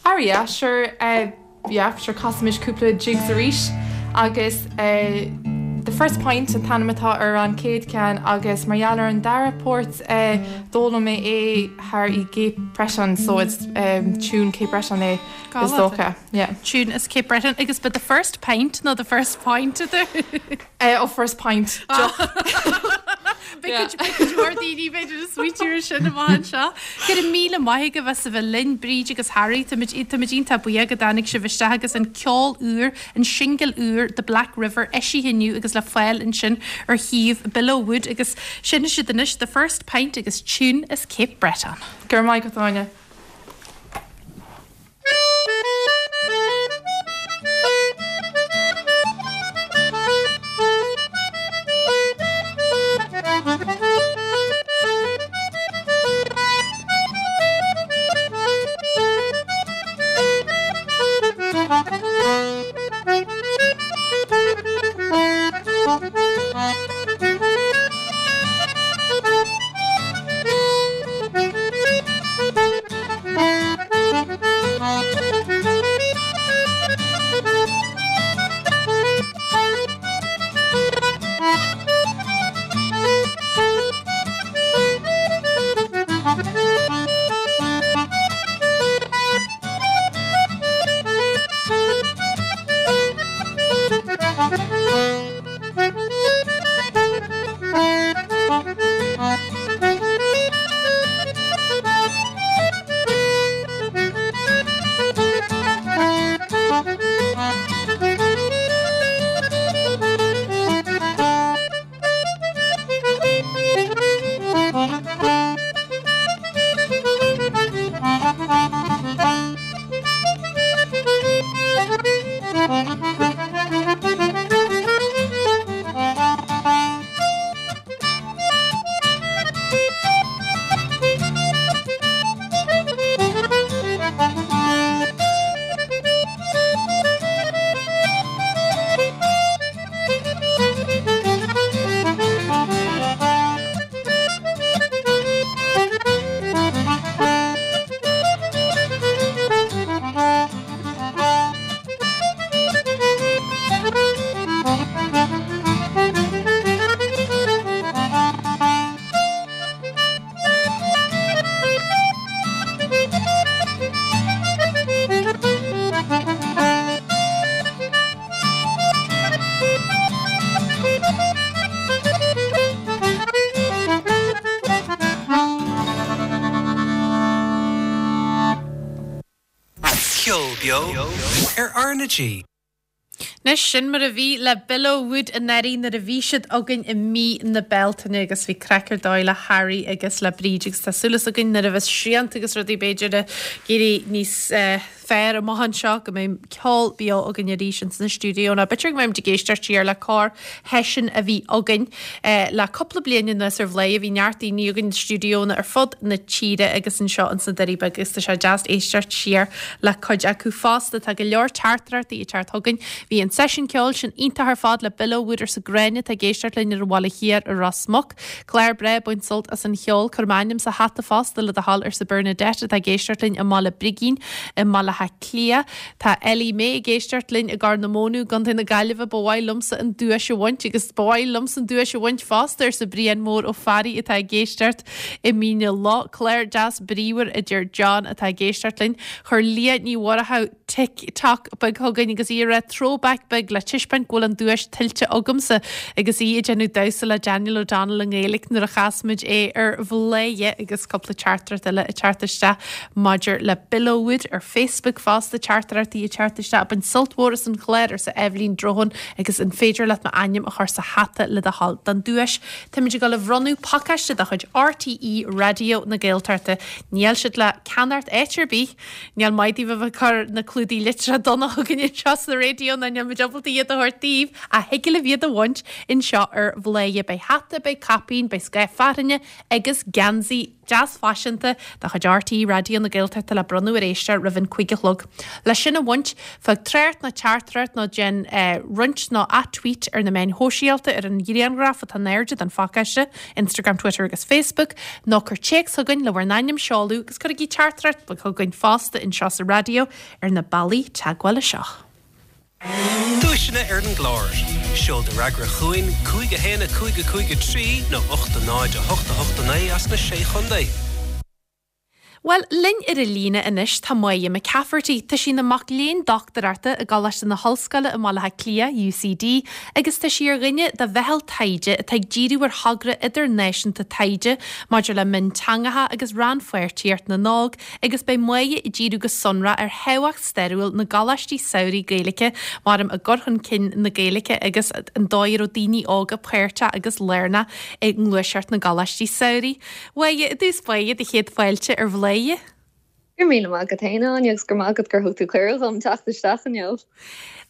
Ah yeah, sure, eh yeah, sure casaimis cúpla jigs arís agus eh The First Pint an t-ainm atá ar an chéad ceann agus mar gheall ar an dara port eh d'fhoghlaim mé é thar i gCape Breton so it's eh tune Cape Breton é is dócha, yeah. Tune as Cape Breton agus ba The First Pint nó The First Point a Eh oh First Pint, deoch. Beidh cuid mhór daoine b'fhéidir ag smaoitiú ar sin amach anseo. Go raibh míle maith agaibh as a bheith linn, Bríd agus Harry. Táimid iontach buíoch go dtáinig sibh isteach agus an ceol úr, an singil úr The Black River eisithe inniu agus le fáil ansin ar shuíomh Below Wood agus seinnfidh siad anois The First Pint agus Tune as Cape Breton. Go raibh maith agat, Áine. Ceol beo ar R na G. Anois, sin mar a bhí le Below Wood anuraidh nuair a bhí siad againn i mí na Bealtaine agus bhí craic ar dóigh le Harry agus le Bríd agus tá súil againn nuair a bheas srianta agus rudaí b'fhéidir ag éirí níos fearr amach anseo go mbeidh ceol beo againn arís ins na stiúidíónna. B'fhéidir go mbeimid ag éisteacht siar le corr-sheisiún a bhí againn le cúpla bliain anuas ar Bhladhaire. Bhí neart daoine againn i stiúidíónna ar fud na tíre agus anseo ins na Doirí Beaga agus tá sé deas éisteacht siar le cuid acu fosta. Tá go leor teachtaireachtaí ag teacht chugainn. Bhí an. Bhí an seisiún ceoil sin iontach ar fad le Bill O'Wood arsa Gráinne atá ag éisteacht linn ar an Bhaile Thiar i Ros Muc. Clár breá, baint sult as an cheol. Cuir m'ainm sa hata fosta le do thoil arsa Bernadette atá ag éisteacht linn i mBaile Brigín i mBaile Átha Cliath. Tá Ellie Mae ag éisteacht linn i gCorr na Móna i gContae na Gaillimhe. Ba mhaith liomsa an duais a bhaint agus ba mhaith liomsa an duais a bhaint fosta arsa Brian Mór Ó Fearraigh atá ag éisteacht i Mín na Loch. Clár deas bríomhar a deir John atá ag éisteacht linn. Chuir Leah Ní Mhurchú Tik Tok beag chugainn agus í ag rá throwback beag le taispeáint go bhfuil an duais tuillte agamsa agus í ag déanamh damhsa le Daniel O'Donnell i nGaeilge nuair a chas muid é ar Bhladhaire agus cúpla teachtaireacht eile ag teacht isteach maidir le Bill O'Wood ar Facebook fosta teachtaireachtaí ag teacht isteach ag baint sult mhór as an chlár arsa Eibhlín Drohan agus an féidir leat m'ainm a chur sa hata le do thoil don duais táimid ag dul a bhronnadh pacáiste de chuid RTÉ Raidió na Gaeltachta níl siad le ceannacht áit ar bith Níl maith daoibh a bheith ag cur na clúdaigh litreach donna chugainn anseo sa raidió ná níl muid ábalta iad a thabhairt daoibh ach thig libh iad a bhaint anseo ar Bhladhaire. Beidh hata, beidh caipín, beidh scáth fearthainne agus geansaí deas faiseanta de chuid RTÉ Raidió na Gaeltachta le bronnadh ar éisteoir roimh an 5 a chlog. Le sin a bhaint, fág trácht nó teachtaireacht nó déan roinnt nó ath-tweet ar na meáin shóisialta ar an ghrianghraf atá in airde den phacáiste, Instagram, Twitter agus Facebook, nó cuir téacs chugainn le bhur n-ainm, seoladh agus cuirigí teachtaireacht bheag chugainn fosta anseo sa raidió ar na bealaí teagmhála seo. Duaiseanna ar an gclár. Seol do fhreagra chugainn, 5 1 5 5 3 nó 8 0 8 8 9 as na Sé Chontae. Bhuel, linn ar an líne anois tá Máire McCafferty. Tá sí ina mac léinn dochtúireachta i gColáiste na hOllscoile i mBaile Átha Cliath, UCD, agus tá sí ar dhuine de mheitheal taighde atá ag díriú ar thogra idirnáisiúnta taighde maidir le mionteangacha agus rannpháirtíocht na n-óg agus beidh Máire ag díriú go sonrach ar thábhacht stairiúil na gcoláistí samhraidh Gaeilge mar arm i gcur chun cinn na Gaeilge agus an dóigh a raibh daoine óga páirteach agus lárnach i ngluaiseacht na gcoláistí samhraidh. Mháire, i dtús báire, do chéad fáilte ar Bhladhaire. Go raibh míle maith agat féin, a Áine, agus go raibh maith agat gur thug tú cuireadh dhom teacht isteach inniu.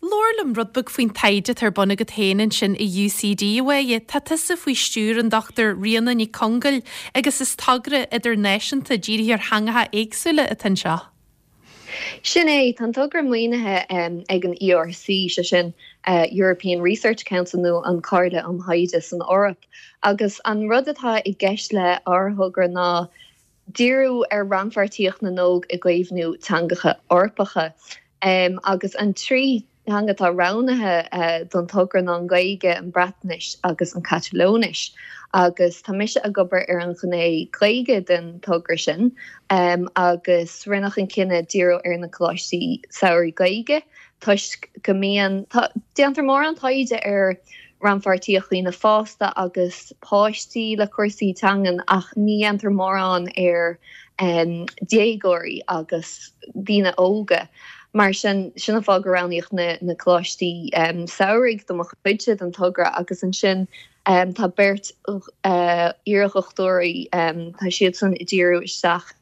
Labhair liom rud beag faoin taighde atá ar bun agat féin ansin i UCD, a Mháire. Tá tusa faoi stiúir an Dr Ríona Nic Congail agus is togra idirnáisiúnta dírithe ar theangacha éagsúla atá anseo. Sin é, tá an togra maoinithe ag an ERC, sé sin European Research Council nó an Chomhairle um Thaighde san Eoraip, agus an rud atá i gceist le ár thogra ná díriú ar rannpháirtíocht na n-óg i gcaomhnú teangacha Eorpacha. Agus an trí theanga atá roghnaithe don togra ná an Ghaeilge, an Bhreatnais agus an Chatalóinis agus tá mise ag obair ar an ghné Ghaeilge den togra sin agus rinneadh an cinneadh díriú ar na coláistí samhraidh Gaeilge toisc go mbíonn, déantar mórán taighde ar rannpháirtíocht daoine fásta agus páistí le cúrsaí teangan ach ní dhéantar mórán ar déagóirí agus daoine óga. Mar sin, sin an fáth gur roghnaíodh na coláistí samhraidh do mo chuidse den togra agus ansin tá beirt iardhochtúirí, tá siadsan ag díriú isteach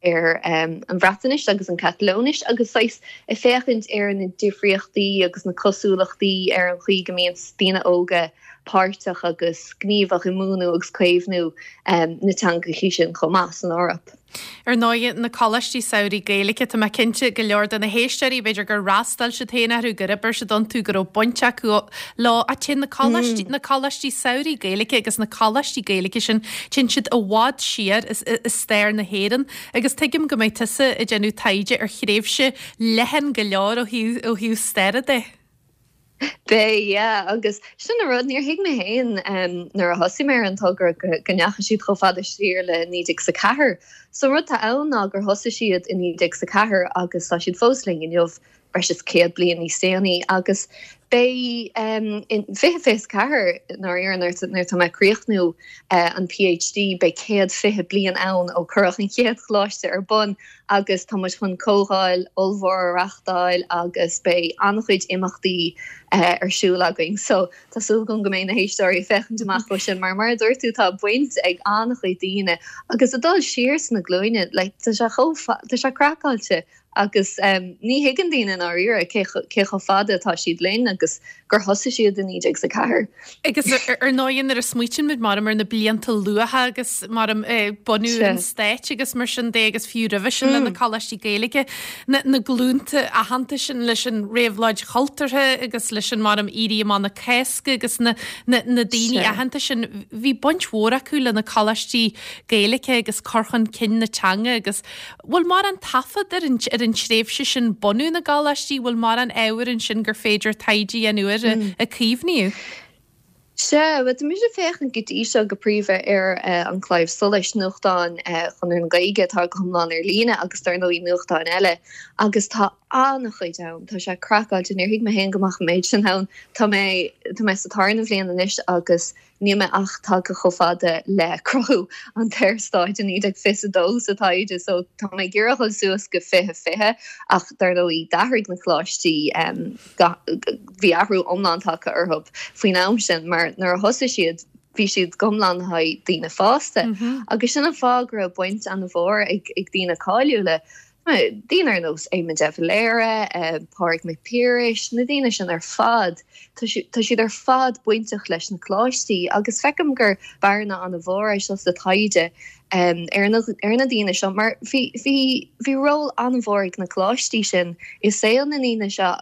ar an Bhreatnais agus an Chatalóinis agus saghas ag féachaint ar na difríochtaí agus na cosúlachtaí ar an chaoi go mbíonn daoine óga páirteach agus gníomhach i múineadh agus caomhnú na teangachaí sin chomh maith san Eoraip. Ar ndóigh, na coláistí samhraidh Gaeilge, tá mé cinnte go leor de na héisteoirí, b'fhéidir gur fhreastail siad féin orthu, gur oibir siad iontu, go raibh baint acu leo. Ach téann na coláistí, na coláistí samhraidh Gaeilge agus na coláistí Gaeilge sin, téann siad i bhfad siar i stair na hÉireann. Agus tuigim go mbeidh tusa ag déanamh taighde ar thréimhse leathan go leor ó thaobh, ó thaobh staire de. Beidh, yeah, agus sin an rud, níor thuig mé féin nuair a thosaigh mé ar an togra go ndeachaigh siad chomh fada siar le 1904. So an rud atá ann ná gur thosaigh siad i 1904 agus tá siad fós linn inniu, breis is 100 bliain níos déanaí. Agus beidh in 2024, ndáiríre, nuair atá mé ag críochnú an PhD, beidh 120 bliain ann ó cuireadh an chéad choláiste ar bun. agus tá muid chun comhdháil ollmhór a reachtáil agus beidh an-chuid imeachtaí ar siúl againn. So tá súil agam go mbeidh na héisteoirí ag féachaint amach dó sin mar mar a dúirt tú tá baint ag an-chuid daoine agus ag dul siar sna glúine like tá sé chomh tá sé craiceáilte agus ní thuigeann daoine i ndáiríre cé cé chomh fada atá siad linn. agus gur thosaigh siad i 1904. Agus ar ndóigh nuair a smaoitíonn muid maram ar na blianta luatha agus maram bunú an stáit agus mar sin de agus fiú roimhe sin le na coláistí Gaeilge, na na glúnta aitheanta sin leis an réabhlóid chultúrtha agus leis an maram Éirí Amach na Cásca agus na na na daoine aitheanta sin, bhí baint mhór acu le na coláistí Gaeilge agus cur chun cinn na teanga agus bhfuil mórán taifead ar an ar an tréimhse sin bunú na gcoláistí, bhfuil mórán ábhair ansin gur féidir taighde a dhéanamh air a caomhnaíodh? Sea, bhuel tá mise ag féachaint go dtí seo go príomha ar An Claidheamh Soluis, nuachtán Chonradh na Gaeilge atá go hiomlán ar líne agus dar ndóigh nuachtáin eile agus tá an-chuid ann, tá sé craiceáilte, níor thuig mé féin go mbeadh an méid sin ann. Tá mé, tá mé sa tarna bhliain anois agus Níl mé ach tagtha chomh fada le cruthú an tSaorstáit i 1922 sa taighde so tá mé ag iarraidh a dhul suas go 2020 ach dar ndóigh d'athraigh na coláistí, bhí athrú iomlán tagtha orthu faoin am sin mar nuair a thosaigh siad bhí siad go hiomlán le haghaidh daoine fásta agus sin an fáth go raibh baint an-mhór ag daoine cáiliúla Daoine ar nós Éamon de Valera, Pádraig Mac Piarais, na daoine sin ar fad, tá siad ar fad bainteach leis na coláistí agus feicim gur bearna an-mhór é seo sa taighde ar na daoine seo mar bhí bhí ról an-mhór ag na coláistí sin i saol na ndaoine seo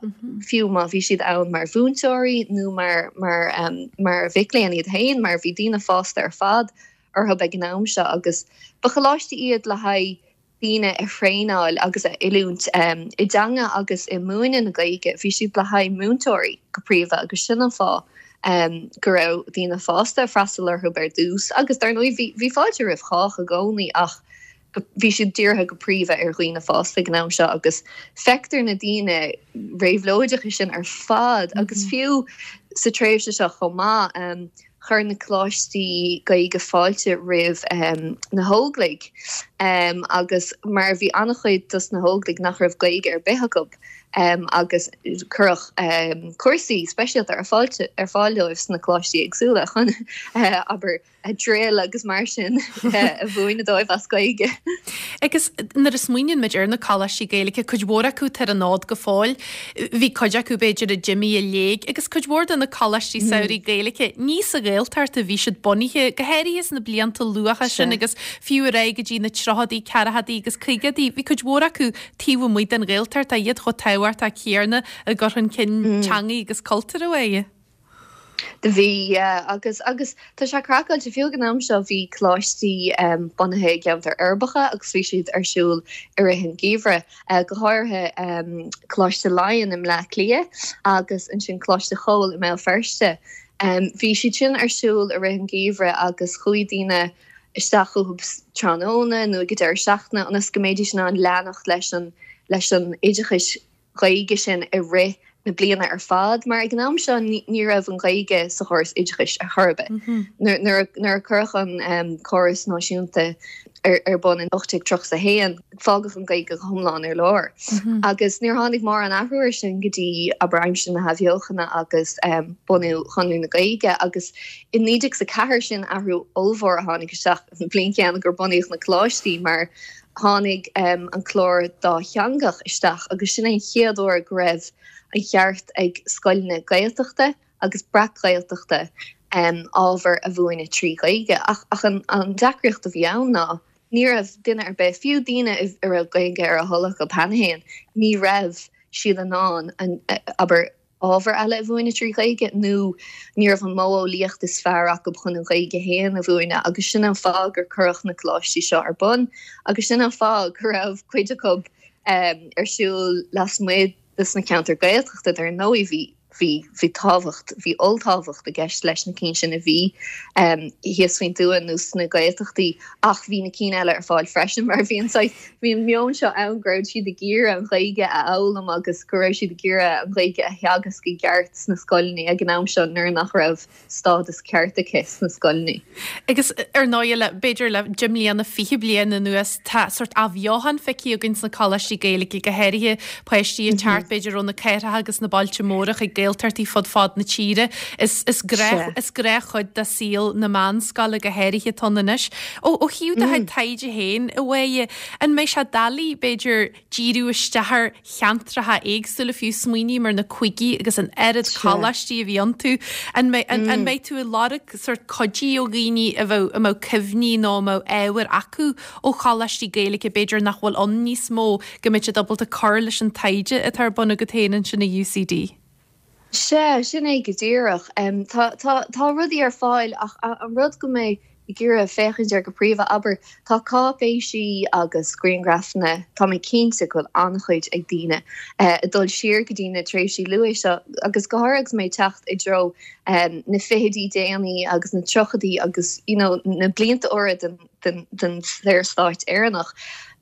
fiú má bhí siad ann mar mhúinteoirí nó mar mar mar mhic léinn iad féin mar bhí daoine fásta ar fad orthu ag an am seo agus ba choláistí iad le haghaidh daoine a thraenáil agus a oiliúint i dteanga agus i múineadh na Gaeilge. Bhí siad le haghaidh múinteoirí go príomha agus sin an fáth go raibh daoine fásta ag freastal orthu ar dtús agus dar ndóigh bhí bhí fáilte roimh chách i gcónaí ach bhí siad dírithe go príomha ar dhaoine fásta ag an am seo agus feictear na daoine réabhlóideacha sin ar fad agus fiú sa tréimhse seo chomh maith. Chuir na coláistí Gaeilge fáilte roimh na hÓglaigh agus mar bhí an-chuid dos na hÓglaigh nach raibh Gaeilge ar bith acu agus cuireadh cúrsaí speisialta ar ar fáil dóibh sna coláistí éagsúla chun abair drill agus mar sin a mhúineadh dóibh as Gaeilge. Agus nuair a smaoiníonn muid ar na coláistí Gaeilge, cuid mhór acu atá ar an fhód go fóill, bhí cuid acu b'fhéidir a d'imigh i léig agus cuid mhór de na coláistí samhraidh Gaeilge, ní sa Ghaeltacht a bhí siad bunaithe, go háirithe sna blianta luatha sin agus fiú ar aghaidh go dtí na tríochadaí, ceathrachaidí agus caogaidí, bhí cuid mhór acu taobh amuigh den Ghaeltacht, ach iad chomh tábhachtach céanna i gcur chun cinn teangaí agus cultúir a bheidh. Do bhí, yeah, agus, agus tá sé craiceáilte, fiú ag an am seo bhí coláistí bunaithe i gceantair uirbeacha agus bhí siad ar siúl i rith an gheimhridh, go háirithe Coláiste Laighean i mBleá Cliath agus ansin Coláiste Chóil i mBéal Feirste. Bhí siad sin ar siúl i rith an gheimhridh agus chuaigh daoine isteach chucu tráthnóna nó ag an deireadh seachtaine ionas go mbeidís in ann leanacht leis an, leis an oideachais Ghaeilge sin i rith na bliana ar fad mar ag an am seo ní raibh an Ghaeilge sa chóras oideachais ar chor ar bith. Nuair a cuireadh an córas náisiúnta ar bun in 1831 fágadh an Ghaeilge go hiomlán ar lár. Agus níor tháinig mórán athrú air sin go dtí abair aimsir na hAthbheochana agus bunú Chonradh na Gaeilge agus i 1904 sin athrú ollmhór a tháinig isteach an bhliain chéanna gur bunaíodh na coláistí mar Tháinig an clár dátheangach isteach agus sin é an chéad uair go raibh an cheart ag scoileanna Gaeltachta agus breac-Ghaeltachta ábhar a mhúineadh trí Ghaeilge. Ach an deacraíocht a bhí ann ná ní raibh duine ar bith, fiú daoine a raibh Gaeilge ar a thoil acu cheana féin, ní raibh siad in ann, abair, ábhar eile a mhúineadh trí Ghaeilge nó ní raibh an modheolaíocht is fearr acu chun an Ghaeilge féin a mhúineadh agus sin an fáth gur cuireadh na coláistí seo ar bun agus sin an fáth go raibh cuid acu ar siúl lasmuigh de sna ceantair Gaeltachta dar ndóigh bhí bhí bhí tábhacht bhí olltábhacht i gceist leis na cinn sin a bhí thíos faoin tuath nó sna Gaeltachtaí ach bhí na cinn eile ar fáil freisin mar bhí an saghas Bhí an meon seo ann go raibh siad ag iarraidh an Ghaeilge a fhoghlaim agus go raibh siad ag iarraidh an Ghaeilge a theagasc i gceart sna scoileanna ag an am seo nuair nach raibh stádas ceart aici sna scoileanna. Agus ar ndóigh le, b'fhéidir le 10 mbliana, 20 bliain anuas, tá sórt athbheochan feicthe againn sna coláistí Gaeilge, go háirithe páistí ag teacht b'fhéidir ó na cathracha agus na bailte móra chuig Gaeltachtaí. Gaeltachtaí fud fad na tíre. Is is gnách is gnáthchuid de saol na meánscoile go háirithe atá ann anois. Ó ó thaobh do chuid taighde féin, a Mháire, an mbeidh sé doiligh, b'fhéidir, díriú isteach ar cheantracha éagsúla, fiú smaoiním ar na cúigí agus an oiread coláistí a bhí iontu. An mbeidh, an mbeidh tú ag lorg sórt cuidí ó dhaoine a bheadh, a mbeadh cuimhní nó a mbeadh ábhar acu ó choláistí Gaeilge b'fhéidir nach bhfuil ann níos mó, go mbeidh siad ábalta cur leis an taighde atá ar bun agat féin ansin i UCD? Sea, sin é go díreach. Tá, tá, tá rudaí ar fáil ach an rud go mbeidh ag iarraidh féachaint air go príomha, abair, tá cáipéisí agus grianghrafanna, tá mé cinnte go bhfuil an-chuid ag daoine, ag dul siar go dtí na tréimhsí luaithe seo agus go háirithe agus mé ag teacht i dtreo na fichidí déanaí agus na tríochaidí agus you know na blianta úra den den Saorstát Éireannach.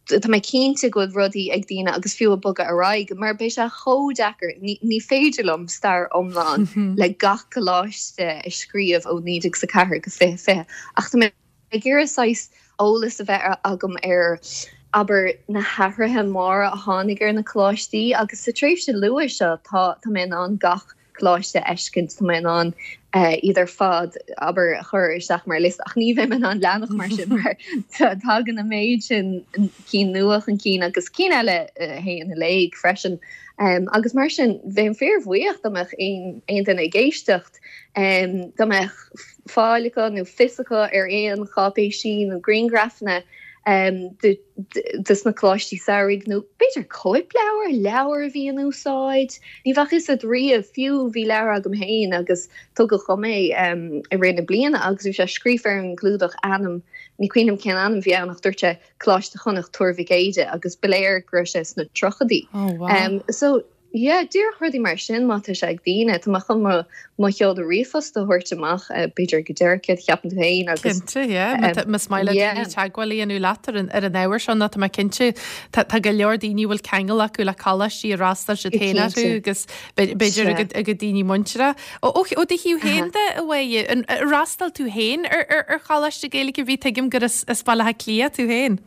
Tá mé cinnte go bhfuil rudaí ag daoine agus fiú ag bogadh ar aghaidh, mar beidh sé chomh deacair, ní féidir liom stair iomlán le gach coláiste a scríobh ó 1904 go 2020, ach tá mé ag iarraidh saghas eolas a bheith agam ar, abair, na hathruithe móra a tháinig ar na coláistí agus sa tréimhse luath seo tá mé in ann gach coláiste a fheiscint, tá mé in ann iad ar fad, abair, a chur isteach mar liosta, ach ní bheidh mé in ann leanacht mar sin mar tagann an méid sin cinn nua chun cinn agus cinn eile a théann i léig freisin. Agus mar sin, bheinn fíorbhuíoch dá mbeadh aon duine ag éisteacht, dá mbeadh fáil acu nó fios acu ar aon cháipéisí nó grianghrafanna de dos na coláistí samhraidh nó b'fhéidir cóipleabhar, leabhar a bhí in úsáid. Ní bheadh fhios agat riamh, fiú bhí leabhar agam féin agus tugadh dhom é i rith na bliana agus bhí sé scríofa ar an gclúdach ainm, ní cuimhin liom cén ainm a bhí ann ach dúirt sé Coláiste Chonnacht Tuar Mhic Éide agus ba léir go raibh sé sna tríochaidí. Oh wow. So Yeah, díreach rudaí mar sin má tá sé ag daoine. Tá mé chun mo mo sheoladh ríomhphost a thabhairt amach b'fhéidir go deireadh céard a cheapann tú féin agus Cinnte, yeah. Má tá- Más maith le yeah. daoine teagmháil a dhéanamh leat ar an ar an ábhar seo nó tá mé cinnte tá tá go leor daoine a bhfuil ceangal acu le coláistí ar fhreastail siad féin orthu Cinnte. agus b'fhéidir Sea. a gcuid a gcuid daoine muintire. Ó ó ó do thaobh féin de, a Mháire, an ar fhreastail tú féin ar ar ar choláiste Gaeilge ar bith tuigim gur as as Baile Átha Cliath tú féin.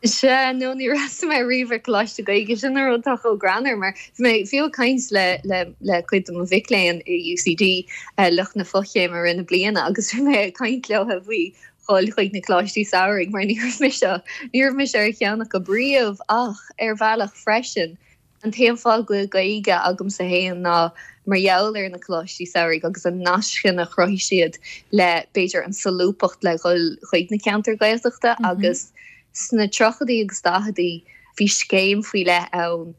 Sea, no, níor fhreastail mé riamh ar Coláiste Gaeilge, sin an rud atá chomh greannmhar, mar bhí mé fiú ag caint le, le, le cuid de mo mhic léinn i UCD, lucht na fochéime i rith na bliana, agus bhí mé ag caint leo faoi dhul chuig na coláistí samhraidh, mar ní raibh mise, ní raibh mise ar cheann acu riamh, ach ar bhealach freisin, An t-aon fáth go bhfuil Gaeilge agamsa féin ná mar gheall ar na coláistí samhraidh agus an nasc sin a chruthaigh siad le, b'fhéidir, an solúbthacht le dhul chuig na ceantair Ghaeltachta agus sna tríochaidí agus daicheadaí bhí scéim faoi leith ann,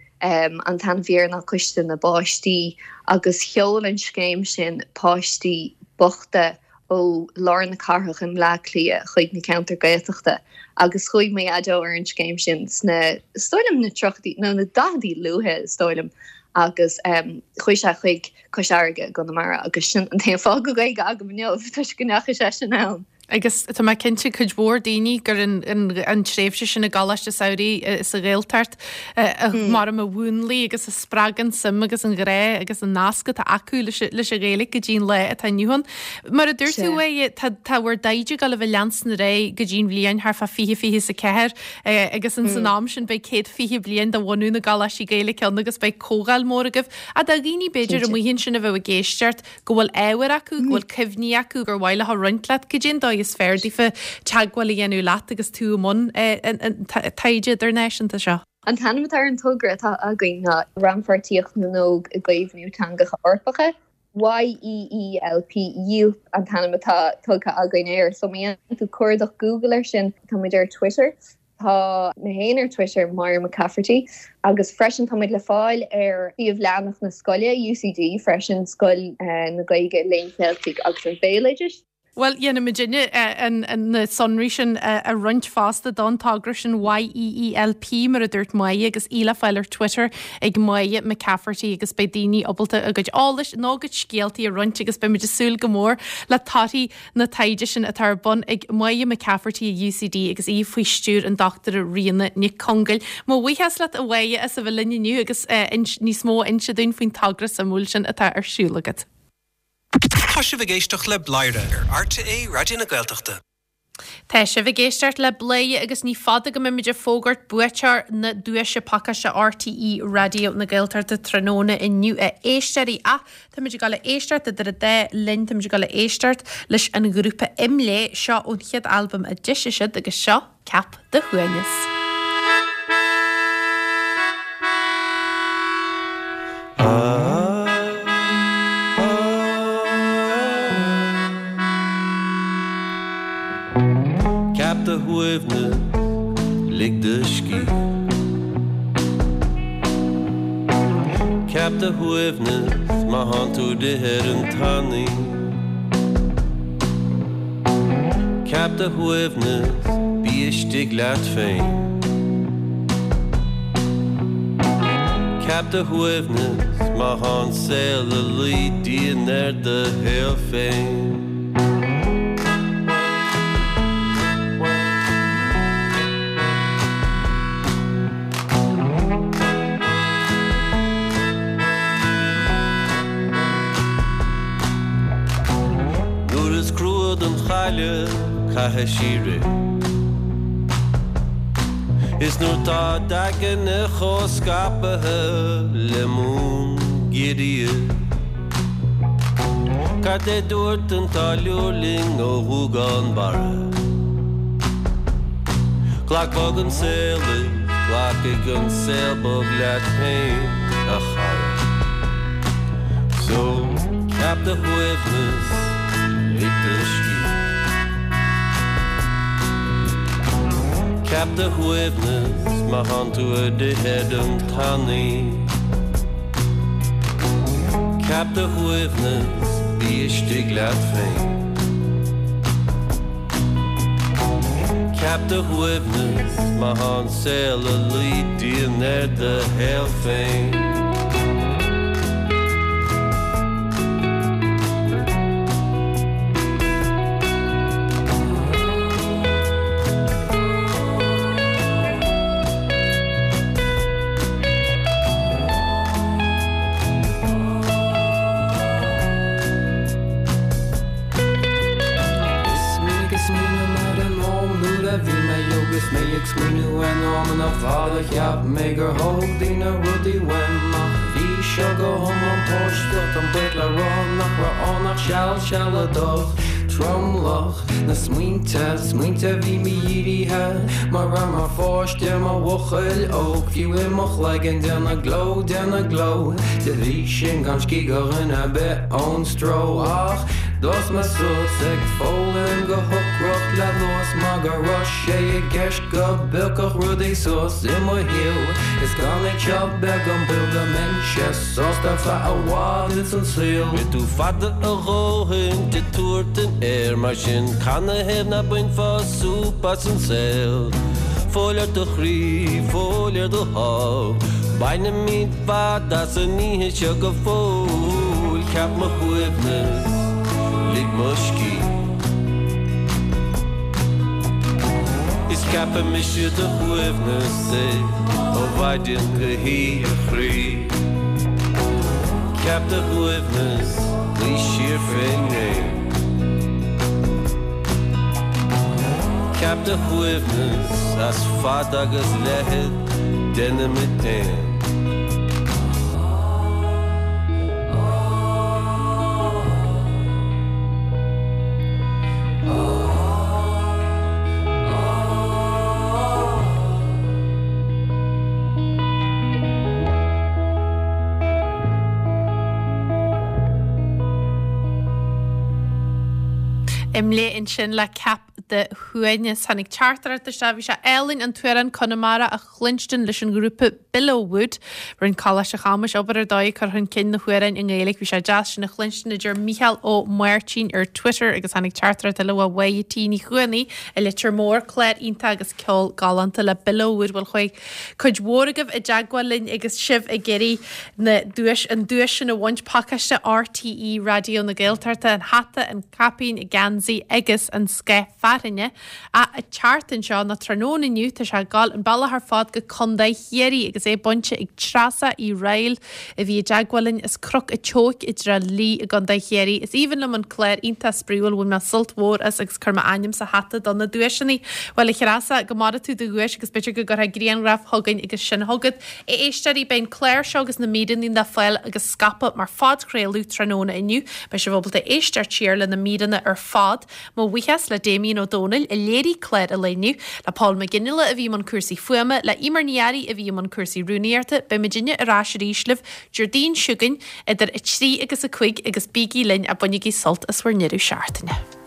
an t-ainm a bhí air ná Coiste na bPáistí agus sheol an scéim sin páistí bochta ó lár na cathrach i mBleá Cliath chuig na ceantair Gaeltachta agus chuaigh mo dhaideo ar an scéim sin sna, is dóigh liom, na tríochaidí nó na daicheadaí luaithe is dóigh liom agus chuaigh sé chuig Cois Fharraige i gConamara agus sin an t-aon fáth go bhfuil Gaeilge agam inniu toisc go ndeachaigh seisean ann. Agus tá mé cinnte cuid mhór daoine gur an tréimhse sin i gColáiste Samhraidh sa Ghaeltacht mar a mhúnlaigh agus a spreag an suim agus an ghrá agus an nasc atá acu leis an Ghaeilge go dtí an lá atá inniu ann. Mar a dúirt tú a tá tá bhur dtaighde ag dul a bheith leanstan ar aghaidh go dtí an bhliain thart fá 2024 agus ins an am sin beidh 120 bliain de bhunú na gColáistí Gaeilge ann agus beidh comhdháil mór agaibh. Ach do dhaoine b'fhéidir amuigh ansin a bheadh ag éisteacht go bhfuil ábhar acu, go bhfuil cuimhní acu gur mhaith leo a roinnt leat, cad é an dóigh is fearr daofa teagmháil a dhéanamh leat agus tú i mbun an taighde idirnáisiúnta seo? An t-ainm atá ar an togra atá againn ná Rannpháirtíocht na nÓg i gCaomhnú Teangacha Eorpacha, YEELP, Yeelp an t-ainm atá tugtha againn air. So má dhéanann tú cuardach Google air sin, tá muid ar Twitter. Tá mé féin ar Twitter, Máire McCafferty, agus freisin tá muid le fáil ar shuíomh leathanach na scoile, UCD, freisin, Scoil na Gaeilge, Léinn Cheiltigh agus an Bhéaloidis. Bhuel, dhéanfaidh muidinne na sonraí sin a roinnt fosta don togra sin YEELP, mar a dúirt Máire, agus í le fáil ar Twitter ag Máire McCafferty agus beidh daoine ábalta a gcuid eolais nó a gcuid scéaltaí a roinnt agus beidh muid ag súil go mór le torthaí na taighde sin atá ar bun ag Máire McCafferty i UCD agus í faoi stiúir an Dochtúra Ríona Nic Congail. Mo bhuíochas leat a Mháire as a bheith linn inniu agus níos mó a inse dúinn faoin togra suimiúil sin atá ar siúl agat. Tá sibh ag éisteacht le Bladhaire ar RTÉ Raidió na Gaeltachta. Tá sibh ag éisteacht le Bladhaire agus ní fada go mbeimid ag fógairt buaiteoir na duaise pacáiste RTÉ Raidió na Gaeltachta tráthnóna inniu a éisteoirí ach táimid ag dul a éisteacht idir an dá linn, táimid ag dul a éisteacht leis an ghrúpa IMLÉ, seo ón chéad albam a d'eisigh siad agus seo Ceap do Shuaimhneas. Ceap do shuaimhneas, lig do scíth. Ceap do shuaimhneas má thánn tú ag rith ar an tanaí. Ceap do shuaimhneas, bí istigh leat féin. Ceap do shuaimhneas má thá an saol ag luí dian ar do shaol féin. Nuair is crua don chailleach caithfidh sí rith. Is nuair tá d'aigne chomh scaipthe le mún giorria. Cad é dúirt an táilliúir linn ó Ghuagán Barra? Glac bog an saol is glacfaidh an saol bog leat féin, a chara. So, ceap do shuaimhneas, lig do scíth. Ceap do shuaimhneas má thánn tú ag rith ar an tanaí. Ceap do shuaimhneas, bí istigh leat féin. Ceap do shuaimhneas má thá an saol ag luí dian ar do shaol féin. Is minic a smaoiním ar an am nuair a bhí mé óg is mé ag smaoineamh ar na hamanna fada cheap mé gur thóg daoine rudaí uaim ach bhí seo go hiomlán páisteach táim buíoch le rá nach raibh ann ach seal sealadach tromlach na smaointe, smaointe a bhí mídhírithe mar raibh mar pháiste mar bhuachaill óg fiú i mo chloigeann déanamh gleo déanamh gleo de bhrí sin gan scíth do dhuine ar bith ón stró ach d'fhás mé suas ag foghlaim go hocrach le luas mar go raibh sé i gceist go bpiocfadh rudaí suas i mo shaol is gan é seo beag an baol go mbeinnse sásta ar feadh i bhfad ins an saol. Rith tú fada a dhóthain de tabhairt an aeir mar sin canathaobh ná bainfeá súp as an saol? Fóill ar do chroí, fóill ar do shámh, bainfimid fad as an oíche seo go fóill, ceap mo shuaimhneas, lig mo scíth. Is ceapfaidh mise do shuaimhneas é ó mhaidin go hoíche a chroí. Ceap do shuaimhneas, luigh siar fén ngréin. Ceap do shuaimhneas as fad agus leithead déanfaimid aon. IMLÉ ansin le Ceap do Shuaimhneas. Tháinig teachtaireacht isteach, bhí sé álainn an t-amhrán Conamara a chluinstin leis an ghrúpa Billowwood. Rinne Coláiste Chamuis obair ar dóigh ag cur chun cinn na hamhráin i nGaeilge. Bhí sé deas sin a chluinstin, a deir Mícheál Ó Máirtín ar Twitter agus tháinig teachtaireacht eile ó Mháire T Ní Chuanaigh i Leitir Móir, clár iontach agus ceol galánta le Billowwood. Bhuel chuaigh cuid mhór agaibh i dteagmháil linn agus sibh ag iarraidh na duais, an duais sin a bhaint, pacáiste RTÉ Raidió na Gaeltachta, an hata, an caipín, geansaí agus an scáth. Fearthainne. Ach an tseachtain seo, nó tráthnóna inniu, tá sé ag gabháil an bealach ar fad go Contae Chiarraí agus é bainte ag Treasa Uí Raghallaigh a bhí i dteagmháil linn as Cnoc a' tSeoic i dTrá Lí i gContae Chiarraí. Is aoibhinn liom an clár iontach spraíúil, bhain mé sult mhór as agus chuir m'ainm sa hata do na duaiseanna. Bhuel a Threasa, go maire tú do dhuais agus b'fhéidir go gcuirfeá grianghraf chugainn agus sin chugat. A éisteoirí, beidh an clár seo agus na míreanna le fáil agus scaipeadh mar phodchraoladh tráthnóna inniu. Beidh sibh ábalta éisteacht siar le na míreanna ar fad. Mo bhuíochas le Damien Ó Dónaill a léirigh clár an lae inniu, le Paul Mac Fhionnghaile a bhí i mbun cúrsaí fuaime, le Eimear Ní Fhearraigh a bhí i mbun cúrsaí rúnaíochta. Beidh muidinne ar ais arís libh Déardaoin seo chugainn idir 3 agus 5 agus bígí linn a bainigí sult as bhur ndeireadh seachtaine.